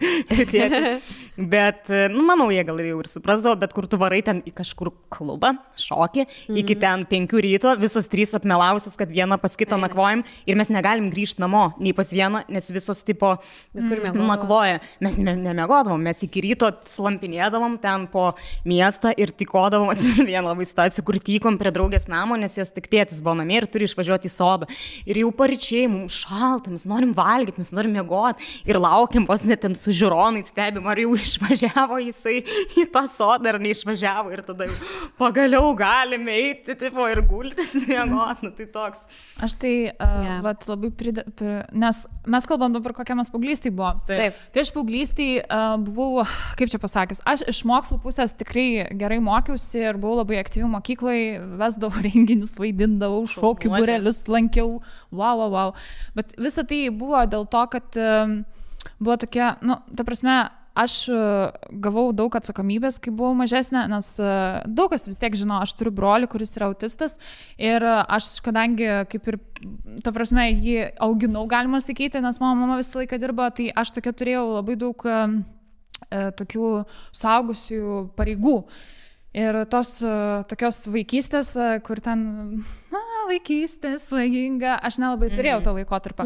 bet, manau, jie gal jau ir suprasdavo, bet kur tu varai ten į kažkur klubą, šokį, iki ten 5 ryto, visos 3 apmelavusios, kad viena pas kitą nakvojam ir mes negalim grįžti namo, nei pas vieną, nes visos tipo nakvoja. Mes nemiegodavom, mes iki ryto slampinėdavom ten po miestą ir tykodavom, atsimenu vieną labai situaciją, kur tykom prie draugės namo, nes jos tik tėtis buvo namie ir turi išvažiuoti į sodą. Ir jau paryčiai, mums šalta, mes norim valgyti, mes norim miegoti ir laukiam, vos net ten su žiūronai stebim, ar jau išvažiavo jisai į tą sodą ar neišvažiavo ir tada jau pagaliau galime eiti tipo, ir gultis miegoti. Tai toks. Aš tai vat, labai nes mes kalbam dabar, kokia mes paauglystėj buvo. Taip. Tai aš paauglystėj buvau, kaip čia pasakius, aš iš mokslo pusės tikrai gerai mokiausi ir buvau labai aktyvi mokyklai, vesdavau renginius, vaidindavau, šokių būrelius lankiau, wow. Bet visa tai buvo dėl to, kad buvo tokia, ta prasme, aš gavau daug atsakomybės, kai buvau mažesnė, nes daug kas vis tiek žino, aš turiu brolį, kuris yra autistas ir aš, kadangi kaip ir, ta prasme, jį auginau, galima sakyti, nes mano mama visą laiką dirba, tai aš tokia turėjau labai daug tokių suaugusių pareigų. Ir tos tokios vaikystės, kur ten vaikystė svaiginga, aš nelabai turėjau tą laikotarpį.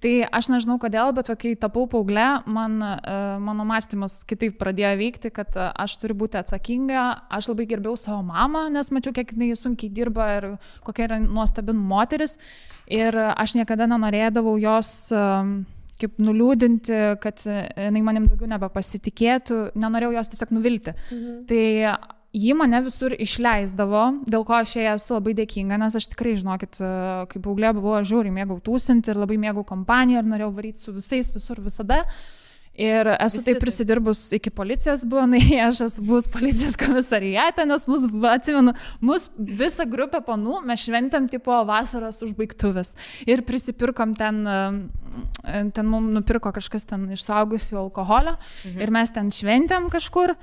Tai aš nežinau kodėl, bet kai tapau paauglė, mano mąstymas kitaip pradėjo veikti, kad aš turiu būti atsakinga, aš labai gerbiau savo mamą, nes mačiau, kiek jinai sunkiai dirba ir kokia yra nuostabi moteris. Ir aš niekada nenorėdavau jos kaip nuliūdinti, kad jinai manim daugiau nebepasitikėtų, nenorėjau jos tiesiog nuvilti. Tai ji mane visur išleisdavo, dėl ko aš jai esu labai dėkinga, nes aš tikrai, žinokit, kaip paauglė buvau, žiauriai mėgau tūsinti ir labai mėgau kompaniją ir norėjau varyti su visais visur visada. Ir esu taip prisidirbus iki policijos buvo, aš esu buvus policijos komisariate, nes atsimenu, visą grupę panų mes šventėm tipo vasaros užbaigtuvės ir prisipirkom ten ten mums nupirko kažkas ten iš suaugusių alkoholio ir mes ten šventėm kažkur.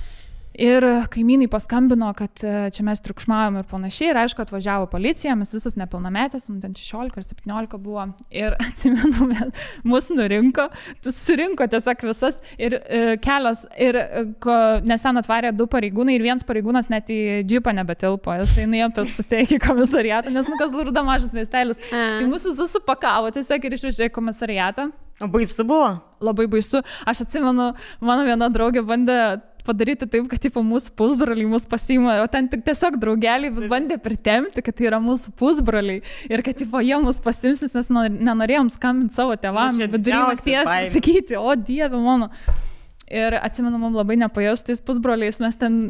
Ir kaimynai paskambino, kad čia mes triukšmavom ir panašiai. Ir aišku, atvažiavo policija, mes visus nepilnametės, ten 16 ar 17 buvo. Ir atsimenu, mus nurinko, surinko tiesiog visas ir kelios. Ir nes ten atvarė 2 pareigūnai ir vienas pareigūnas net į džipą nebetilpo. Jis tai nuėjo pėstute iki komisariato, nes Kazlų Rūda mažas miestelis. Tai mus visus supakavo tiesiog ir išvežė į komisariatą. O baisu buvo? Labai baisu. Aš atsimenu, mano viena draugė bandė padaryti taip, kad tipo, mūsų pusbroliai mus pasiima, o ten tik tiesiog draugeliai bandė pritemti, kad tai yra mūsų pusbroliai ir kad tipo, jie mus pasims, nes nenorėjom skambinti savo tėvams, vidury nakties sakyti, o Dieve mano. Ir atsimenu, mums labai nepajausti tais pusbroliais, mes ten,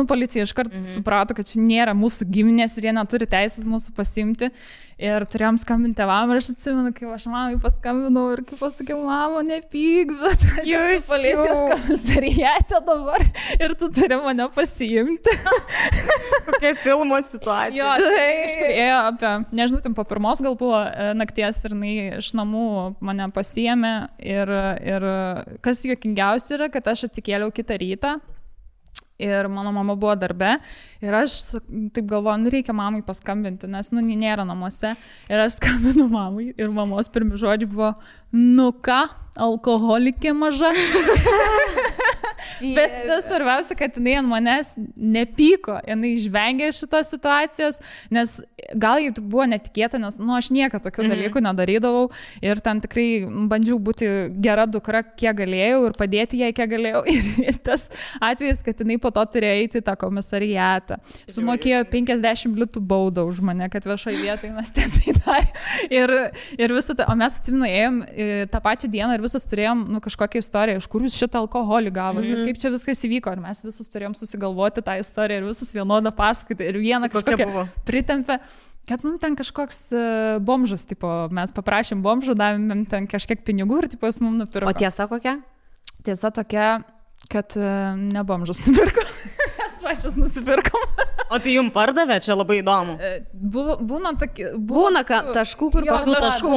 policija iškart suprato, kad čia nėra mūsų giminės ir jie neturi teisės mūsų pasimti. Ir turėjom skambinti tėvam ir aš atsimenu, kaip aš mamai paskambinau ir kaip pasakiau, mamo, nepyk, bet aš esu policijos komisariate dabar ir tu turi mane pasiimti. Kokia filmo situacija. Jo, kažkur ėjo apie, nežinau, ten po 1 gal buvo nakties ir jinai iš namų mane pasiėmė ir kas juokingiausia yra, kad aš atsikėliau kitą rytą. Ir mano mama buvo darbe ir aš taip galvoju, reikia mamai paskambinti, nes, nėra namuose. Ir aš skambinu mamai ir mamos pirmi žodžiai buvo, ką, alkoholikė maža. Bet tas svarbiausia, kad jinai ant manęs nepyko, jinai išvengė šitos situacijos, nes gal jau buvo netikėta, nes aš niekada tokių dalykų nedarydavau ir ten tikrai bandžiau būti gera dukra, kiek galėjau ir padėti jai, kiek galėjau. Ir tas atvejis, kad jinai po to turėjo eiti į tą komisariatą. Sumokėjo 50 litų baudą už mane, kad viešoje vietoje mes ten tai darė. Ir visą tai, o mes atsimenu, ėjom tą pačią dieną ir visus turėjom kažkokią istoriją, iš kur jūs šitą alkoholį gavote, kaip čia viskas įvyko. Ir mes visus turėjom susigalvoti tą istoriją ir visus vienodą pasakoti. Ir vieną kažkokią pritempę, kad mums ten kažkoks bomžas, tipo, mes paprašėm bomžų, davėm ten kažkiek pinigų ir tipo, jis mums nupirko. O tiesa kokia? Tiesa tokia, kad ne bomžas nupirko, mes pačias nusipirkom. O tai jums pardavė, čia labai įdomu. Būna taškų, kur kokių taškų,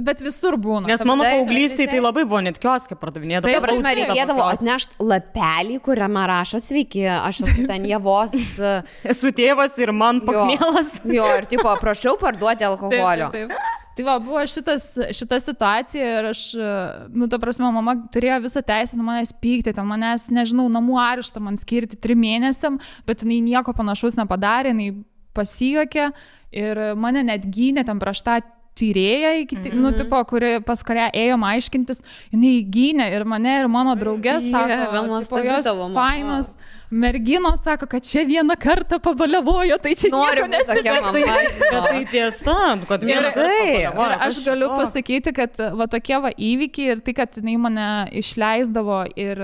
bet visur būna. Nes mano paauglystėje tai labai buvo net kioske pardavinėdavo. Tai prasme, reikėdavo atnešti lapelį, kuriame rašo sveiki, aš esu ten Javos. Esu tėvas ir man pakmėlas. Jo, ir tipo, prašau parduoti alkoholio. Taip. Tai va, buvo šita situacija ir aš, ta prasme, mama turėjo visą teisę manęs pykti, ten manęs, nežinau, namų areštą man skirti 3 mėnesiam, bet jinai nieko panašaus nepadarė, jinai pasijuokė ir mane net gynė ten prieš tą tyrėją, pas kurią ėjom aiškintis, jinai gynė ir mane, ir mano draugės, sako, jos fainos merginos, sako, kad čia vieną kartą pabalevojo, tai čia nieko nesidėtų. Bet tai tiesa, kad vieną kartą pabalevojo. Ir aš galiu pasakyti, kad va tokie va įvykiai ir tai, kad jinai mane išleisdavo ir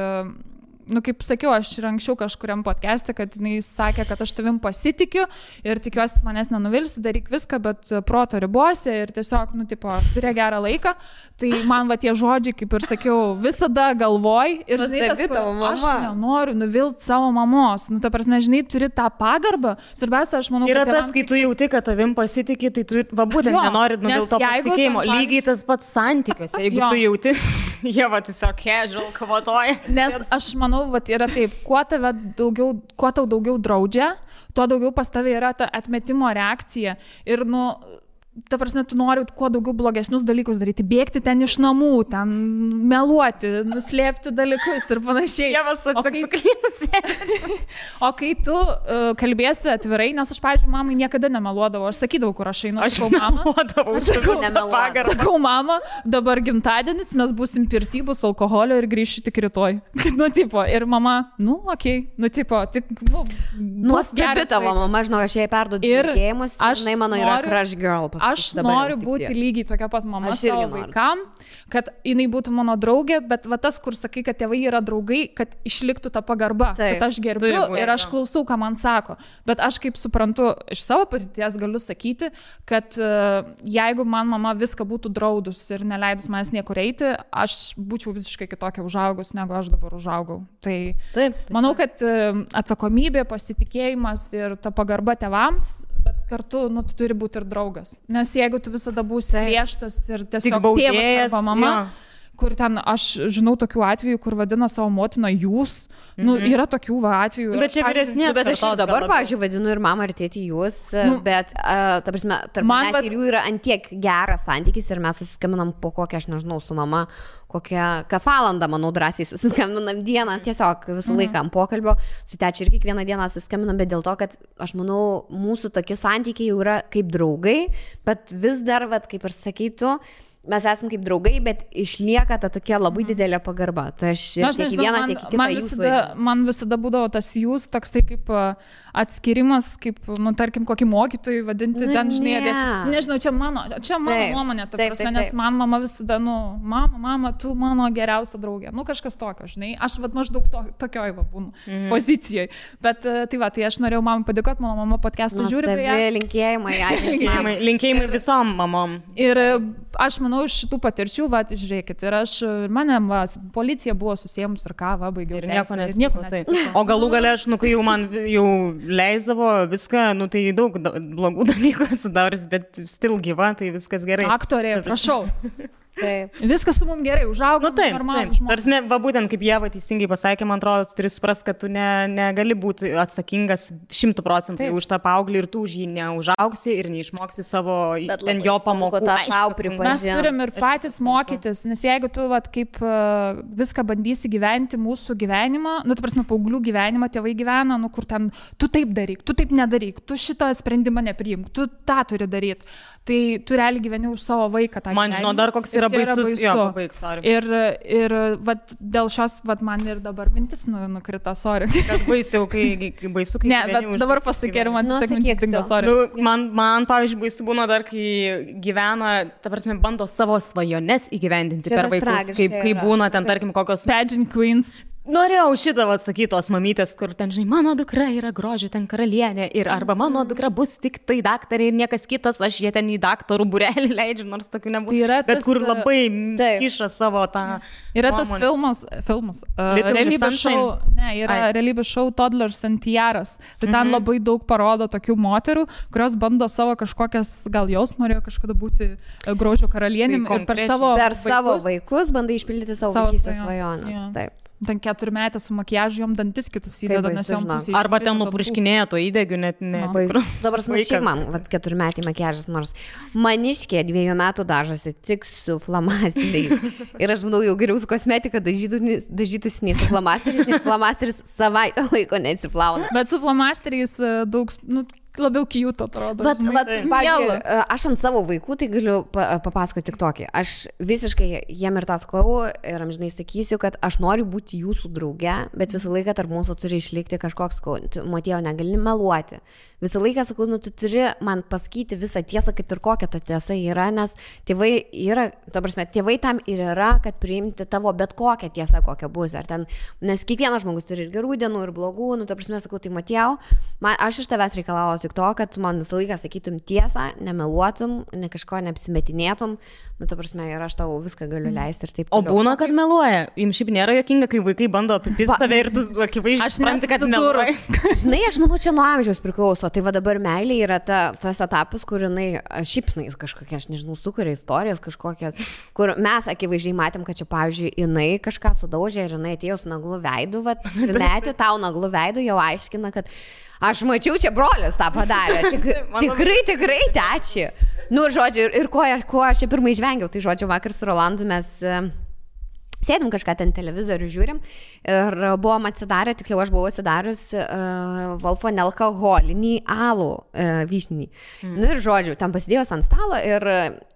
kaip sakiau, aš ir anksčiau kažkuriam podcast'e, kad jinai sakė, kad aš tavim pasitikiu ir tikiuosi manęs nenuvilsi, daryk viską, bet proto ribose ir tiesiog, turė gerą laiką. Tai man va tie žodžiai, kaip ir sakiau, visada galvoj ir aš nenoriu nuvilti savo mamos. Ta prasme, žinai, turi tą pagarbą. Svarbiausia, aš manau, yra kad tas, kai tu jauti, kad tavim pasitiki, tai tu būtent nenori nuvilti to pasitikėjimo. Lygiai tas pats santykiuose, jeigu tu jauti, jie va tiesiog casual kavotoja. Nes aš manau, vat yra taip, kuo tau daugiau draudžia, tuo daugiau pas tave yra ta atmetimo reakcija. Ir, ta prasme, tu nori kuo daugiau blogesnius dalykus daryti, bėgti ten iš namų, ten meluoti, nuslėpti dalykus ir panašiai. O kai tu kalbėsi atvirai, nes aš, pavyzdžiui, mamai niekada nemeluodavau, aš sakydavau, kur aš einu, sakau, mama, dabar gimtadienis, mes būsim pirty, bus alkoholio ir grįšiu tik rytoj. Ir mama, nuostabi tavo mama, žinau, aš jai perduodu linkėjimus, jinai mano yra crush girl. Aš noriu būti lygiai tokia pat mama savo vaikam, kad jinai būtų mano draugė, bet va tas, kur sakai, kad tėvai yra draugai, kad išliktų ta pagarba, kad aš gerbiu ir aš klausau, ką man sako. Bet aš kaip suprantu, iš savo patirties galiu sakyti, kad jeigu man mama viską būtų draudus ir neleidus manęs niekur eiti, aš būčiau visiškai kitokia užaugus, negu aš dabar užaugau. Tai manau, kad atsakomybė, pasitikėjimas ir ta pagarba tėvams, bet kartu, nu, tu turi būti ir draugas. Nes jeigu tu visada būsi griežtas ir tiesiog baudėjas, tėvas arba mama, kur ten, aš žinau tokių atvejų, kur vadina savo motiną jūs, nu, yra tokių atvejų. Bet čia vyresnės. Bet aš ir dabar, pavyzdžiui, vadinu ir mamą, ir tėtį jūs, bet, ta prasme, tarp manęs ir jų yra antiek geras santykis ir mes susiskambinam po kokią, aš nežinau, su mama, kas valandą, manau, drąsiai susiskambinam dieną, tiesiog visą laiką ant pokalbio, su tečia ir kiekvieną dieną susiskambinam, bet dėl to, kad aš manau, mūsų tokie santykiai jau yra kaip draugai, bet vis dar, vat, kaip ir sakytų, mes esame kaip draugai, bet išlieka ta tokia labai didelė pagarba. Tai aš tiek vieną, tiek kitą jūsų. Man visada būdavo tas jūs, toks tai kaip atskirimas, kaip, nu, tarkim, kokį mokytojų vadinti, nu, ten, žinai, nežinau, čia mano nuomonė, ta prasme, nes man mama visada, nu, mama, tu mano geriausia draugė, nu, kažkas tokio, žinai, aš vat maždaug tokioj va būnu pozicijoje, bet tai va, tai aš norėjau mamai padėkoti, mano mama podcastą žiūri. Linkėjimai visom mamom. Ir aš manau, iš šitų patirčių, va, žiūrėkit, ir mane, va, policija buvo susiemus ir ką, va, baigiau. Ir nieko neatsitiko. O galų gale aš, nu, kai jau man jau leisdavo viską, nu, tai daug blogų dalykų esu daręs, bet still gyva, tai viskas gerai. Aktorė, prašau. Taip. Viskas su mums gerai, užaugo. Nu, taip, tarsi, va, būtent kaip Ieva teisingai pasakė, man atrodo, tu turi suprasti, kad tu negali būti atsakingas 100% už tą paauglį ir tu už jį neužaugsi ir neišmoksi savo ten jo pamokų. Mes turim ir patys mokytis, nes jeigu tu, vat, kaip viską bandysi gyventi mūsų gyvenimą, nu, tu prasme, paauglių gyvenimą tėvai gyvena, nu, kur ten, tu taip daryk, tu taip nedaryk, tu šitą sprendimą nepriimk, tu tą turi daryti. Tai tu realiai gyveni už savo vaiką. Man žinau, dar koks yra baisus. Jo, ir vat, dėl šios, vat, man ir dabar mintis nukrito, sorry. Kad baisiau, kai baisu, kai... Ne, bet dabar pasakė ir man tiesiog mintis dingo, sorry. Nu, man, pavyzdžiui, baisu būna dar, kai gyvena, ta prasme, bando savo svajones įgyvendinti per vaikus, kai būna ten, tarkim, kokios... Pageant queens. Norėjau šitą atsakyti tos mamytės, kur ten, žinai, mano dukra yra grožio ten karalienė ir arba mano dukra bus tik tai daktarė ir niekas kitas, aš jie ten į daktarų būrelį leidžiu, nors tokių nebūtų. Tai bet kur labai kiša savo tą... Yra tas filmas realybės šou, realybės šou Toddlers and Tiaras. Tai ten labai daug parodo tokių moterų, kurios bando savo kažkokias, gal jos norėjo kažkada būti grožio karalienėm ir per savo vaikus bandai išpildyti savo vaikystės svajonės. Taip. Ten 4-metė su makiažu, jom dantis kitus įdeda, nes jom pusė. Arba ten nupurškinėjo to įdegiu, net ne. Dabar smašiai man, 4-metė makiažas, nors maniškė 2 metų dažosi tik su flamasteriais. Ir aš manau, jau geriau su kosmetika dažytųsi nei su flamasteriais, nes flamasteris savaitę laiko neatsiplauna. Bet su flamasteriais daug, nu, labiau cute atrodo. Pavyzdžiui, aš ant savo vaikų tai galiu papasakoti tik tokį. Aš visiškai jiem ir tą sakau ir amžinai sakysiu, kad aš noriu būti jūsų drauge, bet visą laiką tarp mūsų turi išlikti kažkoks, Matėjau, negali meluoti. Visą laiką sakau, nu, tu turi man pasakyti visą tiesą, kad ir kokia ta tiesa yra, nes tėvai yra, ta prasme, tėvai tam ir yra, kad priimti tavo bet kokią tiesą, kokia bus. Ar ten, nes kiekvienas žmogus turi ir gerų dienų, ir blogų, nu, ta prasme, sakau, tai Matėjau, aš iš tavęs reikalauju tik to, kad man visą laiką sakytum tiesą, nemeluotum, ne kažko neapsimetinėtum, nu, ta prasme, ir aš tau viską galiu leisti ir taip. O būna, kad meluoja. Jums šiaip nėra juokinga, kai vaikai bando apipist tave ir tu akivaizdžiai supranti, kad meluoja. Žinai, aš manau, čia nuo amžiaus priklauso. Tai va dabar meilė yra tas etapas, kur jinai, šiaip kažkokia, aš nežinau, sukuria istorijas kažkokias, kur mes akivaizdžiai matėm, kad čia, pavyzdžiui, jinai kažką sudaužė ir jinai atėjo su naglu veidu, metė tau naglu veidu, jau aiškina, kad aš mačiau, čia brolis tą padarė. Tikrai teči. Nu, žodžiu, ir ko aš čia pirmai žvengiau, tai žodžiu, vakar su Rolandu mes... Sėdim kažką ten televizorių žiūrim ir buvom atsidarę, tiksliau aš buvau atsidarius Wolfo nealkoholinį alų vyšninį. Nu ir žodžiu, ten pasidėjus ant stalo ir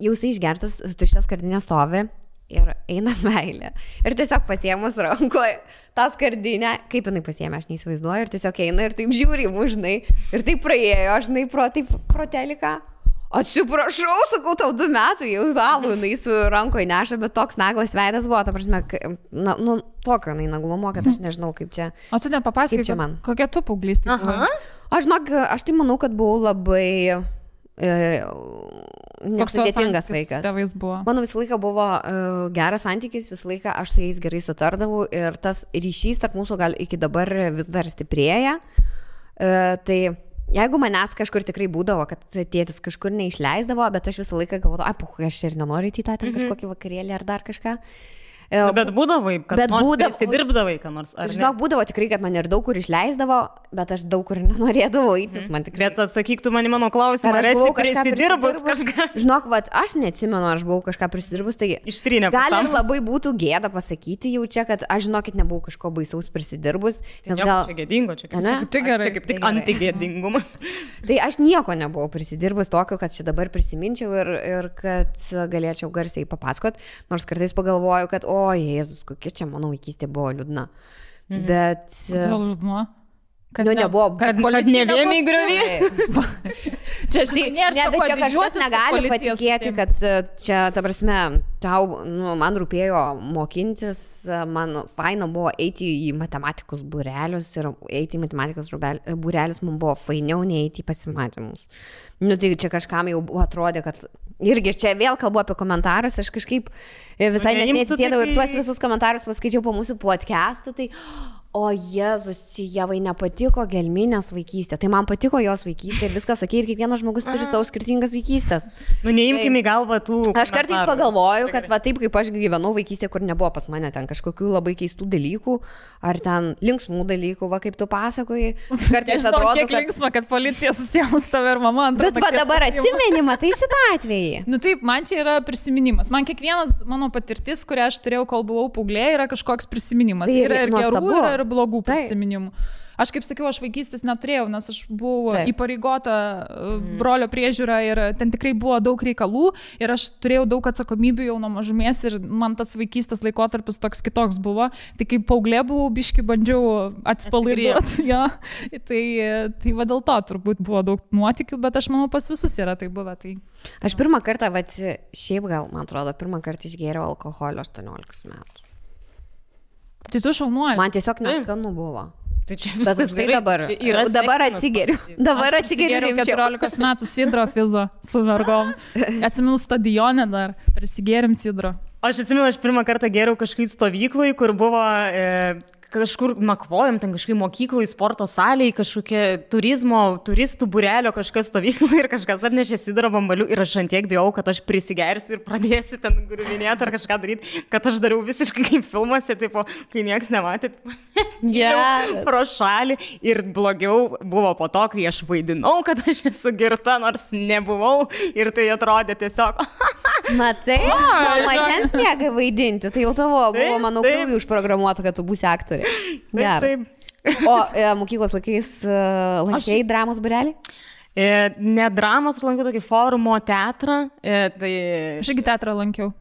jau jisai išgertas, tuščias skardinė stovi ir eina meilė. Ir tiesiog pasiėmus rankoje tą skardinę, kaip jinai pasiėmė, aš neįsivaizduoju, ir tiesiog eina ir taip žiūri mūžnai. Ir taip praėjo, žinai, pro teliką. Atsiprašau, sakau, tau 2 metų, jau alų jinai su rankoje neša, bet toks naglas veidas buvo, ta prasme, nu, tokio jinai naglumo, kad aš nežinau, kaip čia. O tu nepapasakai, kokia tu paauglystė? Aš tai manau, kad buvau labai nesudėtingas vaikas. Mano visą laiką buvo geras santykis, visą laiką aš su jais gerai sutardavau ir tas ryšys tarp mūsų gal iki dabar vis dar stiprėja. Tai jeigu manęs kažkur tikrai būdavo, kad tėtis kažkur neišleisdavo, bet aš visą laiką galvodavau, aš ir nenoriu į tą kažkokį vakarėlį ar dar kažką. Bet būdavai, kad prisidirbdavai, ką nors. Žinok, būdavo tikrai, kad man ir daug kur išleisdavo, bet aš daug kur nenorėdavau įtis, man tikrai. Bet atsakyk tu mano klausimą, ar esi prisidirbus kažką? Žinok, aš neatsimenu, aš buvau kažką prisidirbus, tai gal ir labai būtų gėda pasakyti jau čia, kad aš, žinokit, nebuvau kažko baisaus prisidirbus. Nes gal... Čia gėdingo, čia kaip tik antigėdingumas. Tai aš nieko nebuvau prisidirbus tokio, kad čia dabar prisiminčiau ir kad galėčiau garsiai papasakot, nors kartais pagalvoju, kad o, Jėzus, kokia čia mano vaikystė buvo liūdna. Bet... Kodėl liūdna? Kad nebuvo, kad ne vien į griovį. Čia kažkas negali patikėti, kad čia, ta prasme, man rūpėjo mokintis, man faina buvo eiti į matematikos būrelius ir eiti į matematikos būrelius man buvo fainiau nei eiti į pasimatymus. Tai čia kažkam jau atrodė, kad irgi čia vėl kalbu apie komentarus, aš kažkaip visai nesėdėjau ir tuos visus komentarus paskaičiau po mūsų podcastų, tai o Jėzus, čia Jevai nepatiko gelminės vaikystė, tai man patiko jos vaikystė ir viskas okei, ir kiekvienas žmogus turi savo skirtingas vaikystės. Neimkime į galvą tų komentarų. Aš kartais pagalvoju, kad va taip kaip aš gyvenau vaikystė, kur nebuvo pas mane ten kažkokių labai keistų dalykų, ar ten linksmų dalykų, va kaip tu pasakoji. Kartais atrodo, kiek linksma, kad policija susijęs tave ir mama. Bet va dabar atsimenimą, tai šitą atvejį. Taip, man čia yra prisiminimas. Man kiekvienas mano patirtis, kurią aš turėjau, kol buvau paauglė, yra kažkoks prisiminimas. Tai yra ir gerų, ir blogų prisiminimų. Aš kaip sakiau, aš vaikystės neturėjau, nes aš buvau įpareigota brolio priežiūra ir ten tikrai buvo daug reikalų ir aš turėjau daug atsakomybių jau nuo mažumės ir man tas vaikystės laikotarpis toks kitoks buvo. Tai kaip paauglė buvau, biški bandžiau atsipalaiduoti. Ja. Tai va dėl to turbūt buvo daug nuotykių, bet aš manau pas visus yra tai buvę. Tai... Aš pirmą kartą, šiaip gal, man atrodo, pirmą kartą išgėriau alkoholio 18 metų. Tai tu šaunuoji. Man tiesiog neskanu buvo. Tai čia viskas gerai. Dabar atsigeriu. Dabar atsigeriu 14 metų sidro fizo su vergom. Atsimenu stadione dar, prisigėrim sidro. Aš atsimenu, aš pirmą kartą gėriau kažkaip stovyklai, kur buvo... kažkur nakvojom, ten kažkaip mokyklai, sporto salėje, kažkokie turistų būrelio kažkas stovyklai ir kažkas atnešė sidro bambalių ir aš antiek bijau, kad aš prisigersiu ir pradėsiu ten griuvinėti ar kažką daryti, kad aš dariau visiškai kaip filmuose, tipo, kai niekas nematė, pro šalį ir blogiau buvo po to, kai aš vaidinau, kad aš esu girta, nors nebuvau ir tai atrodė tiesiog. Matai, mažens mėgai vaidinti, tai jau tavo buvo, manau, krūvį užprogramuota, kad tu būsi aktorė. Gerai. O mokyklos laikais lankei dramos būrelį? Ne dramos, aš lankiau tokį forumo teatrą. Aš irgi teatrą lankiau.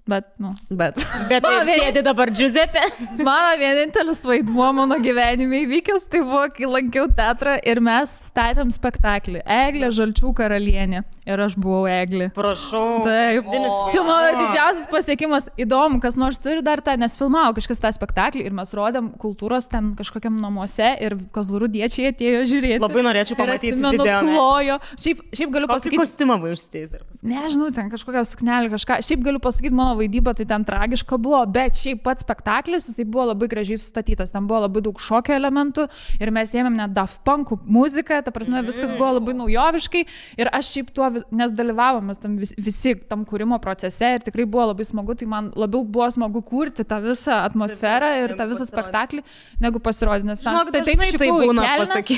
Bet sėdi dabar Giuseppe. Mano vienintelis vaidmuo mano gyvenime įvykęs, tai buvo, kai lankiau teatrą ir mes statėm spektaklį. Eglė Žalčių karalienė. Ir aš buvau Eglė. Prašau. Taip. Čia mano didžiausias pasiekimas. Įdomu, kas nors turi dar tą, nes filmavo kažkas tą spektaklį ir mes rodėm kultūros ten kažkokiam namuose ir kozlurudiečiai atėjo žiūrėti. Labai norėčiau pamatyti video. Plojo. Šiaip galiu pasakyti. Kokį kostiumą buvo užsidėjęs dar pasakyti? Nežinau, ten kažkokią suknelį kažką. Šiaip galiu pasakyti, mano vaidyba tai ten tragiška buvo, bet šiaip pats spektaklis, jisai buvo labai gražiai sustatytas, ten buvo labai daug šokio elementų ir mes ėmėm net Daft Punk muziką, ta prasme viskas buvo labai naujoviškai ir aš šiaip tuo, nes dalyvavomės tam visi tam kūrimo procese ir tikrai buvo labai smagu, tai man labiau buvo smagu kurti tą visą atmosferą ir tą visą spektaklį, negu pasirodyti, nes taip šikau į kelnes,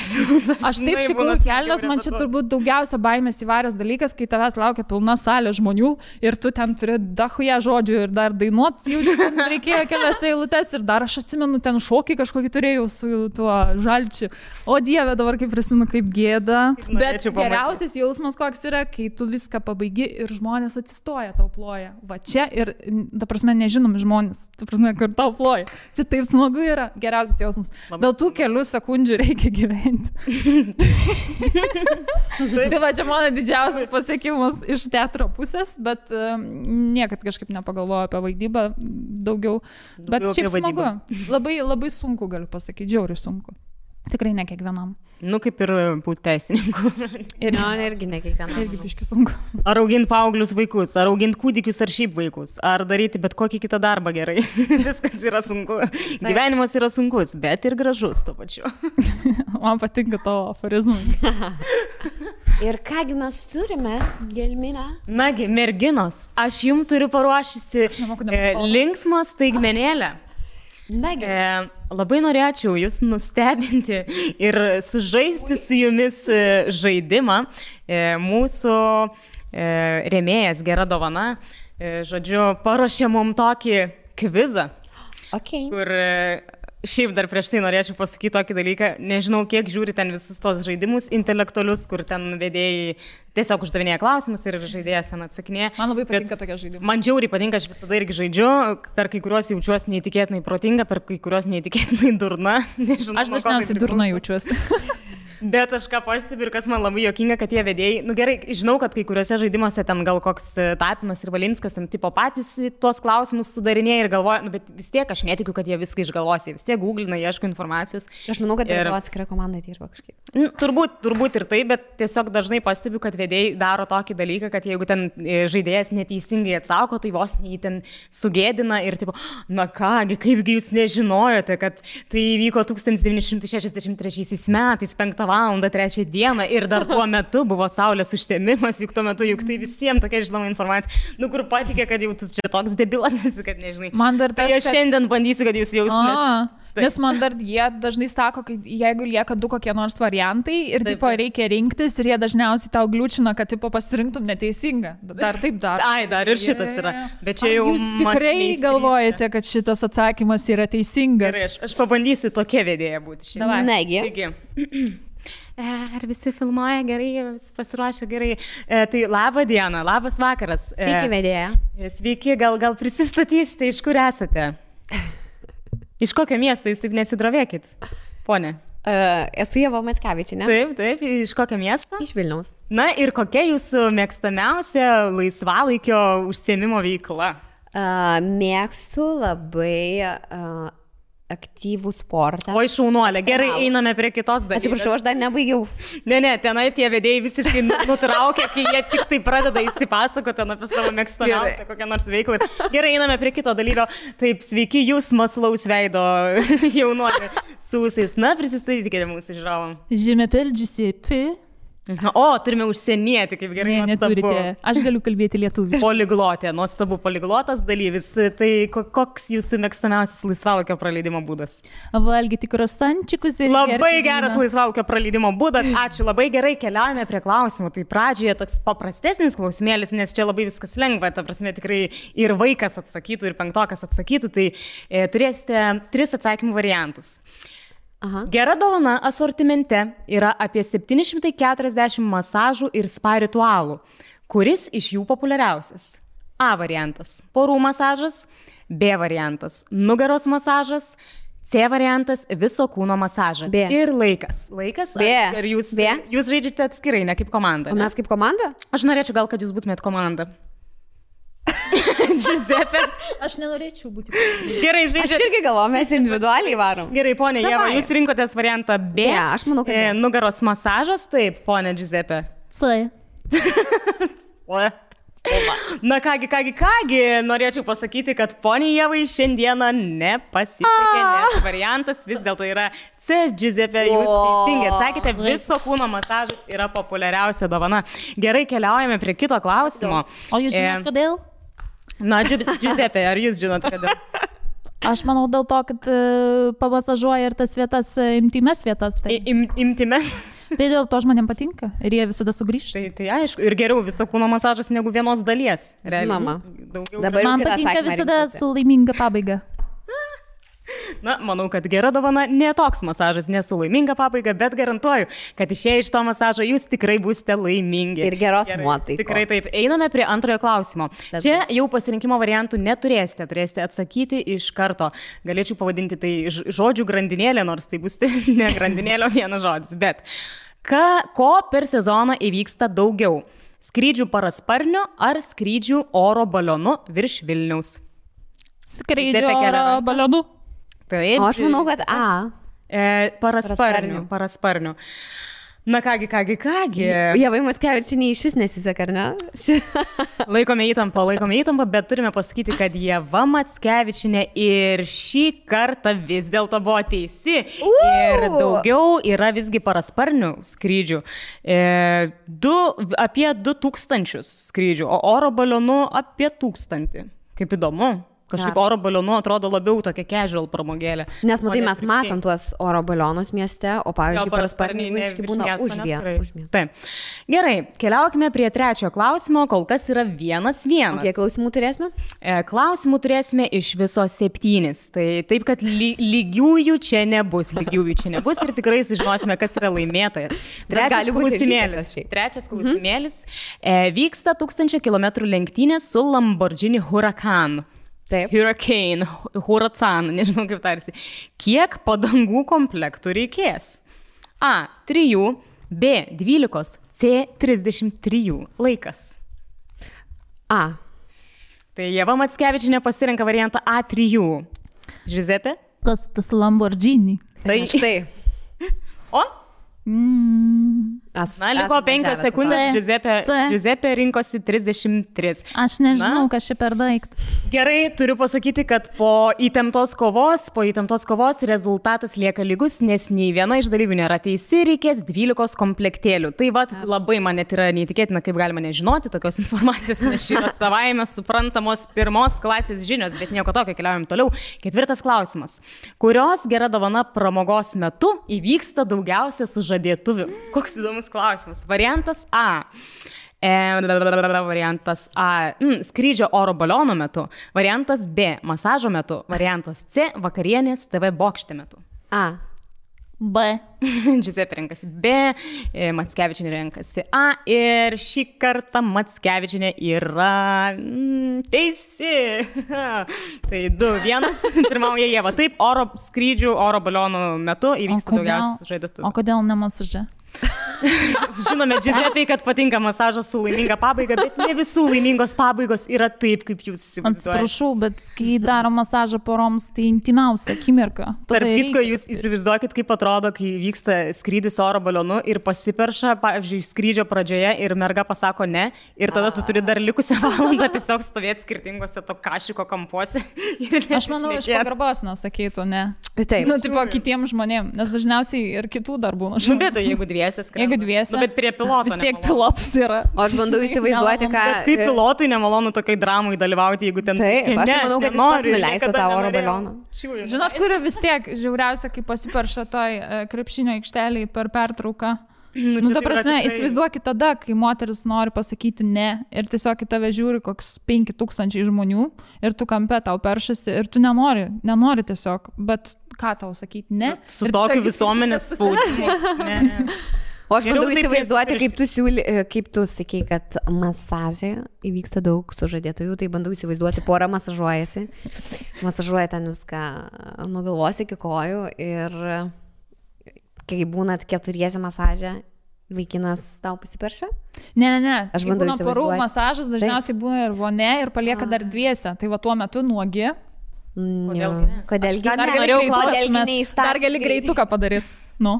aš taip šikau į kelnes, man čia turbūt daugiausia baimės įvaręs dalykas, kai tavęs laukia pilna salė žmonių ir tu ten turi dachuja žodžių ir dar dainuot, jau reikėjo kelias eilutes ir dar aš atsimenu, ten šokį kažkokį turėjau su tuo Žalčiu. O Dieve, dabar kaip prisimenu, kaip gėda. Bet geriausias jausmas koks yra, kai tu viską pabaigi ir žmonės atsistoja, tau ploja. Va čia ir, ta prasme, nežinomi žmonės, ta prasme, kur tau ploja. Čia taip smagu yra, geriausias jausmas. Dėl tų kelių sekundžių reikia gyventi. Tai va, čia mano didžiausias pasiekimas iš teatro pusės, bet niekad kažkaip nepagalvoju apie vaidybą daugiau, bet šiaip smagu. Labai, labai sunku, galiu pasakyti, žiauriai sunku. Tikrai ne kiekvienam. Nu, kaip ir būti teisininku. Irgi ne kiekvienam. Irgi biški sunku. Ar auginti paauglius vaikus, ar auginti kūdikius, ar šiaip vaikus, ar daryti bet kokį kitą darbą gerai. Viskas yra sunku. Gyvenimas yra sunkus, bet ir gražus tuo pačiu. Man patinka tavo aforizmai. Ir kągi mes turime, Gelmina? Nagi, merginos, aš jums turiu paruošusi linksmą staigmenėlę. Nagi. Labai norėčiau jūs nustebinti ir sužaisti su jumis žaidimą. Mūsų rėmėjas Gera dovana, žodžiu, paruošė mum tokį kvizą, kur šiaip dar prieš tai norėčiau pasakyti tokį dalyką. Nežinau, kiek žiūri ten visus tos žaidimus intelektualius, kur ten vedėjai tiesiog uždavinėja klausimus ir žaidėjas ten atsakinėja. Man labai patinka tokie žaidimai. Man džiauriai patinka, aš visada irgi žaidžiu, per kai kuriuos jaučiuosi neįtikėtinai protinga, per kai kuriuos neįtikėtinai durna. Nežinau, aš dažniausiai durna jaučiuosi. Bet aš ką pastebiu ir kas man labai juokinga, kad tie vedėjai, nu gerai, žinau, kad kai kuriuose žaidimuose ten gal koks Tapinas ir Valinskas ten tipo patys tuos klausimus sudarinėja ir galvoja, nu bet vis tiek aš netikiu, kad jie viską išgalvos, jie vis tiek googlina, ieško informacijos. Aš manau, kad ir atskira komanda dirba kažkaip. Turbūt ir tai, bet tiesiog dažnai pastebiu, kad vedėjai daro tokį dalyką, kad jeigu ten žaidėjas neteisingai atsako, tai vos jį ten sugėdina ir tipo, na kągi, kaipgi jūs nežinojote, kad tai įvyko 1963 metais, 5 valandą 3 dieną ir dar tuo metu buvo saulės užtemimas, juk tuo metu, juk tai visiems tokia žinoma informacija, nu kur patikė, kad jau tu čia toks debilas esi, kad nežinai. Man dar tas, tai aš šiandien bandysiu, kad jūs jaustumės. Nes man dar jie dažnai sako, kad jeigu lieka 2 kokie nors variantai ir tipo reikia rinktis ir jie dažniausiai tau gliūčina, kad tipo pasirinktum neteisingą. Dar taip dar. Ai, dar ir šitas yra. Bet čia jau jūs tikrai galvojate, kad šitas atsakymas yra teisingas. Gerai, aš pabandysiu tokia vedėja būti šiandien. Negi. Taigi. Ar visi filmuoja gerai, pasiruošę gerai. Tai labą dieną, labas vakaras. Sveiki, vedėja. Sveiki, gal prisistatysite, iš kur esate? Iš kokio miesto, jūs taip nesidrovėkit, ponė? Esu Ieva Mackevičienė. Taip, iš kokio miesto? Iš Vilniaus. Na ir kokia jūsų mėgstamiausia laisvalaikio užsiėmimo veikla? Mėgstu labai aktyvų sportą. Oi, šaunuolė, gerai, einame prie kitos dalykos. Atsiprašau, aš dar nebaigiau. Ne, tenai tie vedėjai visiškai nutraukia, kai jie tik tai pradeda įsipasakoti apie savo mėgstamiausią kokią nors veiklą. Gerai, einame prie kito dalyko. Taip, sveiki, jūs maslaus veido jaunuolė su ūsais. Na, prisistatykite mūsų žiūrovam. Je m'appelle Giuseppe. O, turime užsienietį, kaip gerai. Ne, neturite. Aš galiu kalbėti lietuviškai. Poliglotė, nuostabu poliglotas dalyvis. Tai koks jūsų mėgstamiausias laisvalaikio praleidimo būdas? Valgyti krosančikus ir labai geras laisvalaikio praleidimo būdas. Ačiū, labai gerai, keliaujame prie klausimų. Tai pradžioje toks paprastesnis klausimėlis, nes čia labai viskas lengva. Ta prasme, tikrai ir vaikas atsakytų, ir 5-okas atsakytų. Tai turėsite 3 atsakymų variantus. Aha. Gera dovana asortimente yra apie 740 masažų ir spa ritualų. Kuris iš jų populiariausias? A variantas – porų masažas, B variantas – nugaros masažas, C variantas – viso kūno masažas. B. Ir laikas. Laikas? B. Ir jūs žaidžiate atskirai, ne kaip komanda. O mes kaip komanda? Aš norėčiau gal, kad jūs būtumėt komanda. Giuseppe. Aš nenorėčiau būti. Gerai, žaidžiate. Aš irgi galvoju, mes individualiai varom. Gerai, ponė Ieva, jūs rinkotės variantą B. Ne, aš manau, kad B. Nugaros masažas, taip, ponė Giuseppe. C. Na kągi, norėčiau pasakyti, kad ponė Ievai šiandieną nepasisekė, nes variantas vis dėlto yra C. Giuseppe, jūs teisingai atsakėte, viso kūno masažas yra populiariausia dovana. Gerai, keliaujame prie kito klausimo. O jūs žinot, kodėl? Na, Giuseppe, ar jūs žinot, kodėl? Aš manau dėl to, kad pamasažuoja ir tas vietas, intimes vietas. Tai. Intimes? Tai dėl to žmonėm patinka ir jie visada sugrįžta. Tai aišku, ir geriau viso kūno masažas negu vienos dalies. Žinoma. Man patinka visada su laiminga pabaiga. Na, manau, kad gera dovana ne toks masažas, ne su laiminga pabaiga, bet garantuoju, kad išėję iš to masažo jūs tikrai būsite laimingi. Ir geros nuotaikos. Tikrai taip. Einame prie antrojo klausimo. Čia jau pasirinkimo variantų neturėsite, turėsite atsakyti iš karto. Galėčiau pavadinti tai žodžių grandinėlė, nors tai bus ne grandinėlė, vienas žodis. Bet ko per sezoną įvyksta daugiau? Skrydžių parasparniu ar skrydžių oro balionu virš Vilniaus? Skrydžių oro balionu. Taip. O aš manau, kad A. Parasparnių. Na kągi. Ievai Mackevičienei iš vis nesiseka, ar ne? Laikome įtampą, bet turime pasakyti, kad Ieva Mackevičienė ir šį kartą vis dėlto buvo teisi. Ir daugiau yra visgi parasparnių skrydžių. Apie 2000 skrydžių, o oro balionų apie 1000. Kaip įdomu. Kažkaip oro balionu atrodo labiau tokia casual pramogėlė. Nes matai, mes matom tuos oro balionus mieste, o pavyzdžiui, parasparniai būna už miestą. Taip. Gerai, keliaukime prie trečiojo klausimo, kol kas yra 1-1. Kiek klausimų turėsime? Klausimų turėsime iš viso 7. Tai taip, kad lygiųjų čia nebus ir tikrai sužinosime, kas yra laimėtojas. Trečias klausimėlis. Vyksta 1000 km lenktynės su Lamborghini Huracan. Taip. Huracan, nežinau kaip tarsi. Kiek padangų komplektų reikės? A. 3, B. 12, C. 33. Laikas. A. Tai Ieva Mackevičienė pasirenka variantą A3. Giuseppe? Kas tas Lamborghini? Tai štai. O? Liko 5 sekundės, Giuseppe rinkosi 33. Aš nežinau, kas čia per daiktas. Gerai, turiu pasakyti, kad po įtemptos kovos rezultatas lieka lygus, nes nei viena iš dalyvių nėra teisi, reikės 12 komplektėlių. Tai labai man net yra neįtikėtina, kaip galima nežinoti tokios informacijos, nes šį yra savaime suprantamos 1 klasės žinios, bet nieko tokio, keliaujam toliau. 4 klausimas. Kurios gera dovana pramogos metu įvyksta daugiausia sužadėtuvių? Koks įdomus klausimas. Variantas A. Skrydžio oro baliono metu. Variantas B. Masažo metu. Variantas C. Vakarienės TV bokšte metu. A. B. Giuseppe renkasi B. Mackevičienė renkasi A. Ir šį kartą Mackevičienė yra teisi. Tai 2-1. Pirmauja Ieva. Taip, skrydžių oro balionų metu įvyksta daugiausiai sužadėtuvių. O kodėl ne masaže? Žinome, Giuseppe, kad patinka masažas su laiminga pabaiga, bet ne visų laimingos pabaigos yra taip, kaip jūs įsivaizduojate. Atsiprašau, bet kai daro masažą poroms, tai intimiausia akimirka. Tarp kitko, jūs įsivaizduokit, kaip atrodo, kai vyksta skrydis oro balionu ir pasiperša, pavyzdžiui, skrydžio pradžioje ir merga pasako ne, ir tada tu turi dar likusią valandą tiesiog stovėti skirtingose to kašiko kampuose. Aš manau, iš pagarbos nesakytų ne. Taip. Tipo kitiems žmonėms, nes dažniausiai ir kitų darbų. Bet jeigu dviese skrenda. Jeigu dviese. Bet prie piloto. Vis tiek pilotas yra. O aš bandau įsivaizduoti, ką... Bet kaip pilotui nemalonu tokiai dramai dalyvauti, jeigu ten... Taip, aš manau, kad jis pats nuleistų tą oro balioną. Žinot, kuri vis tiek žiauriausia, kai pasiperša toj krepšinio aikšteliai per pertrauką. Ta prasme, įsivaizduokit tada, kai moteris nori pasakyti ne ir tiesiog į tave žiūri koks 5000 žmonių ir tu kampe tau peršasi ir tu nenori tiesiog, bet ką tau sakyti ne. Su tokiu visuomenės spaudimu. O aš bandau įsivaizduoti, kaip tu sakei, kad masažė įvyksta daug sužadėtųjų, tai bandau įsivaizduoti, pora masažuojasi, masažuoja ten viską nuo galvos iki kojų ir kai būnat 4 masažė, vaikinas tau pasiperša? Ne. Aš bandau įsivaizduoti. Porų masažas dažniausiai būna ir vonė ir palieka dar dviese, tai va tuo metu nuogi. Kodėlgi dar gali greituką padaryti. Nu,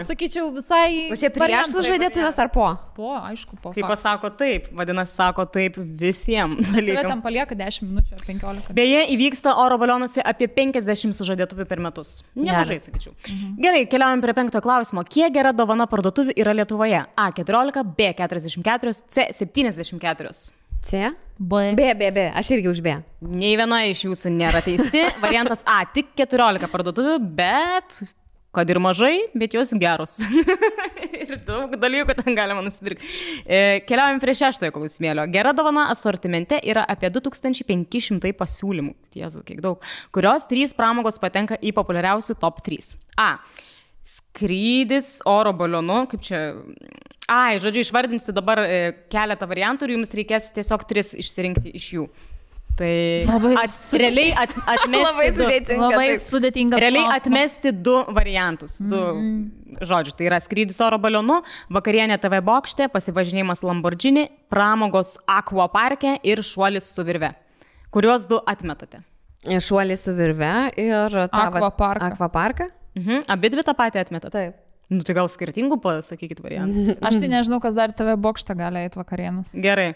sakyčiau visai... O čia prieš sužadėtuvės ar po? Po, aišku, po. Kai pasako taip, vadinasi, sako taip visiems dalykams. dalykams. Tam palieka 10 minučių ar 15. Beje, įvyksta oro balionuose apie 50 sužadėtuvių per metus. Nemažai, sakyčiau. Gerai, keliaujam prie 5 klausimo. Kiek gera dovana parduotuvių yra Lietuvoje? A 14, B 44, C 74. C? B. B. Aš irgi už B. Nei viena iš jūsų nėra teisi. Variantas A, tik 14 parduotuvių, bet... Kad ir mažai, bet jos geros. Ir daug dalykų ten galima nusipirkti. Keliaujam prie 6 klausimėlio. Gera dovana asortimente yra apie 2500 pasiūlymų. Jėzu, kiek daug. Kurios 3 pramogos patenka į populiariausių top 3. A. Skrydis oro balionu. Kaip čia... Žodžiu, išvardinsiu dabar keletą variantų ir jums reikės tiesiog 3 išsirinkti iš jų. Tai realiai atmesti labai sudėtinga. Realiai atmesti 2 variantus. 2 žodžių. Tai yra skrydis oro balionu, vakarienė TV bokšte, pasivažinėjimas Lamborghini, pramogos Aqua parke ir šuolis su virve. Kuriuos 2 atmetate? Šuolis su virve ir Aqua parką. Aqua parką? Abi dvi tą patį atmeta. Taip. Nu, tai gal skirtingų pasakykit variantų. Aš tai nežinau, kas dar TV bokštą gali eiti vakarienas. Gerai.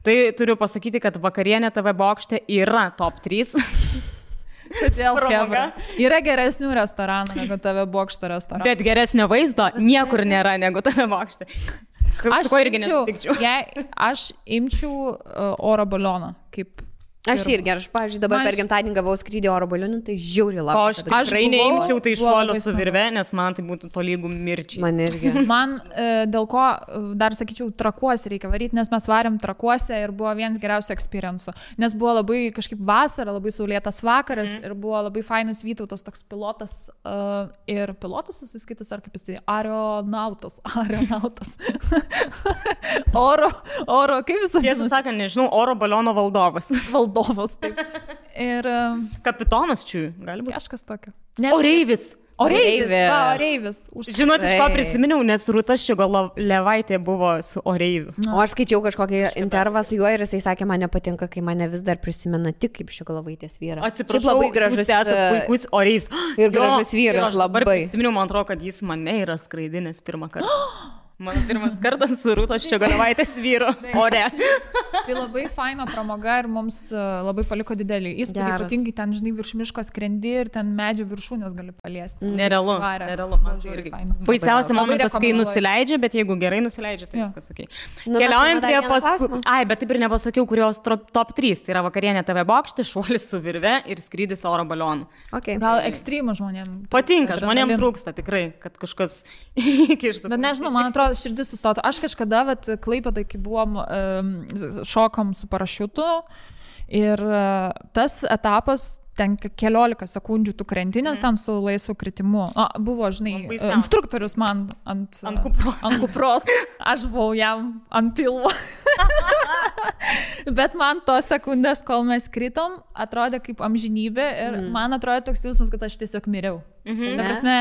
Tai turiu pasakyti, kad vakarienė TV bokšte yra top 3. Kodėl pramoga? Yra geresnių restoranų negu TV bokšto restoranų. Bet geresnio vaizdo niekur nėra negu TV bokšte. Aš irgi nesutikčiau. Aš imčiau oro balioną kaip... Aš irgi, pavyzdžiui, dabar per gimtadienį gavau skrydį oro balionu, tai žiauriai O laukiu. aš tikrai neimčiau tai šuolio su virve, nes man tai būtų tolygų mirčiai. Man irgi. Man dėl ko, dar sakyčiau, Trakuose reikia varyti, nes mes varėm Trakuose ir buvo vienas geriausių experience'ų. Nes buvo labai kažkaip vasara, labai saulėtas vakaras ir buvo labai fainas Vytautas toks pilotas. Ir pilotas susiskaitus, ar kaip jis tai, aeronautas. oro, kaip jis tai? Tiesą sakant, nežinau, oro baliono valdovas. Taip. Ir... Kapitonas čia, gali būti. Kažkas tokio. Oreivis. Oreivis. Žinot, iš ko prisiminiau, nes Rūta Ščiogolevaitė buvo su Oreiviu. O aš skaičiau kažkokį intervą su juo ir jisai sakė, man nepatinka, kai mane vis dar prisimena tik kaip Ščiogolevaitės vyrą. Atsiprašau, labai gražus, jūs esate puikus Oreivis. Ir gražus vyras, labai. Prisiminiau, man atrodo, kad jis mane yra skraidinęs pirmą kartą. Mano pirmas kartas su Rūtos Ščiogolevaitės vyru ore. Tai labai faina pramoga ir mums labai paliko didelį įspūdį, ypatingai ten, žinai, virš miško skrendi ir ten medžių viršūnės gali paliesti. Nerealu. Man tai irgi. Baisiausia momentas, kai nusileidžia, bet jeigu gerai nusileidžia, tai viskas ok. Keliaujam prie paskui. Ai, bet taip ir nepasakiau, kurios top 3. Tai yra vakarienė TV bokšte, šuolis su virve ir skrydis oro balionu. Okay. Gal ekstremų žmonėms. Patinka, žmonėms trūksta tikrai, kad kažkas įkištų. Bet nežinau, man atrodo, širdis sustotų. Aš kažkada, Klaipėdoj, kai buvom, šokom su parašiutu ir tas etapas, ten keliolika sekundžių tu krentinės ten su laisvu kritimu. Buvo, žinai, instruktorius man ant kupros. Aš buvau jam ant pilvo. Bet man tos sekundės, kol mes kritom, atrodė kaip amžinybė ir man atrodė toks jausmas, kad aš tiesiog miriau. Ta prasme,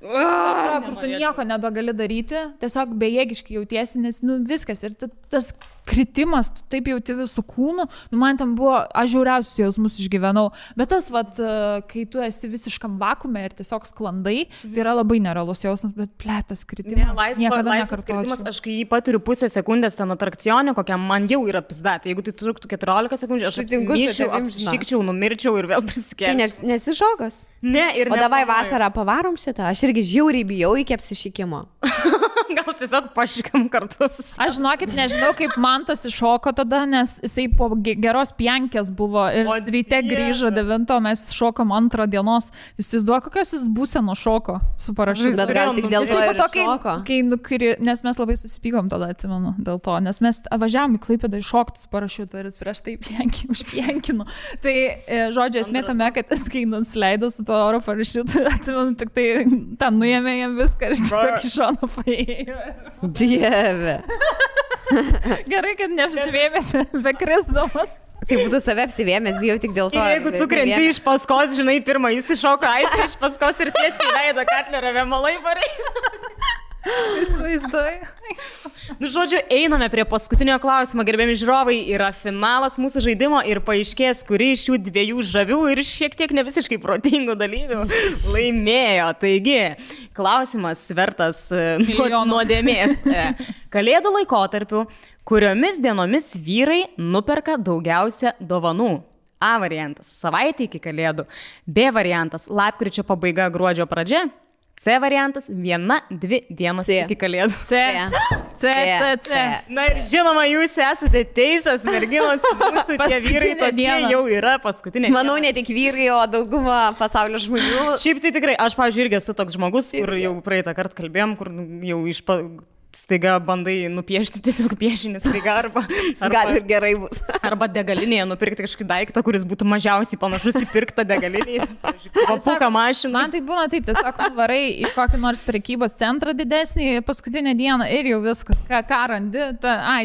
kur tu nieko nebegali daryti, tiesiog bejėgiškai jautiesi, nes viskas ir tas kritimas, tu taip jauti visų kūnų, man ten buvo, aš žiauriausius jausmus išgyvenau, bet tas, kai tu esi visiškam vakume ir tiesiog sklandai, tai yra labai nerealus jausmas, bet plėtas kritimas, niekada nekartočiau. Aš kai jį paturiu pusę sekundės ten atrakcione, kokiam man jau yra pizdatė, jeigu tai truktų 14 sekundžių, aš apsišykčiau, numirčiau ir vėl prisikėliau. Tai nesi šokas? Ne, ir o davai vasarą pavarom šitą, aš irgi žiauriai bijau iki apsišykimo. Gal tiesiog pašykam kartus. Aš žinokit, nežinau, kaip man tas iššoko tada, nes jisai po geros pjankės buvo ir ryte grįžo 9, mes šokom 2 dienos. Jis vaizduoja, kokios jis būseno šoko su parašiutu. Bet gal tik dėl to ir šoko. Nes mes labai susipykom tada, atsimenu, dėl to, nes mes važiavom į Klaipėdą iššokti su parašiutu ir jis prieš tai užpjankino. Tai, žodžiu, esmė tame, kad jis kai nusileido su to oro parašiutu, atsimenu, tik tai ten nuėmė jam viską ir jis tiesiog iš šono paėjo. Dieve. Gerai, kad neapsivėmės be krisdamas. Tai būtų save apsivėmės, bijau tik dėl to. Ir jeigu tu krenti iš paskos, žinai, pirmą jis iššoka aistą iš paskos ir tiesiai leido Katlerio vėmalai parai. Įsivaizduoju. Žodžiu, einame prie paskutinio klausimo, gerbiami žiūrovai, yra finalas mūsų žaidimo ir paaiškės, kuri iš šių 2 žavių ir šiek tiek ne visiškai protingų dalyvių laimėjo. Taigi, klausimas vertas nuodėmės. Kalėdų laikotarpiu, kuriomis dienomis vyrai nuperka daugiausia dovanų? A variantas – savaitė iki Kalėdų. B variantas – lapkričio pabaiga, gruodžio pradžia. C variantas – 1-2 dienos iki Kalėdų. C. Na ir žinoma, jūs esate teisas, merginos, jūsų tie vyrai tokie jau yra paskutinė. Manau, ne tik vyrai, o dauguma pasaulio žmonių. Šiaip tai tikrai, aš, pavyzdžiui, irgi esu toks žmogus, kur jau praeitą kartą kalbėjom, kur jau staiga bandai nupiešti tiesiog piešinį staiga arba gal ir gerai bus. Arba degalinėje nupirkti kažkokį daiktą, kuris būtų mažiausiai panašus į pirktą degalinėje. Papuką mašiną. Man tai būna taip, tiesiog varai į kokį nors prekybos centrą didesnį paskutinę dieną ir jau viskas, ką randi.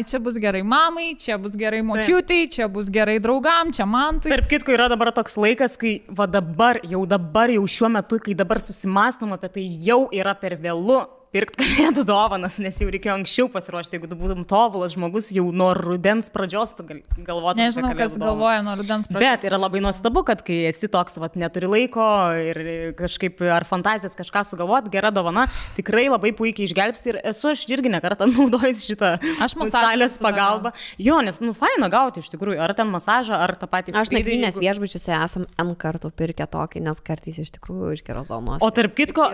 Čia bus gerai mamai, čia bus gerai močiutei, čia bus gerai draugam, čia man. Tarp kitko yra dabar toks laikas, kai dabar jau šiuo metu, kai dabar susimąstom apie tai, jau yra per vėlu pirkti kalėdų dovanas, nes jau reikėjo anksčiau pasiruošti, jeigu tu būtum tobulas žmogus, jau nuo rudens pradžios galvotum. Nežinau, kas galvoja nuo rudens pradžios. Bet yra labai nuostabu, kad kai esi toks, neturi laiko ir kažkaip ar fantazijos kažką sugalvoti, gera dovana, tikrai labai puikiai išgelbsti ir esu aš irgi nekartą naudojus šitą salės pagalbą. Jo, nes, faina gauti iš tikrųjų, ar ten masažą, ar tą patį. Aš nakvynės viešbučiuose esam N kartų pirkę tokį, nes kartais iš tikrųjų iš geros dovanos. O tarp kitko,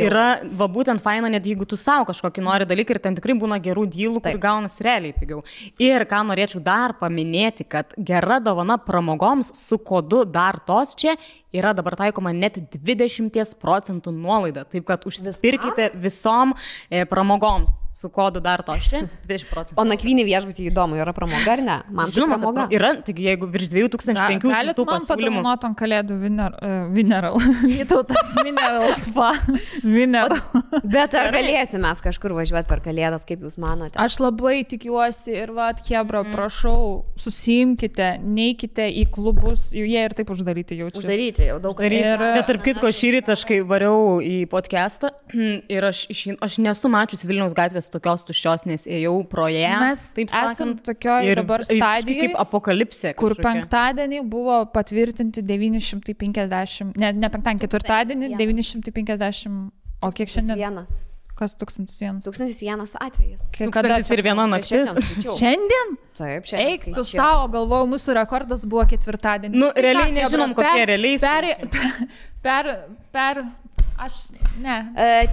yra būtent faina, net jeigu tu savo kažkokį nori dalyką ir ten tikrai būna gerų dylų, kur gaunas realiai pigiau. Ir ką norėčiau dar paminėti, kad gera dovana pramogoms su kodu dar tos čia yra dabar taikoma net 20% nuolaida. Taip, kad užsipirkite visom pramogoms su kodu dar tos čia 20%. O nakvynį viešbutį įdomu, yra pramoga ar ne? Man žinoma, pramoga. Yra, tik jeigu virš 2500 galit man padovanot ant kalėdų Mineral. Vytautas Mineral Spa. Mineral. Bet ar galėsim mes kažkur važiuoti per kalėdas, kaip jūs manote? Aš labai tikiuosi ir Hebra, prašau, susiimkite, neikite į klubus, jie ir taip uždaryti jaučiu. Uždaryti jau daug kartų. Bet tarp kitko, šįryt aš kai variau į podcastą ir aš nesu mačius Vilniaus gatvės tokios tuščios, nes ėjau pro ją. Mes taip esam tokioje dabar stadijoje, kaip apokalipsė, kur penktadienį buvo patvirtinti 950, ne penktadienį, ketvirtadienį 950, o kiek šiandien? Vienas. Kas 1001? 1001 atvejis. 1001 naktis. Šiandien? Taip, šiandien. Eik, tu savo, galvojau, mūsų rekordas buvo ketvirtadienį. Realiai nežinom, kokie realiai. Aš, ne.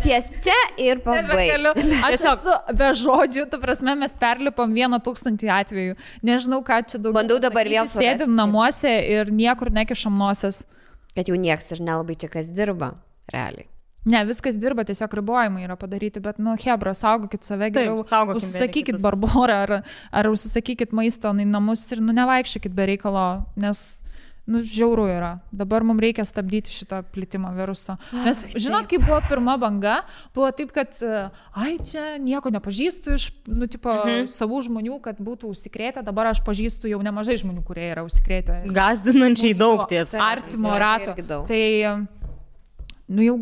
Ties čia ir pabaigsiu. Aš esu be žodžių, tu prasme, mes perlipom 1000 atvejų. Nežinau, ką čia daugiau. Bandau dabar vėl surasti. Sėdim namuose ir niekur nekišam noses. Kad jau nieks ir nelabai čia kas dirba, realiai. Ne, viskas dirba, tiesiog ribojimai yra padaryti, bet, Hebra, saugokit save geriau, užsisakykit barborą ar užsisakykit maisto į namus ir, nevaikščiokit be reikalo, nes, žiauru yra. Dabar mums reikia stabdyti šitą plitimą viruso. Nes, žinot, kaip buvo pirma banga, buvo taip, kad, čia nieko nepažįstu iš, savų žmonių, kad būtų užsikrėtę, dabar aš pažįstu jau nemažai žmonių, kurie yra užsikrėtę. Gazdinančiai daug tiesa. Artimo rato. Tai jau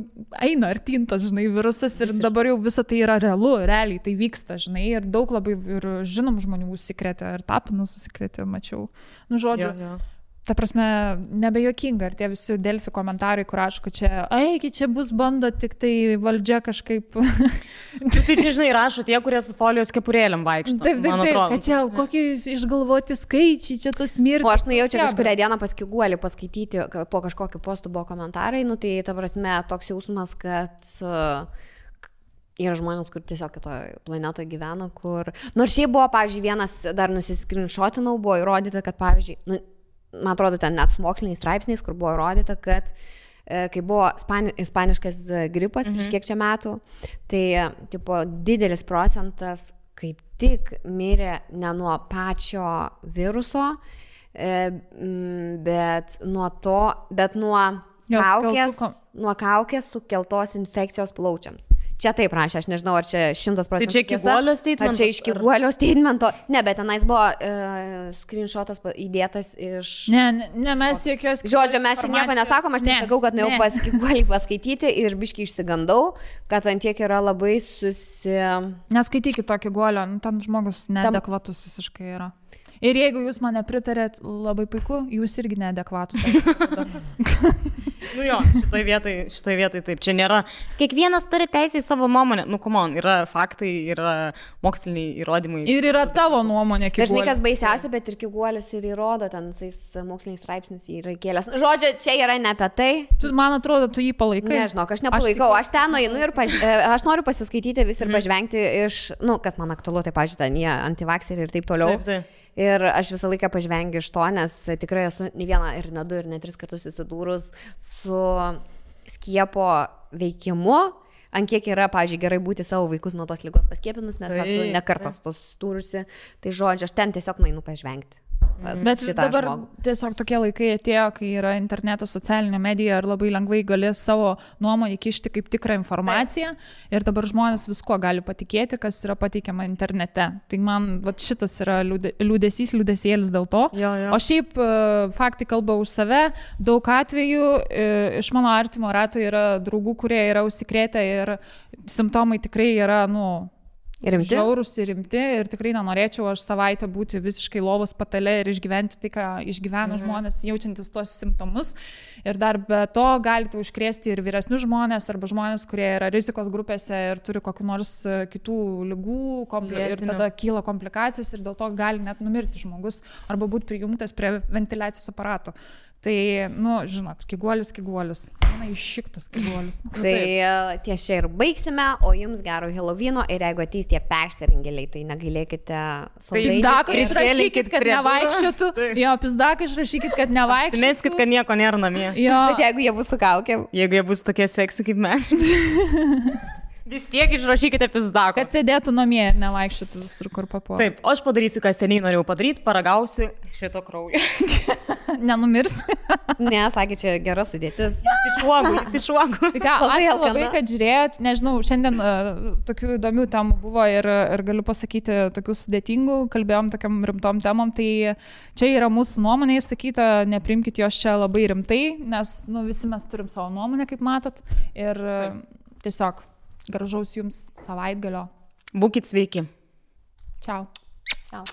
eina artintas, virusas ir dabar jau visa tai yra realu, realiai tai vyksta, ir daug labai ir žinom žmonių užsikrėtė, ir Tapinas užsikrėtė, mačiau. Žodžiu, ta prasme, nebejokinga, ir tie visi Delfi komentarai, kur aišku, čia bus bando tik tai valdžia kažkaip. Tai čia, rašo tie, kurie su folijos kepurėlėm vaikšto. Taip, kad čia kokie išgalvoti skaičiai, čia tos mirtis. O aš nuėjau čia kažkurią dieną pas Kiguolį paskaityti, po kažkokiu postu buvo komentarai, tai ta prasme toks jausmas, kad yra žmonės, kur tiesiog kitoje planetoje gyvena, kur... Nors šiaip buvo, pavyzdžiui, vienas dar nusiskrinšotinau, buvo įrodyta, kad, pavyzdžiui, man atrodo, ten net su moksliniais straipsniais, kur buvo įrodyta, kad kai buvo ispaniškas gripas prieš kiek čia metų, tai didelis procentas kaip tik mirė ne nuo pačio viruso, bet nuo kaukės sukeltos infekcijos plaučiams. Čia taip rašė, aš nežinau, ar čia 100% tai čia Kiguolio statemento? Ar čia iš Kiguolio statemento? Ne, bet tenais buvo screenshotas įdėtas iš... Ne, mes jokios... Žodžio, mes čia nieko nesakom, aš tik sakau, kad nuėjau pas Kiguolį paskaityti ir biškai išsigandau, kad ant tiek yra labai Neskaitykit to Kiguolio, ten žmogus neadekvatus visiškai yra. Ir jeigu jūs mane pritarėt, labai puiku, jūs irgi neadekvatus. Šitoj vietoj taip. Čia nėra. Kiekvienas turi teisę į savo nuomonę. Come on, yra faktai, yra moksliniai įrodymai. Ir yra tavo nuomonė, Kiguolis. Dažnai kas baisiausia, bet ir Kiguolis ir įrodo, ten visais moksliniais straipsnius yra kėlęs. Žodžiu, čia yra ne apie tai. Man atrodo, tu jį palaikai. Nežinau, aš nepalaikau. Aš ten nueinu ir aš noriu pasiskaityti vis ir pažvengti iš, kas man aktualu, tai pažiūrėt, jie antivakseriai ir taip toliau. Taip. Ir aš visą laiką pažvengiu iš to, nes tikrai esu ne vieną ir ne du ir ne 3 kartus susidūrus su skiepo veikimu, ant kiek yra, pavyzdžiui, gerai būti savo vaikus nuo tos ligos paskiepinus, nes esu ne kartas tos susidūrusi. Tai žodžiu, aš ten tiesiog nueinu pažvengti. Bet dabar tiesiog tokie laikai atėjo, kai yra internetas, socialinė medija ir labai lengvai galės savo nuomonę kišti kaip tikrą informaciją. Ir dabar žmonės visko gali patikėti, kas yra pateikiama internete. Tai man šitas yra liūdesėlis dėl to. Jo. O šiaip faktai kalba už save. Daug atvejų iš mano artimo rato yra draugų, kurie yra užsikrėtę ir simptomai tikrai yra, žiaurūs ir rimti ir tikrai nenorėčiau aš savaitę būti visiškai lovos patale ir išgyventi tai, ką išgyvena žmonės, jaučiantis tuos simptomus. Ir dar be to galite užkrėsti ir vyresnius žmonės arba žmonės, kurie yra rizikos grupėse ir turi kokių nors kitų ligų ir tada kyla komplikacijos ir dėl to gali net numirti žmogus arba būti prijungtas prie ventiliacijos aparato. Tai, žinot, kiguolis. Iššiktas kiguolis. Tai ties čia ir baigsime, o jums gero Helovyno ir jeigu ateis tie persirengėliai, tai negailėkite saldainių. Pizdaką išrašykit, kad nevaikščiotų. Jo, pizdaką išrašykit, kad nevaikščiotų. Meskit, kad nieko nėra namie. Jo. Bet jeigu jie bus su kaukėm. Jeigu jie bus tokie seksi kaip mes. Vis tiek išrašykite pizdaką. Kad sėdėtų namie ir nevaikščiotų visur, kur papuola. Taip, o aš padarysiu, ką seniai norėjau padaryti, paragausiu šito kraujo. Nenumirs. Ne, sakė, čia gera sudėtis. Jis išuogo. Ačiū labai, kad žiūrėjot. Nežinau, šiandien tokių įdomių temų buvo ir galiu pasakyti tokių sudėtingų, kalbėjom tokiam rimtom temom, tai čia yra mūsų nuomonė įsakyta, neprimkite jos čia labai rimtai, nes visi mes turim savo nuomonę, kaip matot. Ir tiesiog gražaus jums savaitgalio. Būkit sveiki. Čiau. Čiau.